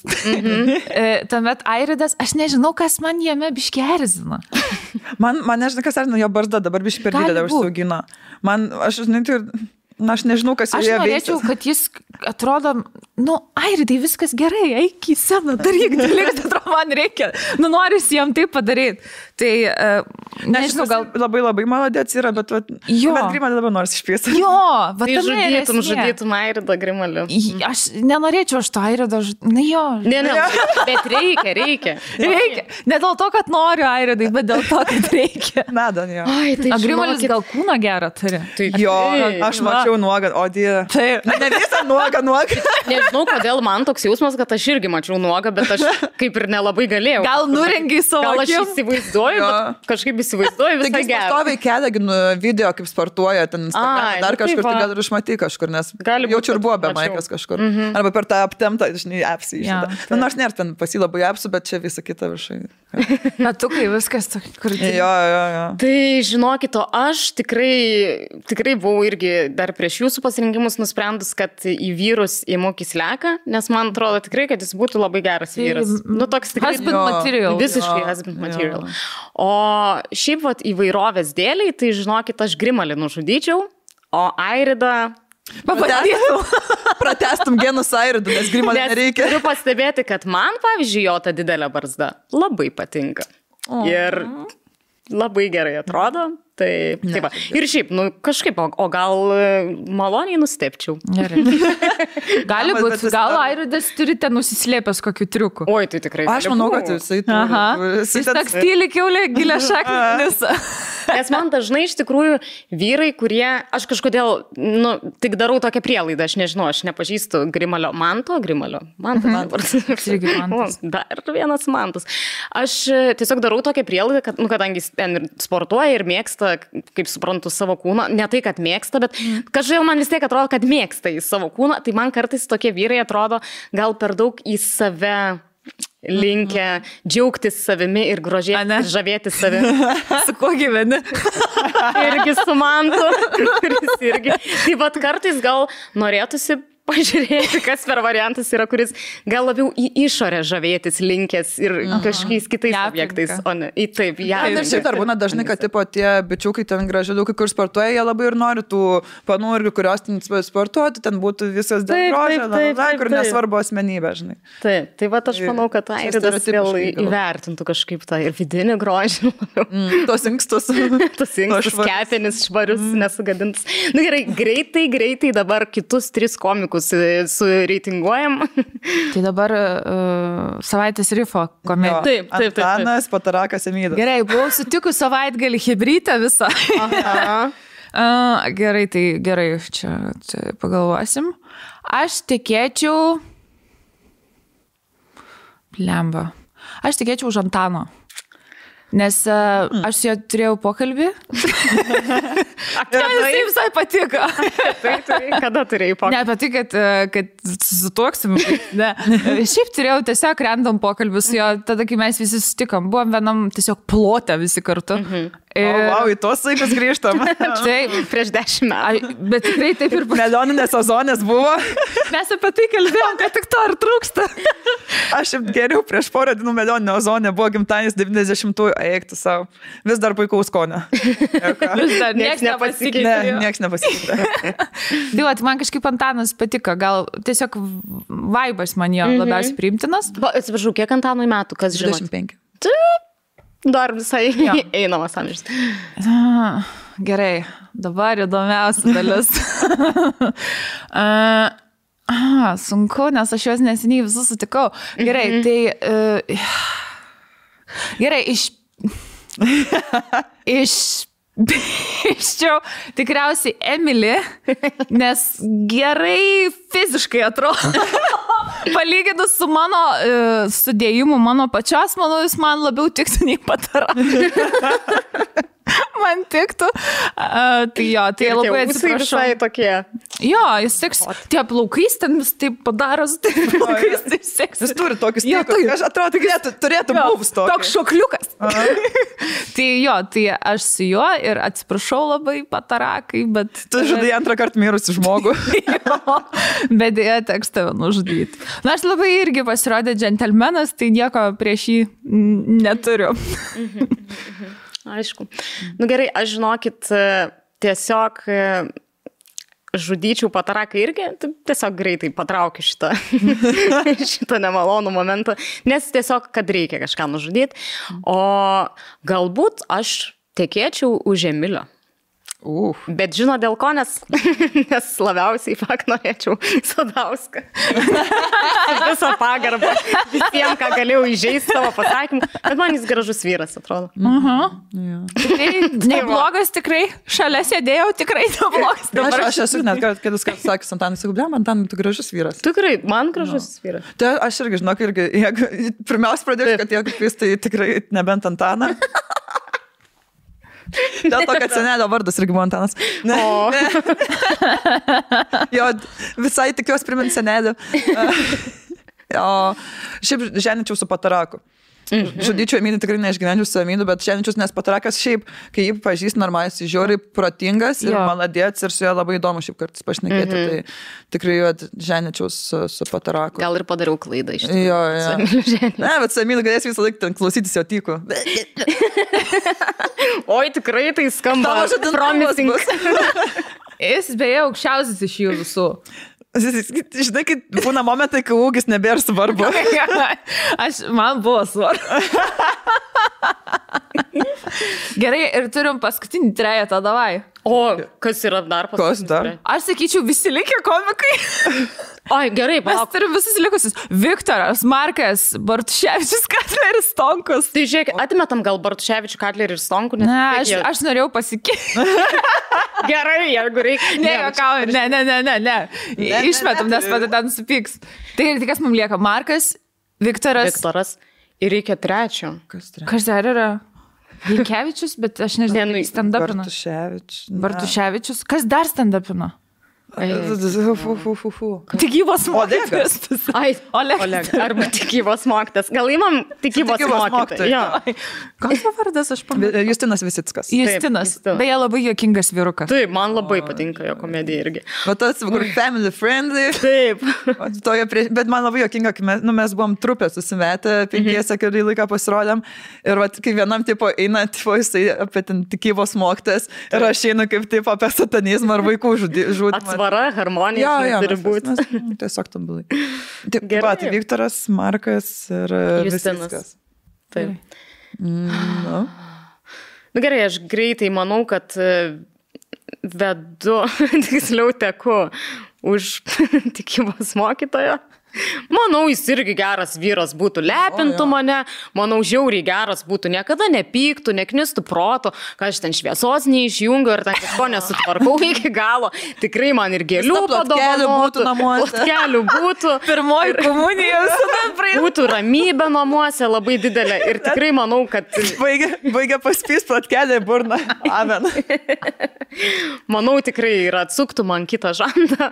Tuomet Airidas, aš nežinau, kas man jame biškį erzina. Man nežinau, kas erzina, jo barzda dabar biškį per didelę užsiaugino. Aš nežinau, kas aš norėčiau, kad jis atrodo, Airidai, viskas gerai, eik į sceną, daryk, atrodo, man reikia. Noris jam taip padaryti. Tai, nežinau, gal... Labai malodėts yra, bet Grimalį dabar nors išpiesi. Jo, tai žudytum Airidą Grimaliu. Aš nenorėčiau aš to Airidą jo. Ne, bet reikia. Ne dėl to, kad noriu Airidai, bet dėl to, kad reikia. Nada, jo. O Grimalis gal kūną gerą turi. Jo, aš mačiau nuogą, o dieve. Taip. Ne visą nuogą. Nežinau, kodėl man toks jausmas, kad aš irgi mačiau nuogą, bet aš kaip ir nelabai galėjau. Gal nurengiai savo akim? Gal aš įsivaizduoju, bet kažkaip įsivaizduoju visą gerą. Taigi pastoviai kelia video, kaip sportuoja ten Instagram, dar kažkur, tai gal ir išmatai kažkur, nes jaučiu ir buvo be maikės kažkur. Arba per tą aptemtą, žinai, apsį išėda. Nors nėra ten pasi labai apsų, bet čia visą kitą viršai. Metukai viskas, kur... Jo. Tai žinokit, aš tikrai buvau irgi dar prieš jūsų pasirinkimus nusprendus, kad į vyrus įmu Kisleką, nes man atrodo tikrai, kad jis būtų labai geras vyras. Toks tikrai... Husband material. Visiškai husband material. O šiaip įvairovės dėliai, tai žinokit, aš Grimalį nužudyčiau, o Airidą... Pratestum genus Airidų, nes Grimalį nereikia. Turiu pastebėti, kad man, pavyzdžiui, jo ta didelė barzda labai patinka. Ir labai gerai atrodo. Tai va. Ir šiaip, kažkaip, o gal maloniai nustepčiau. Gali būti, gal Airidas turite nusislėpęs kokiu triuku. Oi, tai tikrai. Aš manau, kad jisai turi. Jis toks tyli kiaulė, gilia šaknis. Nes man dažnai iš tikrųjų vyrai, kurie, aš kažkodėl, tik darau tokią prielaidą, aš nežinau, aš nepažįstu Manto. Dar vienas Mantas. Aš tiesiog darau tokią prielaidą, kad, kadangi jis ten sportuoja ir mėgsta, kaip suprantu, savo kūną. Ne tai, kad mėgsta, bet kažkaip man vis tiek atrodo, kad mėgsta į savo kūną. Tai man kartais tokie vyrai atrodo gal per daug į save linkę džiaugtis savimi ir grožėtis, žavėtis savimi. Su kuo gyveni? Irgi su Mantu. Tai vat kartais gal norėtųsi pažiūrėti, kas per variantas yra, kuris gal labiau į išorę žavėtis linkęs ir kažkokiais kitais objektais, o ne į taip. Ir šiaip dar būna dažnai, kad tipo tie bičiukai ten gražiukai, kur sportuoja, jie labai ir nori tų panų irgi, kurios ten sportuoti, ten būtų visas dėl grožio, kur nesvarbu asmenybė, žinai. Taip, tai va aš manau, kad Airidas vėl įvertintų kažkaip tą ir vidinį grožį. Tos inkstus, kepenis švarius, nesugadintus. Na gerai, greitai dabar kitus 3 komikus sureitinguojam. Tai dabar savaitės rifo komedija. Taip. Antanas, Patarakas, Emydas. Gerai, buvau sutikus savaitgalį hibrytę visą. Gerai, tai gerai, čia pagalvosim. Aš tikėčiau... Lemba. Aš tikėčiau už Antano. Nes aš su juo turėjau pokalbį. Tai visai patiko. Kada turėjai pokalbį? Ne apie tai, kad susituoksim. Ne. Šiaip turėjau tiesiog random pokalbį su jo, tada, kai mes visi susitikom, buvom vienam tiesiog plote visi kartu. Wow, į tos laikus grįžtam. Taip, prieš 10 metų. Bet tikrai taip ir Melioninės sezonės buvo. mes apie tai kalbėjom, kad tik to ir trūksta. Aš geriau prieš porą dienų melioninio ozonė buvo gimtadienis 90-ųjų, eiktų savo. Vis dar puikaus skonio. Vis dar nieks nepasikeitė. Ne, nieks nepasikeitė. Tai va, man kažkaip Antanas patiko, gal tiesiog vaibas man jo labiausiai priimtinas. Atsiprašau, kiek Antanui metų, kas žino? 25. Dar visai einamas amžius. Gerai, dabar įdomiausia dalis. Sunku, nes aš juos neseniai visus sutikau. Gerai, tai... Gerai, Iščiau tikriausiai Emily, nes gerai fiziškai atrodo. Palyginus su mano sudėjimu, mano pačios, manau, jis man labiau tiktų nei Patara. Man tiktų. Tai jo, tai labai atsiprašau. Visai tokie. Jo, jis tiks, tie plaukais ten vis taip padaros, taip plaukais taip seks. Jis turi tokius tikus, aš atrodo, turėtų buvus tokius. Toks šokliukas. Tai jo, tai aš su juo ir atsiprašau labai Patarakai, bet... Tu žudai antrą kartą mirusi žmogų. Jo, bet jie teks tave nužudyti. Na, aš labai irgi pasirodė džentelmenas, tai nieko prieš jį neturiu. Aišku. Nu gerai, aš žinokit, tiesiog žudyčiau Pataraką irgi, tiesiog greitai patraukiu šitą nemalonų momentą, nes tiesiog, kad reikia kažką nužudyti, o galbūt aš tekėčiau už Emilio. Bet žino dėl ko, nes labiausiai norėčiau Sadauską. Visą pagarbą visiems, ką galėjau įžeisti savo pasakymą, bet man jis gražus vyras, atrodo. Tikrai neblogas, tikrai. Šalia sėdėjau, tikrai neblogas. Aš esu net kėdus kartus sakęs Antanui, sakau, blem, Antanui, tu gražus vyras. Tikrai, man gražus vyras. Tai aš irgi, žinok, jeigu pirmiausia pradėsiu, kad jeigu kvies, tai tikrai nebent Antaną. Dėl to, kad senelio vardas irgi buvo Antanas. Jo, visai tikiuosi primint senelį. Šiaip ženičiau su Pataraku. Žudyčiau Emilį, tikrai neišgyvenčiau su Emiliu, bet ženičius, nes Patarakas šiaip, kai jį pažįst normaliai, jis žiauriai protingas ir maladėts ir su juo labai įdomu šiaip kartais pašnekėti, tai tikrai jo ženičiau su Pataraku. Gal ir padariau klaidą iš tikrųjų. Jo. Ne, bet su Emiliu galės visą laiką ten klausytis jo tykų. Oi, tikrai tai skamba promising. Jis beje aukščiausias iš jų visų. Žinai, kai būna momentai, kai ūgis nebėra svarbu. Man buvo svarbu. Gerai, ir turim paskutinį trejetą, davai. O, kas yra dar paskutinis? Kas dar? Aš sakyčiau, visi likę komikai. Ai, gerai, mes turim visus likusius. Viktoras, Markas, Bartuševičius, Katleris, Stonkus. Tai žiūrėk, atmetam gal Bartuševičių, Katlerį ir Stonkų? Ne, aš norėjau pasikeisti. Gerai, jeigu reikia. Ne. Išmetam, nes pada ten supyks. Tai kas mums lieka? Markas, Viktoras. Ir reikia trečio. Kas dar yra? Vilkevičius, bet aš nežinau, stand-upino. Bartuševičius. Kas dar stand-upino? Tikybos mokytas. Oleg. Arba tikybos mokytas. Gal įmam tikybos mokytas. Kas jo vardas, aš pamatau? Justinas Visickas. Justinas. Beje, labai juokingas vyrukas. Taip, man labai patinka jo komedija irgi. O tas, kur family friendly. Taip. Bet man labai juokinga, kai mes buvom trupė susimetę, 5 kurį laiką pasirodėm. Ir kai vienam tipo eina, jisai apie tikybos mokytas. Ir aš einu kaip tipo apie satanizmą ar vaikų žudimą. Atsvara, harmonija, turi būti. Tiesiog tobulai. Tai Viktoras, Markas ir Justinas. Taip. Nu gerai, aš greitai manau, kad vedu, tiksliau teku už tikybos mokytojo. Manau, jis irgi geras vyras būtų, lepintų mane, manau, žiauriai geras būtų, niekada nepyktų, neknistų proto, kad aš ten šviesos neišjungiu ir ten kažko nesutvarkau iki galo. Tikrai man ir gėlių padovanotų, plotkelų būtų. Pirmoji komunija visada būtų ramybė namuose labai didelė ir tikrai manau, kad... Baigia paspys platkelį burną. Amen. Manau, tikrai ir atsuktų man kitą žandą.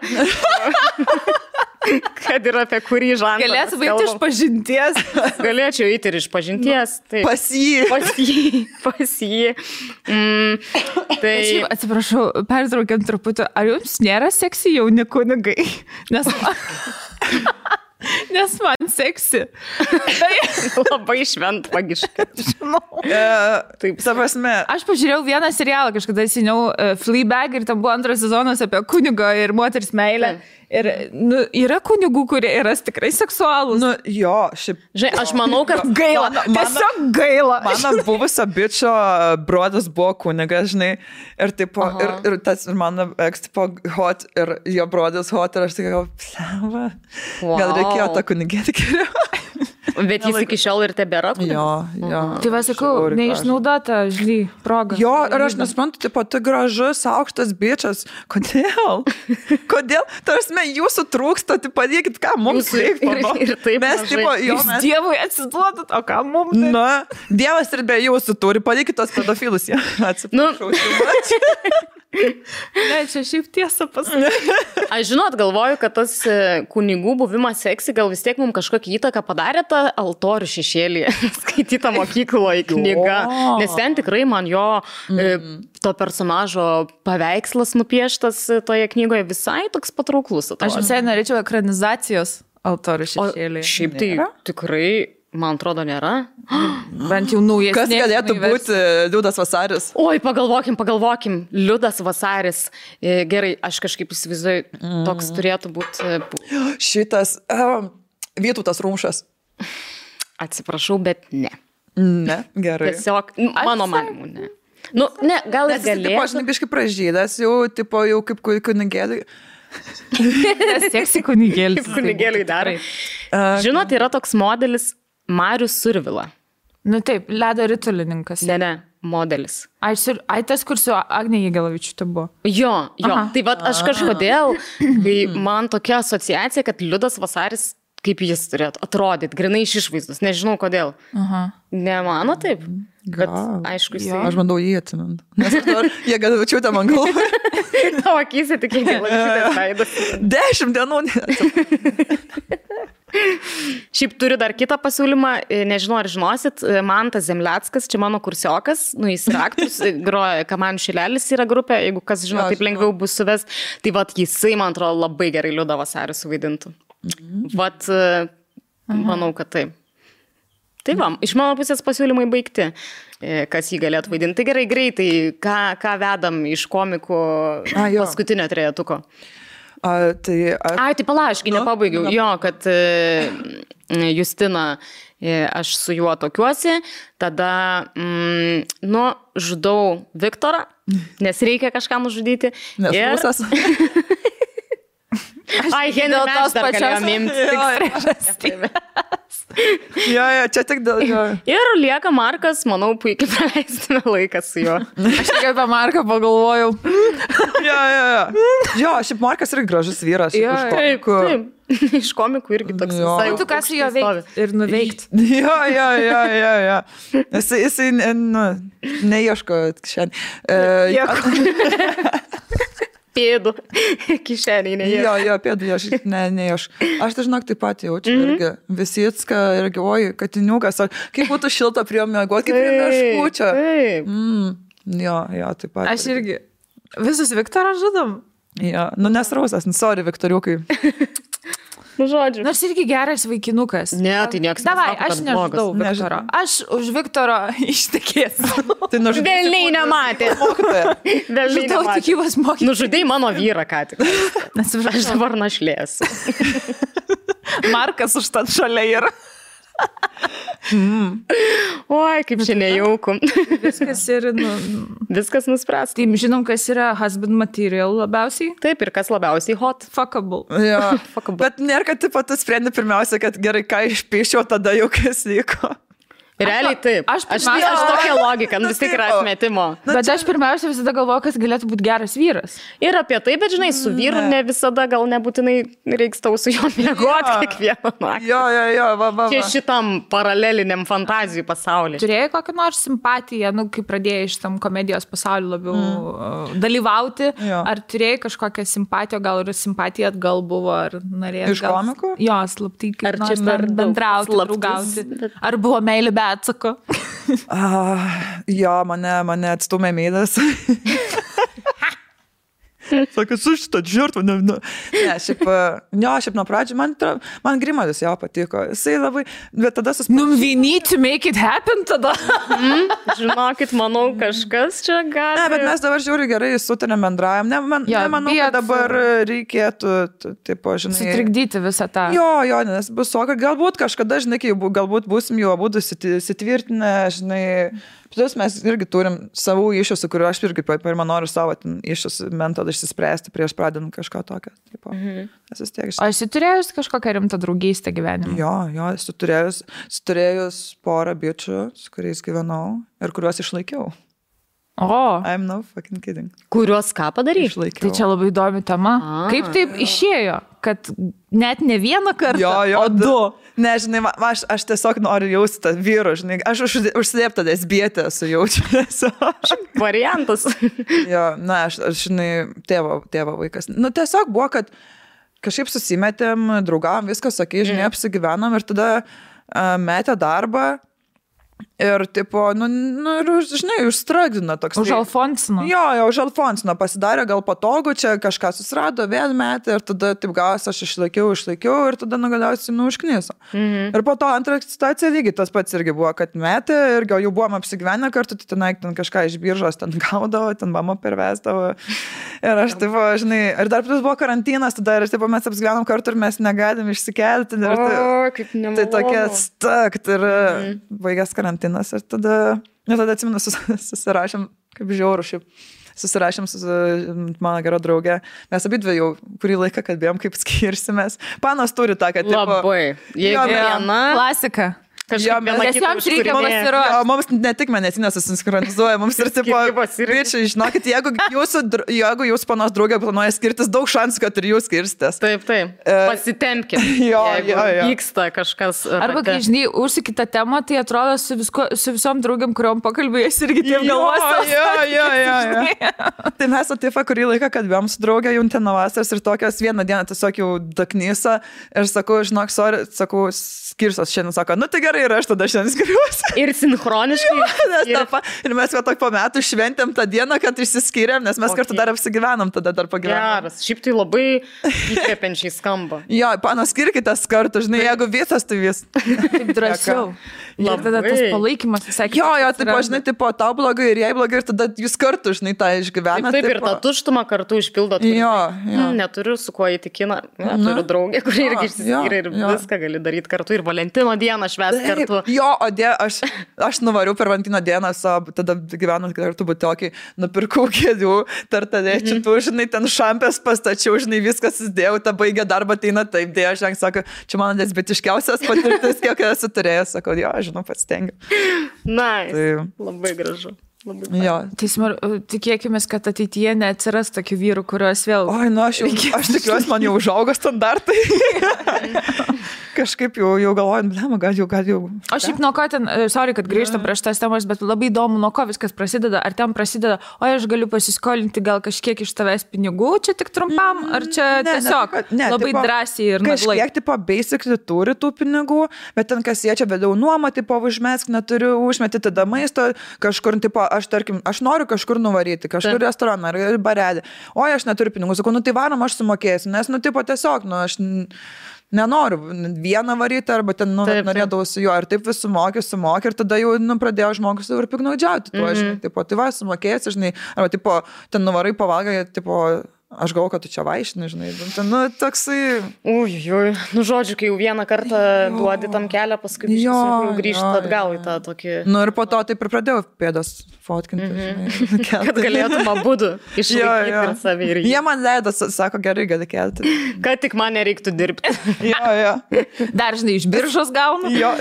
Kad ir apie kurį žandą. Galėtų baigti iš pažinties. Galėčiau eiti ir iš pažinties. Taip. Pas jį. Pas jį. Tai... Atsiprašau, pertraukiant truputį. Ar jums nėra seksi jauni kunigai? Nes man seksi. Labai šventvagiška. Žinau. Taip, prasme. Aš pažiūrėjau vieną serialą kažkada seniau, Fleabag, ir tam buvo 2 sezonas apie kunigo ir moters meilę. Ir yra kunigų, kurie yra tikrai seksualūs. Jo, šiaip. Žinai, aš manau, kad gaila. Tiesiog gaila. Mano buvusio bičio brodas buvo kunigas, žinai. Ir tipo, ir mano ex tipo hot, ir jo brodas hot, ir aš tik gal reikėjo tą kunigėti geriau. Bet jis iki šiol ir tebėra. Jo. Tai va, sakau, neišnaudota, žinai, proga. Jo, ir aš nesuprantu, tipo, tai gražus, aukštas bičias. Kodėl? Tarsi jūsų trūksta, tai padėkit, ką mums reikia. Ir taip, mes, tipo, Jūs Dievui atsiduodat, o ką mums? Na, Dievas ir be jūsų turi, padėkit tos pedofilus. Atsiprašau. Ne, čia šiaip tiesa pasakyti. Aš žinot, galvoju, kad tas kunigų buvimas seksi gal vis tiek mums kažkokią įtaką padarė tą altorių šešėlį, skaitytą mokykloje knygą. Nes ten tikrai man jo to personažo paveikslas nupieštas toje knygoje visai toks patrauklus. Aš visai norėčiau ekranizacijos altorių šešėlį. Šiaip tai tikrai, man atrodo, nėra. Bent jau naujesnė. Kas galėtų būti Liudas Vasaris? Oi, pagalvokim. Liudas Vasaris. Gerai, aš kažkaip įsivaizduoju, toks turėtų būti. Šitas Vytautas Rumšas. Atsiprašau, bet ne. Ne, gerai. Tiesiog, mano manimu, ne. Ne, gal ir galėtų. Aš biškai pražydas, jau kaip kunigėlį. Seksi kunigėlis. Kaip kunigėliai darai. Žinot, yra toks modelis Marius Survila. Nu taip, ledo ritulininkas. Ne, modelis. Ai, tas, kur su Agnė Jėgelavičiūtė buvo. Jo. Tai vat aš kažkodėl, kai man tokia asociacija, kad Liudas Vasaris, kaip jis turėtų atrodyti, grinai iš išvaizdos, nežinau kodėl. Nemano taip? Bet aišku, jisai... Aš bandau jį atsimint. Nes Jėgelavičiūtė man galvoja. Tavo akise tik Jėgelavičiūtės veidas. 10 dienų. Šiaip turiu dar kitą pasiūlymą, nežinau ar žinosit, Mantas Zemleckas, čia mano kursiokas, jis yra aktorius, groja Kamanių šilelis yra grupė, jeigu kas žino, taip lengviau bus suves, tai vat jisai, man atrodo, labai gerai Liudą Vasarį suvaidintų. Vat, manau, kad taip. Tai va, iš mano pusės pasiūlymai baigti, kas jį galėtų vaidinti. Tai gerai, greitai, ką vedam iš komikų paskutinio trejetuko. Tai palaškai, nepabaigiau. Jo, kad Justina, aš su juo tokiuosi, tada, žudau Viktorą, nes reikia kažką nužudyti. Nes pusas. Ai, Henry Match dar galėjom imti. Jo, čia tik dėl jo. Ir lieka Markas, manau, puikiai praleistume laiką su juo. Aš tik apie Marką pagalvojau. Jo, šiaip Markas yra gražus vyras. Taip. Iš komikų irgi toks visai. Tu ką su juo veikti ir nuveikti. Jo. Jisai neieško šiandien. Pėdų kišeniai neieško. Jo, pėdų neieško. Aš tai žinok taip pat jaučiu irgi. Visicka irgi, oi, katiniukas. Kaip būtų šilta prie mėgoti, kaip prie meškučio. Jo, taip pat. Aš irgi. Visus Viktorą žudom. Jo, nesrausas, sorry, Viktoriukai. Žodžiu. Nors irgi geras vaikinukas. Ne, tai nieks nesako, kad aš nežudau Viktoro. Aš už Viktoro ištekėsiu. Tai velniai nematė. Velniai nematė. Nužudai mano vyrą, ką tik. Aš dabar našlėsiu. Markas už tad šalia yra. Oi, kaip čia nejauku. Viskas ir, viskas nuspręs. Tai žinom, kas yra husband material labiausiai. Taip, ir kas labiausiai hot. Fuckable. Jo. Bet nėra, kad tu sprendi pirmiausia, kad gerai, ką išpiešiau, tada jau kas vyko. Realiai taip. Aš tokia logika, vis tiek yra atmetimo. Bet aš pirmiausia visada galvoju, kas galėtų būti geras vyras. Ir apie tai, bet žinai, su vyru ne visada gal nebūtinai reiks tau su juo miegoti kiekvieną naktį. Jo. Čia šitam paraleliniam fantazijų pasaulyje. Turėjai kokią nors simpatiją, kai pradėjai šitam komedijos pasauliu labiau dalyvauti, ar turėjai kažkokią simpatiją, gal ir simpatija atgal buvo, ar norėjai. Iš komikų? Jo, slaptai, kaip nors bendrauti, draugauti. Ar buvo meilė be atsako? Jo, mane atstumė meidas. Sako, su šitą žirtvą. Ne, šiaip nuo pradžių man Grimadas jo patiko. Jisai labai, bet tada we need to make it happen tada. Žinokit, manau, kažkas čia gali. Ne, bet mes dabar žiūri gerai sutarėm bendrajam. Nemanau, kad dabar reikėtų, tipo, žinai. Sutrikdyti visą tą. Jo, nes bus soka. Galbūt kažkada, žinai, kai galbūt būsim jau abudu sitvirtinę, žinai. Plus mes irgi turim savų iššūkių, kuriuo aš irgi pirmą noriu savo iššūkių metodą išsispręsti prieš pradedant kažką tokio. O esi turėjus kažkokią rimtą draugystę gyvenimą? Jo, esu turėjus porą bičių, su kuriais gyvenau ir kuriuos išlaikiau. I'm no fucking kidding. Kuriuos ką padaryti? Išlaikiau. Tai čia labai įdomi tema. Kaip taip išėjo, kad net ne vieną kartą, o du? Žinai, aš tiesiog noriu jausti tą vyrų, žinai, aš užsidėptą lesbietę sujaučiu. Variantas. Aš žinai, tėvo vaikas. Tiesiog buvo, kad kažkaip susimetėm, draugavom, viskas, sakai, žinai, apsigyvenom ir tada metė darbą. Ir, tipo, žinai, užstragdino toks. Už Alfonsino. Jo, už Alfonsino pasidarė gal patogu, čia kažką susirado, vėl metė ir tada, taip gavas, aš išlaikiau ir tada galiausiai užkniso. Ir po to antrą situaciją lygiai tas pats irgi buvo, kad metė ir gal jau buvom apsigyvenę kartu, tai ten kažką iš biržos ten gaudavo, ten mama pervesdavo. Ir aš, tipo, žinai, ir dar plus buvo karantinas, tada ir, tipo, mes apsigyvenom kartu ir mes negalim išsikelti. Kaip nemalonu. Tai tokia stakt ir baigęs karantinas. Ir tada atsimenu, susirašėm, kaip žiauru šiaip, susirašėm su mano gera draugė. Mes abidvi jau kurį laiką kalbėjom, kaip skirsimės. Panos turi tą, kad... Labai. Jeigu viena... Klasika. Nes joms reikia pasiruošti. Mums ne tik medicinė susinchronizuoja, mums ir tipo, bičiai, žinokit, jeigu jūs panos draugė planuoja skirtis, daug šansų, kad ir jūs skirstės. Taip. Pasitempkit. Jo. Vyksta kažkas. Arba, kai, žinai, užsikita temą, tai atrodo su visom draugiam, kuriuom pakalbėjus irgi taip galvos. Jo. Tai mes Atifa kurį laiką kalbėjom su draugė Juntino vasaros ir tokios vieną dieną tiesiog jau daknysa ir sakau, žinok, sorry, sakau, skirsios šiandien, sako, tai gerai. Ir aš tada šiandien skiriuosi. Ir sinchroniškai. Ir mes po metų šventėm tą dieną, kad išsiskyrėm, nes mes kartu dar apsigyvenom, tada dar pagyvenom. Geras. Šiaip tai labai įkvepiančiai skamba. Jo, panos, skirkitės kartu, žinai, jeigu visas, tai vis. Taip drąsiau. Ir tada tas palaikymas visai. Jo, taip, žinai, tipo, tau blogai ir jai blogai, ir tada jūs kartu, žinai, tą išgyvenat. Taip, ir tą tuštumą kartu išpildot. Jo. Neturiu su kuo įtikina. Turiu draugę, kuri irgi išsiskyrė ir viską gali daryti kartu. Ir Valentino dieną švęsti kartu. Jo, aš nuvariau per Valentino dieną, tada gyvenant kartu butokį, nupirkau kėdžių, tartadėčių, žinai, ten šampės pastačiau, žinai, viskas įdėjau, ta baigė darbą, ateina taip, dėja, žinai, sako, čia mano lesbietiškiausias patirtis, kiek esu turėjęs, sako, jo, žinau, pats stengiu. Tai labai gražu. Jo. Tikėkime, kad ateityje neatsiras tokių vyrų, kurios vėl... Aš tikiuosi, man jau užaugo standartai. Kažkaip jau galvojant, gal jau. O šiaip nuo ko ten, sorry, kad grįžtam prieš tas temas, bet labai įdomu, nuo ko viskas prasideda. Ar ten prasideda, aš galiu pasiskolinti gal kažkiek iš tavęs pinigų, čia tik trumpam, ar čia tiesiog labai drąsiai ir naglai? Kažkiek, tipo, basically turi tų pinigų, bet ten kas jie čia vėliau nuomą, tipo, užmesk, neturiu užmeti tada maisto, kažkur, tipo, aš noriu kažkur nuvaryti, kažkur restoraną ar barelį. Aš neturiu pinigų, sakau, tai varom, aš sumokėsiu, nes, tipo, tiesiog, aš nenoriu vieną varyti, arba ten, norėdavau su juo, ir taip vis sumokė, ir tada jau, pradėjo žmogus ir piknaudžiauti tuo, žinai, tipo, tai va, sumokėsi, žinai, arba, tipo, ten nuvarai pavalgai, tipo, aš galvoju, kad tu čia vaišini, žinai. Nu, toksai... Ui. Nu, žodžiu, kai jau vieną kartą duodi tam kelią, paskui jau grįžti atgal į tą tokį... Nu, ir po to taip ir pradėjau pėdas fotkinti, žinai. Kad galėtum abudu išlaikyti ir savį ir jį. Jie man leido, sako, gerai, gali kelti. Kad tik man nereiktų dirbti. Jo. Dar, žinai, iš biržos gaunu. Jo,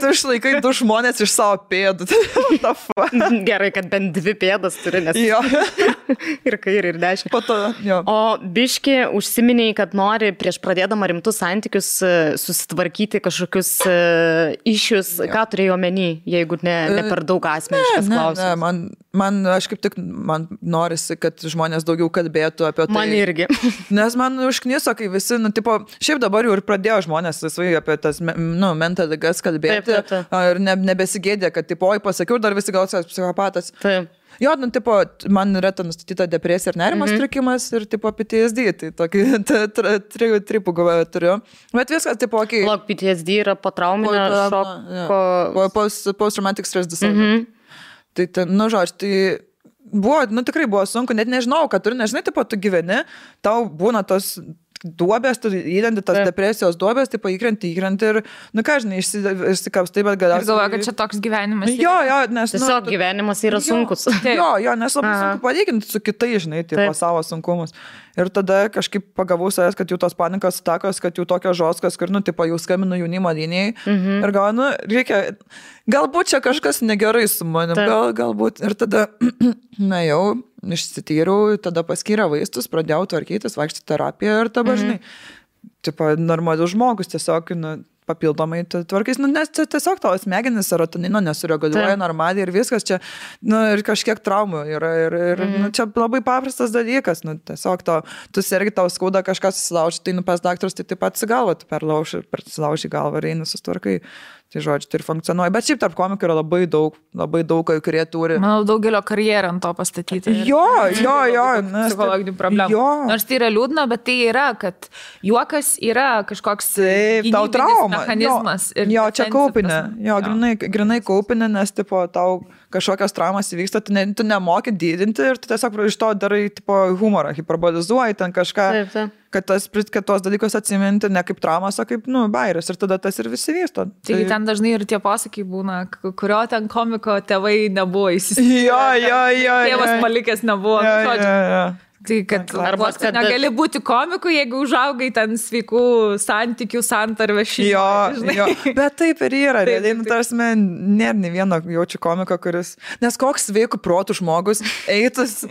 tu išlaikai 2 žmonės iš savo pėdų. Gerai, kad bent 2 pėdas turi, nes... Jo. Ir kairį, ir dešinį. Po to, jo. O biški užsiminiai, kad nori prieš pradėdama rimtus santykius susitvarkyti kažkokius išius. Ką turėjai omeny, jeigu ne per daug asmeniškas klausimas? Man, aš kaip tik, man norisi, kad žmonės daugiau kalbėtų apie tai. Man irgi. Nes man užkniso, kai visi, šiaip dabar jau ir pradėjo žmonės laisvai apie tas, mental ligas kalbėti. Taip. Ir nebesigėdė, kad, oi, pasakiau, dar visi gal psichopatas. Taip. Jo, man yra nustatyta depresija ir nerimo sutrikimas ir PTSD, tai tokį tripų turiu. Bet viskas, okei. Log, PTSD yra potrauminio šoko. Post-traumatic stress disorder. Tai, žodžiu, tai buvo, tikrai buvo sunku, net nežinau, kad turi, nežinai, tu gyveni, tau būna tos duobės, tu įdenti tas depresijos duobės, įkrenti ir, ką žinai, išsikapstai, bet galiausiai... Ir galvoju, kad čia toks gyvenimas. Jo, nes... Tiesiog gyvenimas yra sunkus. Jo, nes labai sunku palyginti su kitai, žinai, savo sunkumus. Ir tada kažkaip pagavau savęs, kad jau tos panikos atakos, kad jau tokios žoskas, kur, jau skambinu jaunimo linijai. Ir galvoju, reikia, galbūt čia kažkas negerai su manim, galbūt. Ir tada, jau išsityriau, tada paskyrė vaistus, pradėjau tvarkytis, vaikščioti terapiją ir dabar, žinai, normalus žmogus tiesiog, papildomai tvarkais, nes tiesiog tavo smegenis serotonino nesureguliuoja normaliai ir viskas čia, ir kažkiek traumų yra ir čia labai paprastas dalykas, tiesiog tu sergi, tau skauda kažkas susilauži, tai pas daktarus, tai taip pat galva, tu persilauži galvą ir eini susitvarkai. Tai žodžiu, tai ir funkcionuoja. Bet šiaip tarp komikų yra labai daug, kurie turi. Manau, daugelio karjerą ant to pastatyti. Jo. Psichologinių problemų. Jo. Nors tai yra liūdna, bet tai yra, kad juokas yra kažkoks mechanizmas. Jo, čia kaupinė. Jo, grinai kaupinė, nes tau kažkokios traumas įvyksta, tu nemoki didinti ir tu tiesiog iš to darai humorą, hiperbolizuoji ten kažką. Taip. Kad tos dalykus atsiminti ne kaip traumas, o kaip, bairis. Ir tada tas ir visi vysto. Tai ten dažnai ir tie pasakai būna, kurio ten komiko tėvai nebuvo įsisavinę. Jo. Tėvas palikęs nebuvo. Jo. Tai kad arba kad negali būti komiku, jeigu užaugai ten sveikų santykių santarvę šeimoje. Jo. Bet taip ir yra. Tarsi, nėra nei vieno jaučiu komiko, kuris... Nes koks sveikų protų žmogus eitus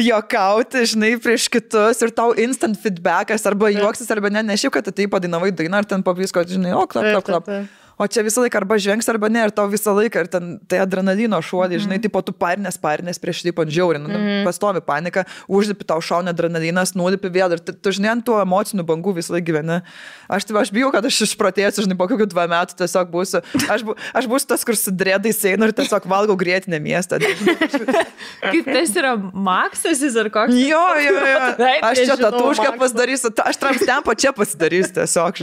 juokauti, žinai, prieš kitus ir tau instant feedbackas arba juoksis, arba ne, šiaip, kad tai padainavai dainą ir ten pavisko, žinai, klap. O čia visą laiką arba žengs, arba ne, ir tau visą laiką, ir ten tai adrenalino šuolį, žinai, tu parinės prieš tai žiauri, pastovi panika, užlipi tau šauna adrenalinas, nulipi vėl, ir tu, žinai, ant tų emocinių bangų visą laiką gyveni. Aš bijau, kad aš išprotėsiu, žinai, po kokių 2 metų tiesiog būsiu. Aš būsiu tas, kur su dredais einu ir tiesiog valgau grėtinę miestą. Kaip tas yra Maksas ar koks? Jo. Aš čia tatušką pasidarysiu, aš tramstempo čia pasidarysiu tiesiog.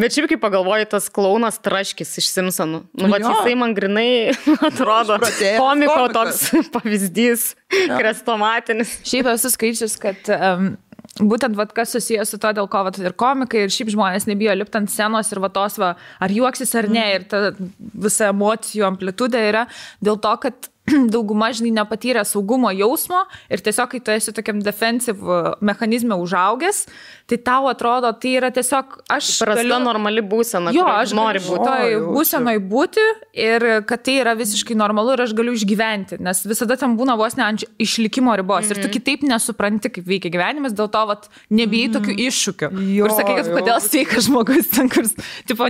Bet šiaip, kai pagalvoju, tas klaunas Traškis iš Simpsonų. Jisai man grinai atrodo komiko toks pavyzdys, krestomatinis. Šiaip esu skaičius, kad būtent kas susijęs su to, dėl ko ir komikai, ir šiaip žmonės nebijo lipti ant scenos ir ar juoksis ar ne, ir ta visa emocijų amplitudė yra dėl to, kad dauguma, žinai, nepatyrė saugumo jausmo ir tiesiog, kai tu esi tokiam defensive mechanizme užaugęs, tai tau atrodo, tai yra tiesiog prasta normali būsena, jo, aš noriu būsenoj būti ir kad tai yra visiškai normalu ir aš galiu išgyventi, nes visada ten būna vos ne ant išlikimo ribos ir tu kitaip nesupranti, kaip veikia gyvenimas, dėl to nebijai tokių iššūkių. Kur sakai, kad kodėl sveikas žmogus ten, kur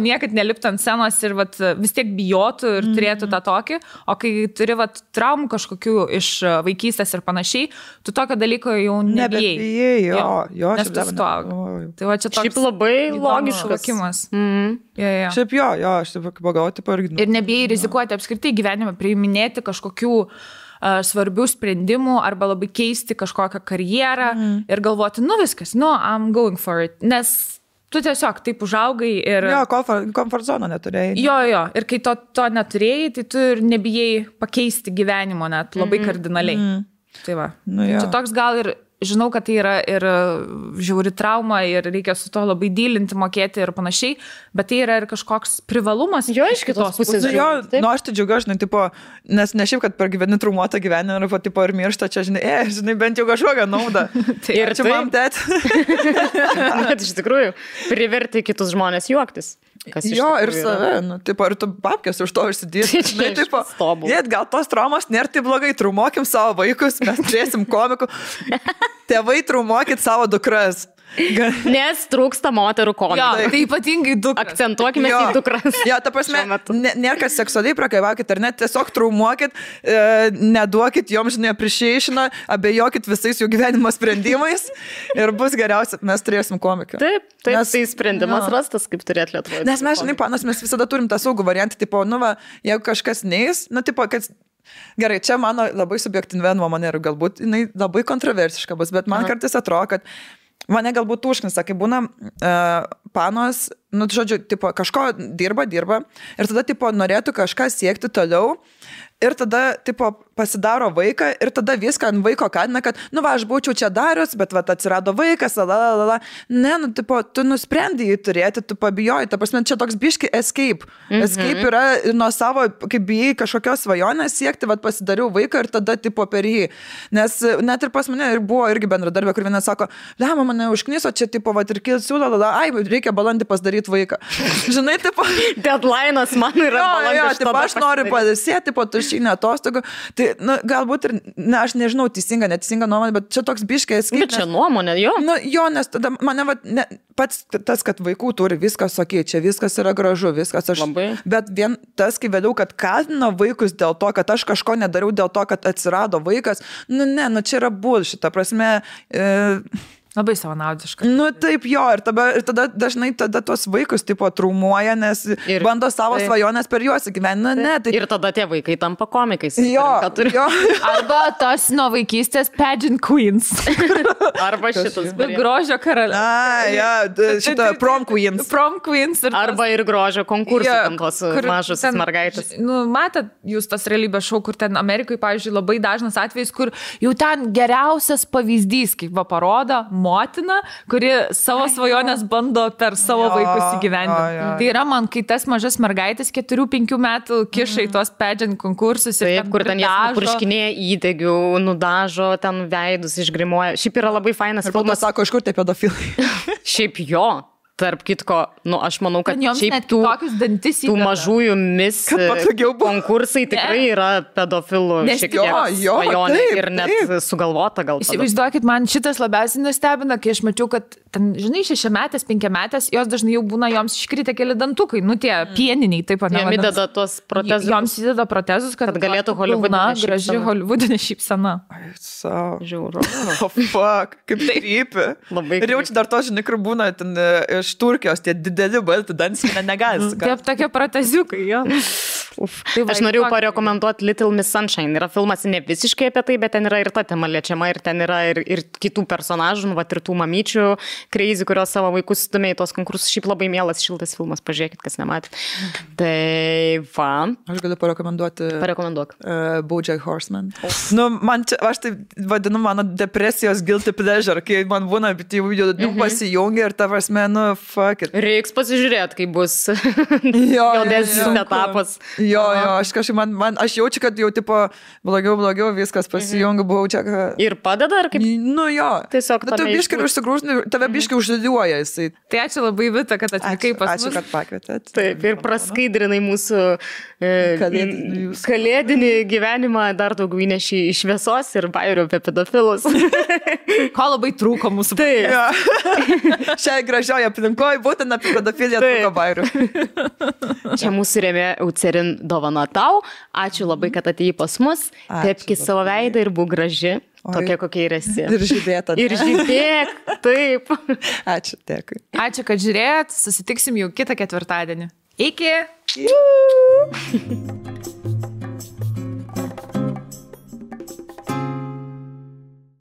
niekad nelipti ant scenos ir vis tiek bijotų ir turėtų tą tokį, o kai turi traumų kažkokių iš vaikystės ir panašiai, tu tokio dalyko jau nebijai. Jo, nes tu suaugi. Tai va čia toks šiaip labai logiškas suvokimas. Šiaip jo, aš taip pagauti irgi. Ir nebijai rizikuoti apskritai gyvenime, priiminėti kažkokių svarbių sprendimų arba labai keisti kažkokią karjerą ir galvoti, viskas, I'm going for it. Nes tu tiesiog taip užaugai ir... Jo, komfort zoną neturėjai. Jo. Ir kai to neturėjai, tai tu ir nebijai pakeisti gyvenimo net labai kardinaliai. Tai va. Čia toks gal ir žinau, kad tai yra ir žiauri trauma ir reikia su to labai dylinti, mokėti ir panašiai, bet tai yra ir kažkoks privalumas. Jo, iš kitos pusės. Jo, aš tai džiaugiu, žinai, tipo, nes ne šiaip, kad per gyveni traumuotą gyvenimą ir, tipo, ir miršta, čia, žinai, bent jau kažkokią naudą. Ir čia mam tėt. Bet iš tikrųjų, priverti kitus žmonės juoktis. Jo, ir save, tipo, ir tu babkės už to užsidėti. Žinai, tipo, gal tos traumas nėra tai blogai, traumuokim savo vaikus, mes turėsim komikų. Tėvai, traumuokit savo dukras. Nes trūksta moterų komikų. Jo, tai ypatingai dukras. Akcentuokime į dukras. Jo, ta prasme, nėra kad seksualiai prakaivakit, ar net tiesiog traumuokit, neduokit joms, žinai, appreciationą, abejokit visais jų gyvenimo sprendimais ir bus geriausia, mes turėsim komiką. Taip, tai sprendimas rastas, kaip turėt Lietuvoje. Nes mes, žinai, panas, mes visada turim tą saugų variantą, tipo, jeigu kažkas neis, tipo, kad gerai, čia mano labai subjektyvi nuomonė ir galbūt jinai labai kontroversiška bus, bet man kartais atrodo, kad mane galbūt užknisa, kai būna panos, žodžiu, tipo, kažko dirba ir tada, tipo, norėtų kažką siekti toliau ir tada, tipo, pasidaro vaiką ir tada viską ant vaiko kadina, kad, aš būčiau čia darius, bet, atsirado vaikas, Ne, tipo, tu nusprendai jį turėti, tu pabijoji, ta prasme, čia toks biški escape. Escape yra nuo savo, kaip bijai kažkokios svajonės siekti, pasidariau vaiką ir tada, tipo, per jį. Nes net ir pas mane buvo irgi bendradarbė, kur viena sako, lema, mane užkniso, čia, tipo, ir kilsiu, reikia balandį pasidaryti vaiką. Žinai, tipo... Deadline'as man yra balandį. Jo, aš noriu padėsėti, tipo, tušinę atostogų. Tai, galbūt ir, aš nežinau, neteisinga nuomonė, bet čia toks biškės. Bet čia nuomonė, jo. Jo, nes tada mane, pats tas, kad vaikų turi, viskas okei, čia viskas yra gražu, viskas aš. Labai. Bet vien tas, kai vėliau, kad kaltina vaikus dėl to, kad aš kažko nedariau dėl to, kad atsirado vaikas, čia yra bullshit, ta prasme... Labai savanaudiška. Taip, jo, ir tada dažnai tuos vaikus, tipo, traumuoja, nes bando savo svajonės per juos įgyvendinti. Ir tada tie vaikai tampa komikais. Jo. Arba tos nuo vaikystės pageant queens. Arba šitas. Grožio karalius. Šitą prom queens. Prom queens. Arba ir grožio konkursai, tam tos mažos mergaitės. Matot, jūs tas realybės šou, kur ten Amerikoje, pavyzdžiui, labai dažnas atvejis, kur jau ten geriausias pavyzdys, kaip parodo, motina, kuri savo svajonės bando per savo vaikus įgyvendinti. Tai yra man, kai tas mažas mergaitės 4-5 metų kiša į tuos pageant konkursus ir kur ten jas purškinėja įdegių, nudažo, ten veidus išgrimuoja. Šiaip yra labai fainas filmas. Sako, iš kur tie pedofilai? Šiaip jo. Tarp kitko, aš manau, kad šiaip tų mažųjų mis konkursai tikrai yra pedofilų šiek tiek svajonė ir net sugalvota gal. Įsivaizduokit, man šitas labiausiai nustebina, kai aš mačiau, kad ten, žinai, 6-metės, 5-metės, jos dažnai jau būna, joms iškritę keli dantukai, tie pieniniai, taip pat. Jom įdeda tuos protezus. Joms įdeda protezus, kad galėtų holivudinė šypsena. Graži holivudinė šypsena. Žiauru. Fuck, kaip tai rypi. Ir jau čia dar to, žinai, kur būna ten iš Turkijos, tie dideli balti dantis, negali. Taip, tokie proteziukai, jo. Aš norėjau parekomenduoti Little Miss Sunshine. Yra filmas ne visiškai apie tai, bet ten yra ir ta tema liečiama, ir ten yra ir kitų personažų, ir tų mamyčių crazy, kurios savo vaikus stumė į tos konkursus. Šiaip labai mielas, šiltas filmas, pažiūrėkit, kas nematė. Tai va. Aš galiu parekomenduoti. Parekomenduok. BoJack Horseman. Aš tai vadinu mano depresijos guilty pleasure, kai man būna, bet jau pasijungia ir ta prasme, fuck it. Reiks pasižiūrėti, kai bus jaudesnis etapas. Jo, aš kažkaip, aš jaučiu, kad jau, tipo, blogiau viskas pasijungia, BoJack. Ir padeda, ar kaip? Jo. Tiesiog tu biškai užsigrūžni, tave biškai uždėliuoja jisai. Tai ačiū labai, Vita, kad atvykai pas mus. Ačiū, kad pakvietėt. Taip, ir praskaidrinai mūsų kalėdinį gyvenimą, dar daugiau įneši iš šviesos ir bairių apie pedofilus. Ko labai trūko mūsų. Taip. Šiai gražioje aplinkoje būtent apie pedofiliją trūko bairių. Čia mūsų rėmė Eucerin dovana tau. Ačiū labai, kad atėjai pas mus. Tepki savo veidą ir būk graži. Tokia, kokia ir esi. Ir žydėta. Ir žydėk, taip. Ačiū, dėkui. Ačiū, kad žiūrėjot. Susitiksim jau kitą ketvirtadienį. Iki.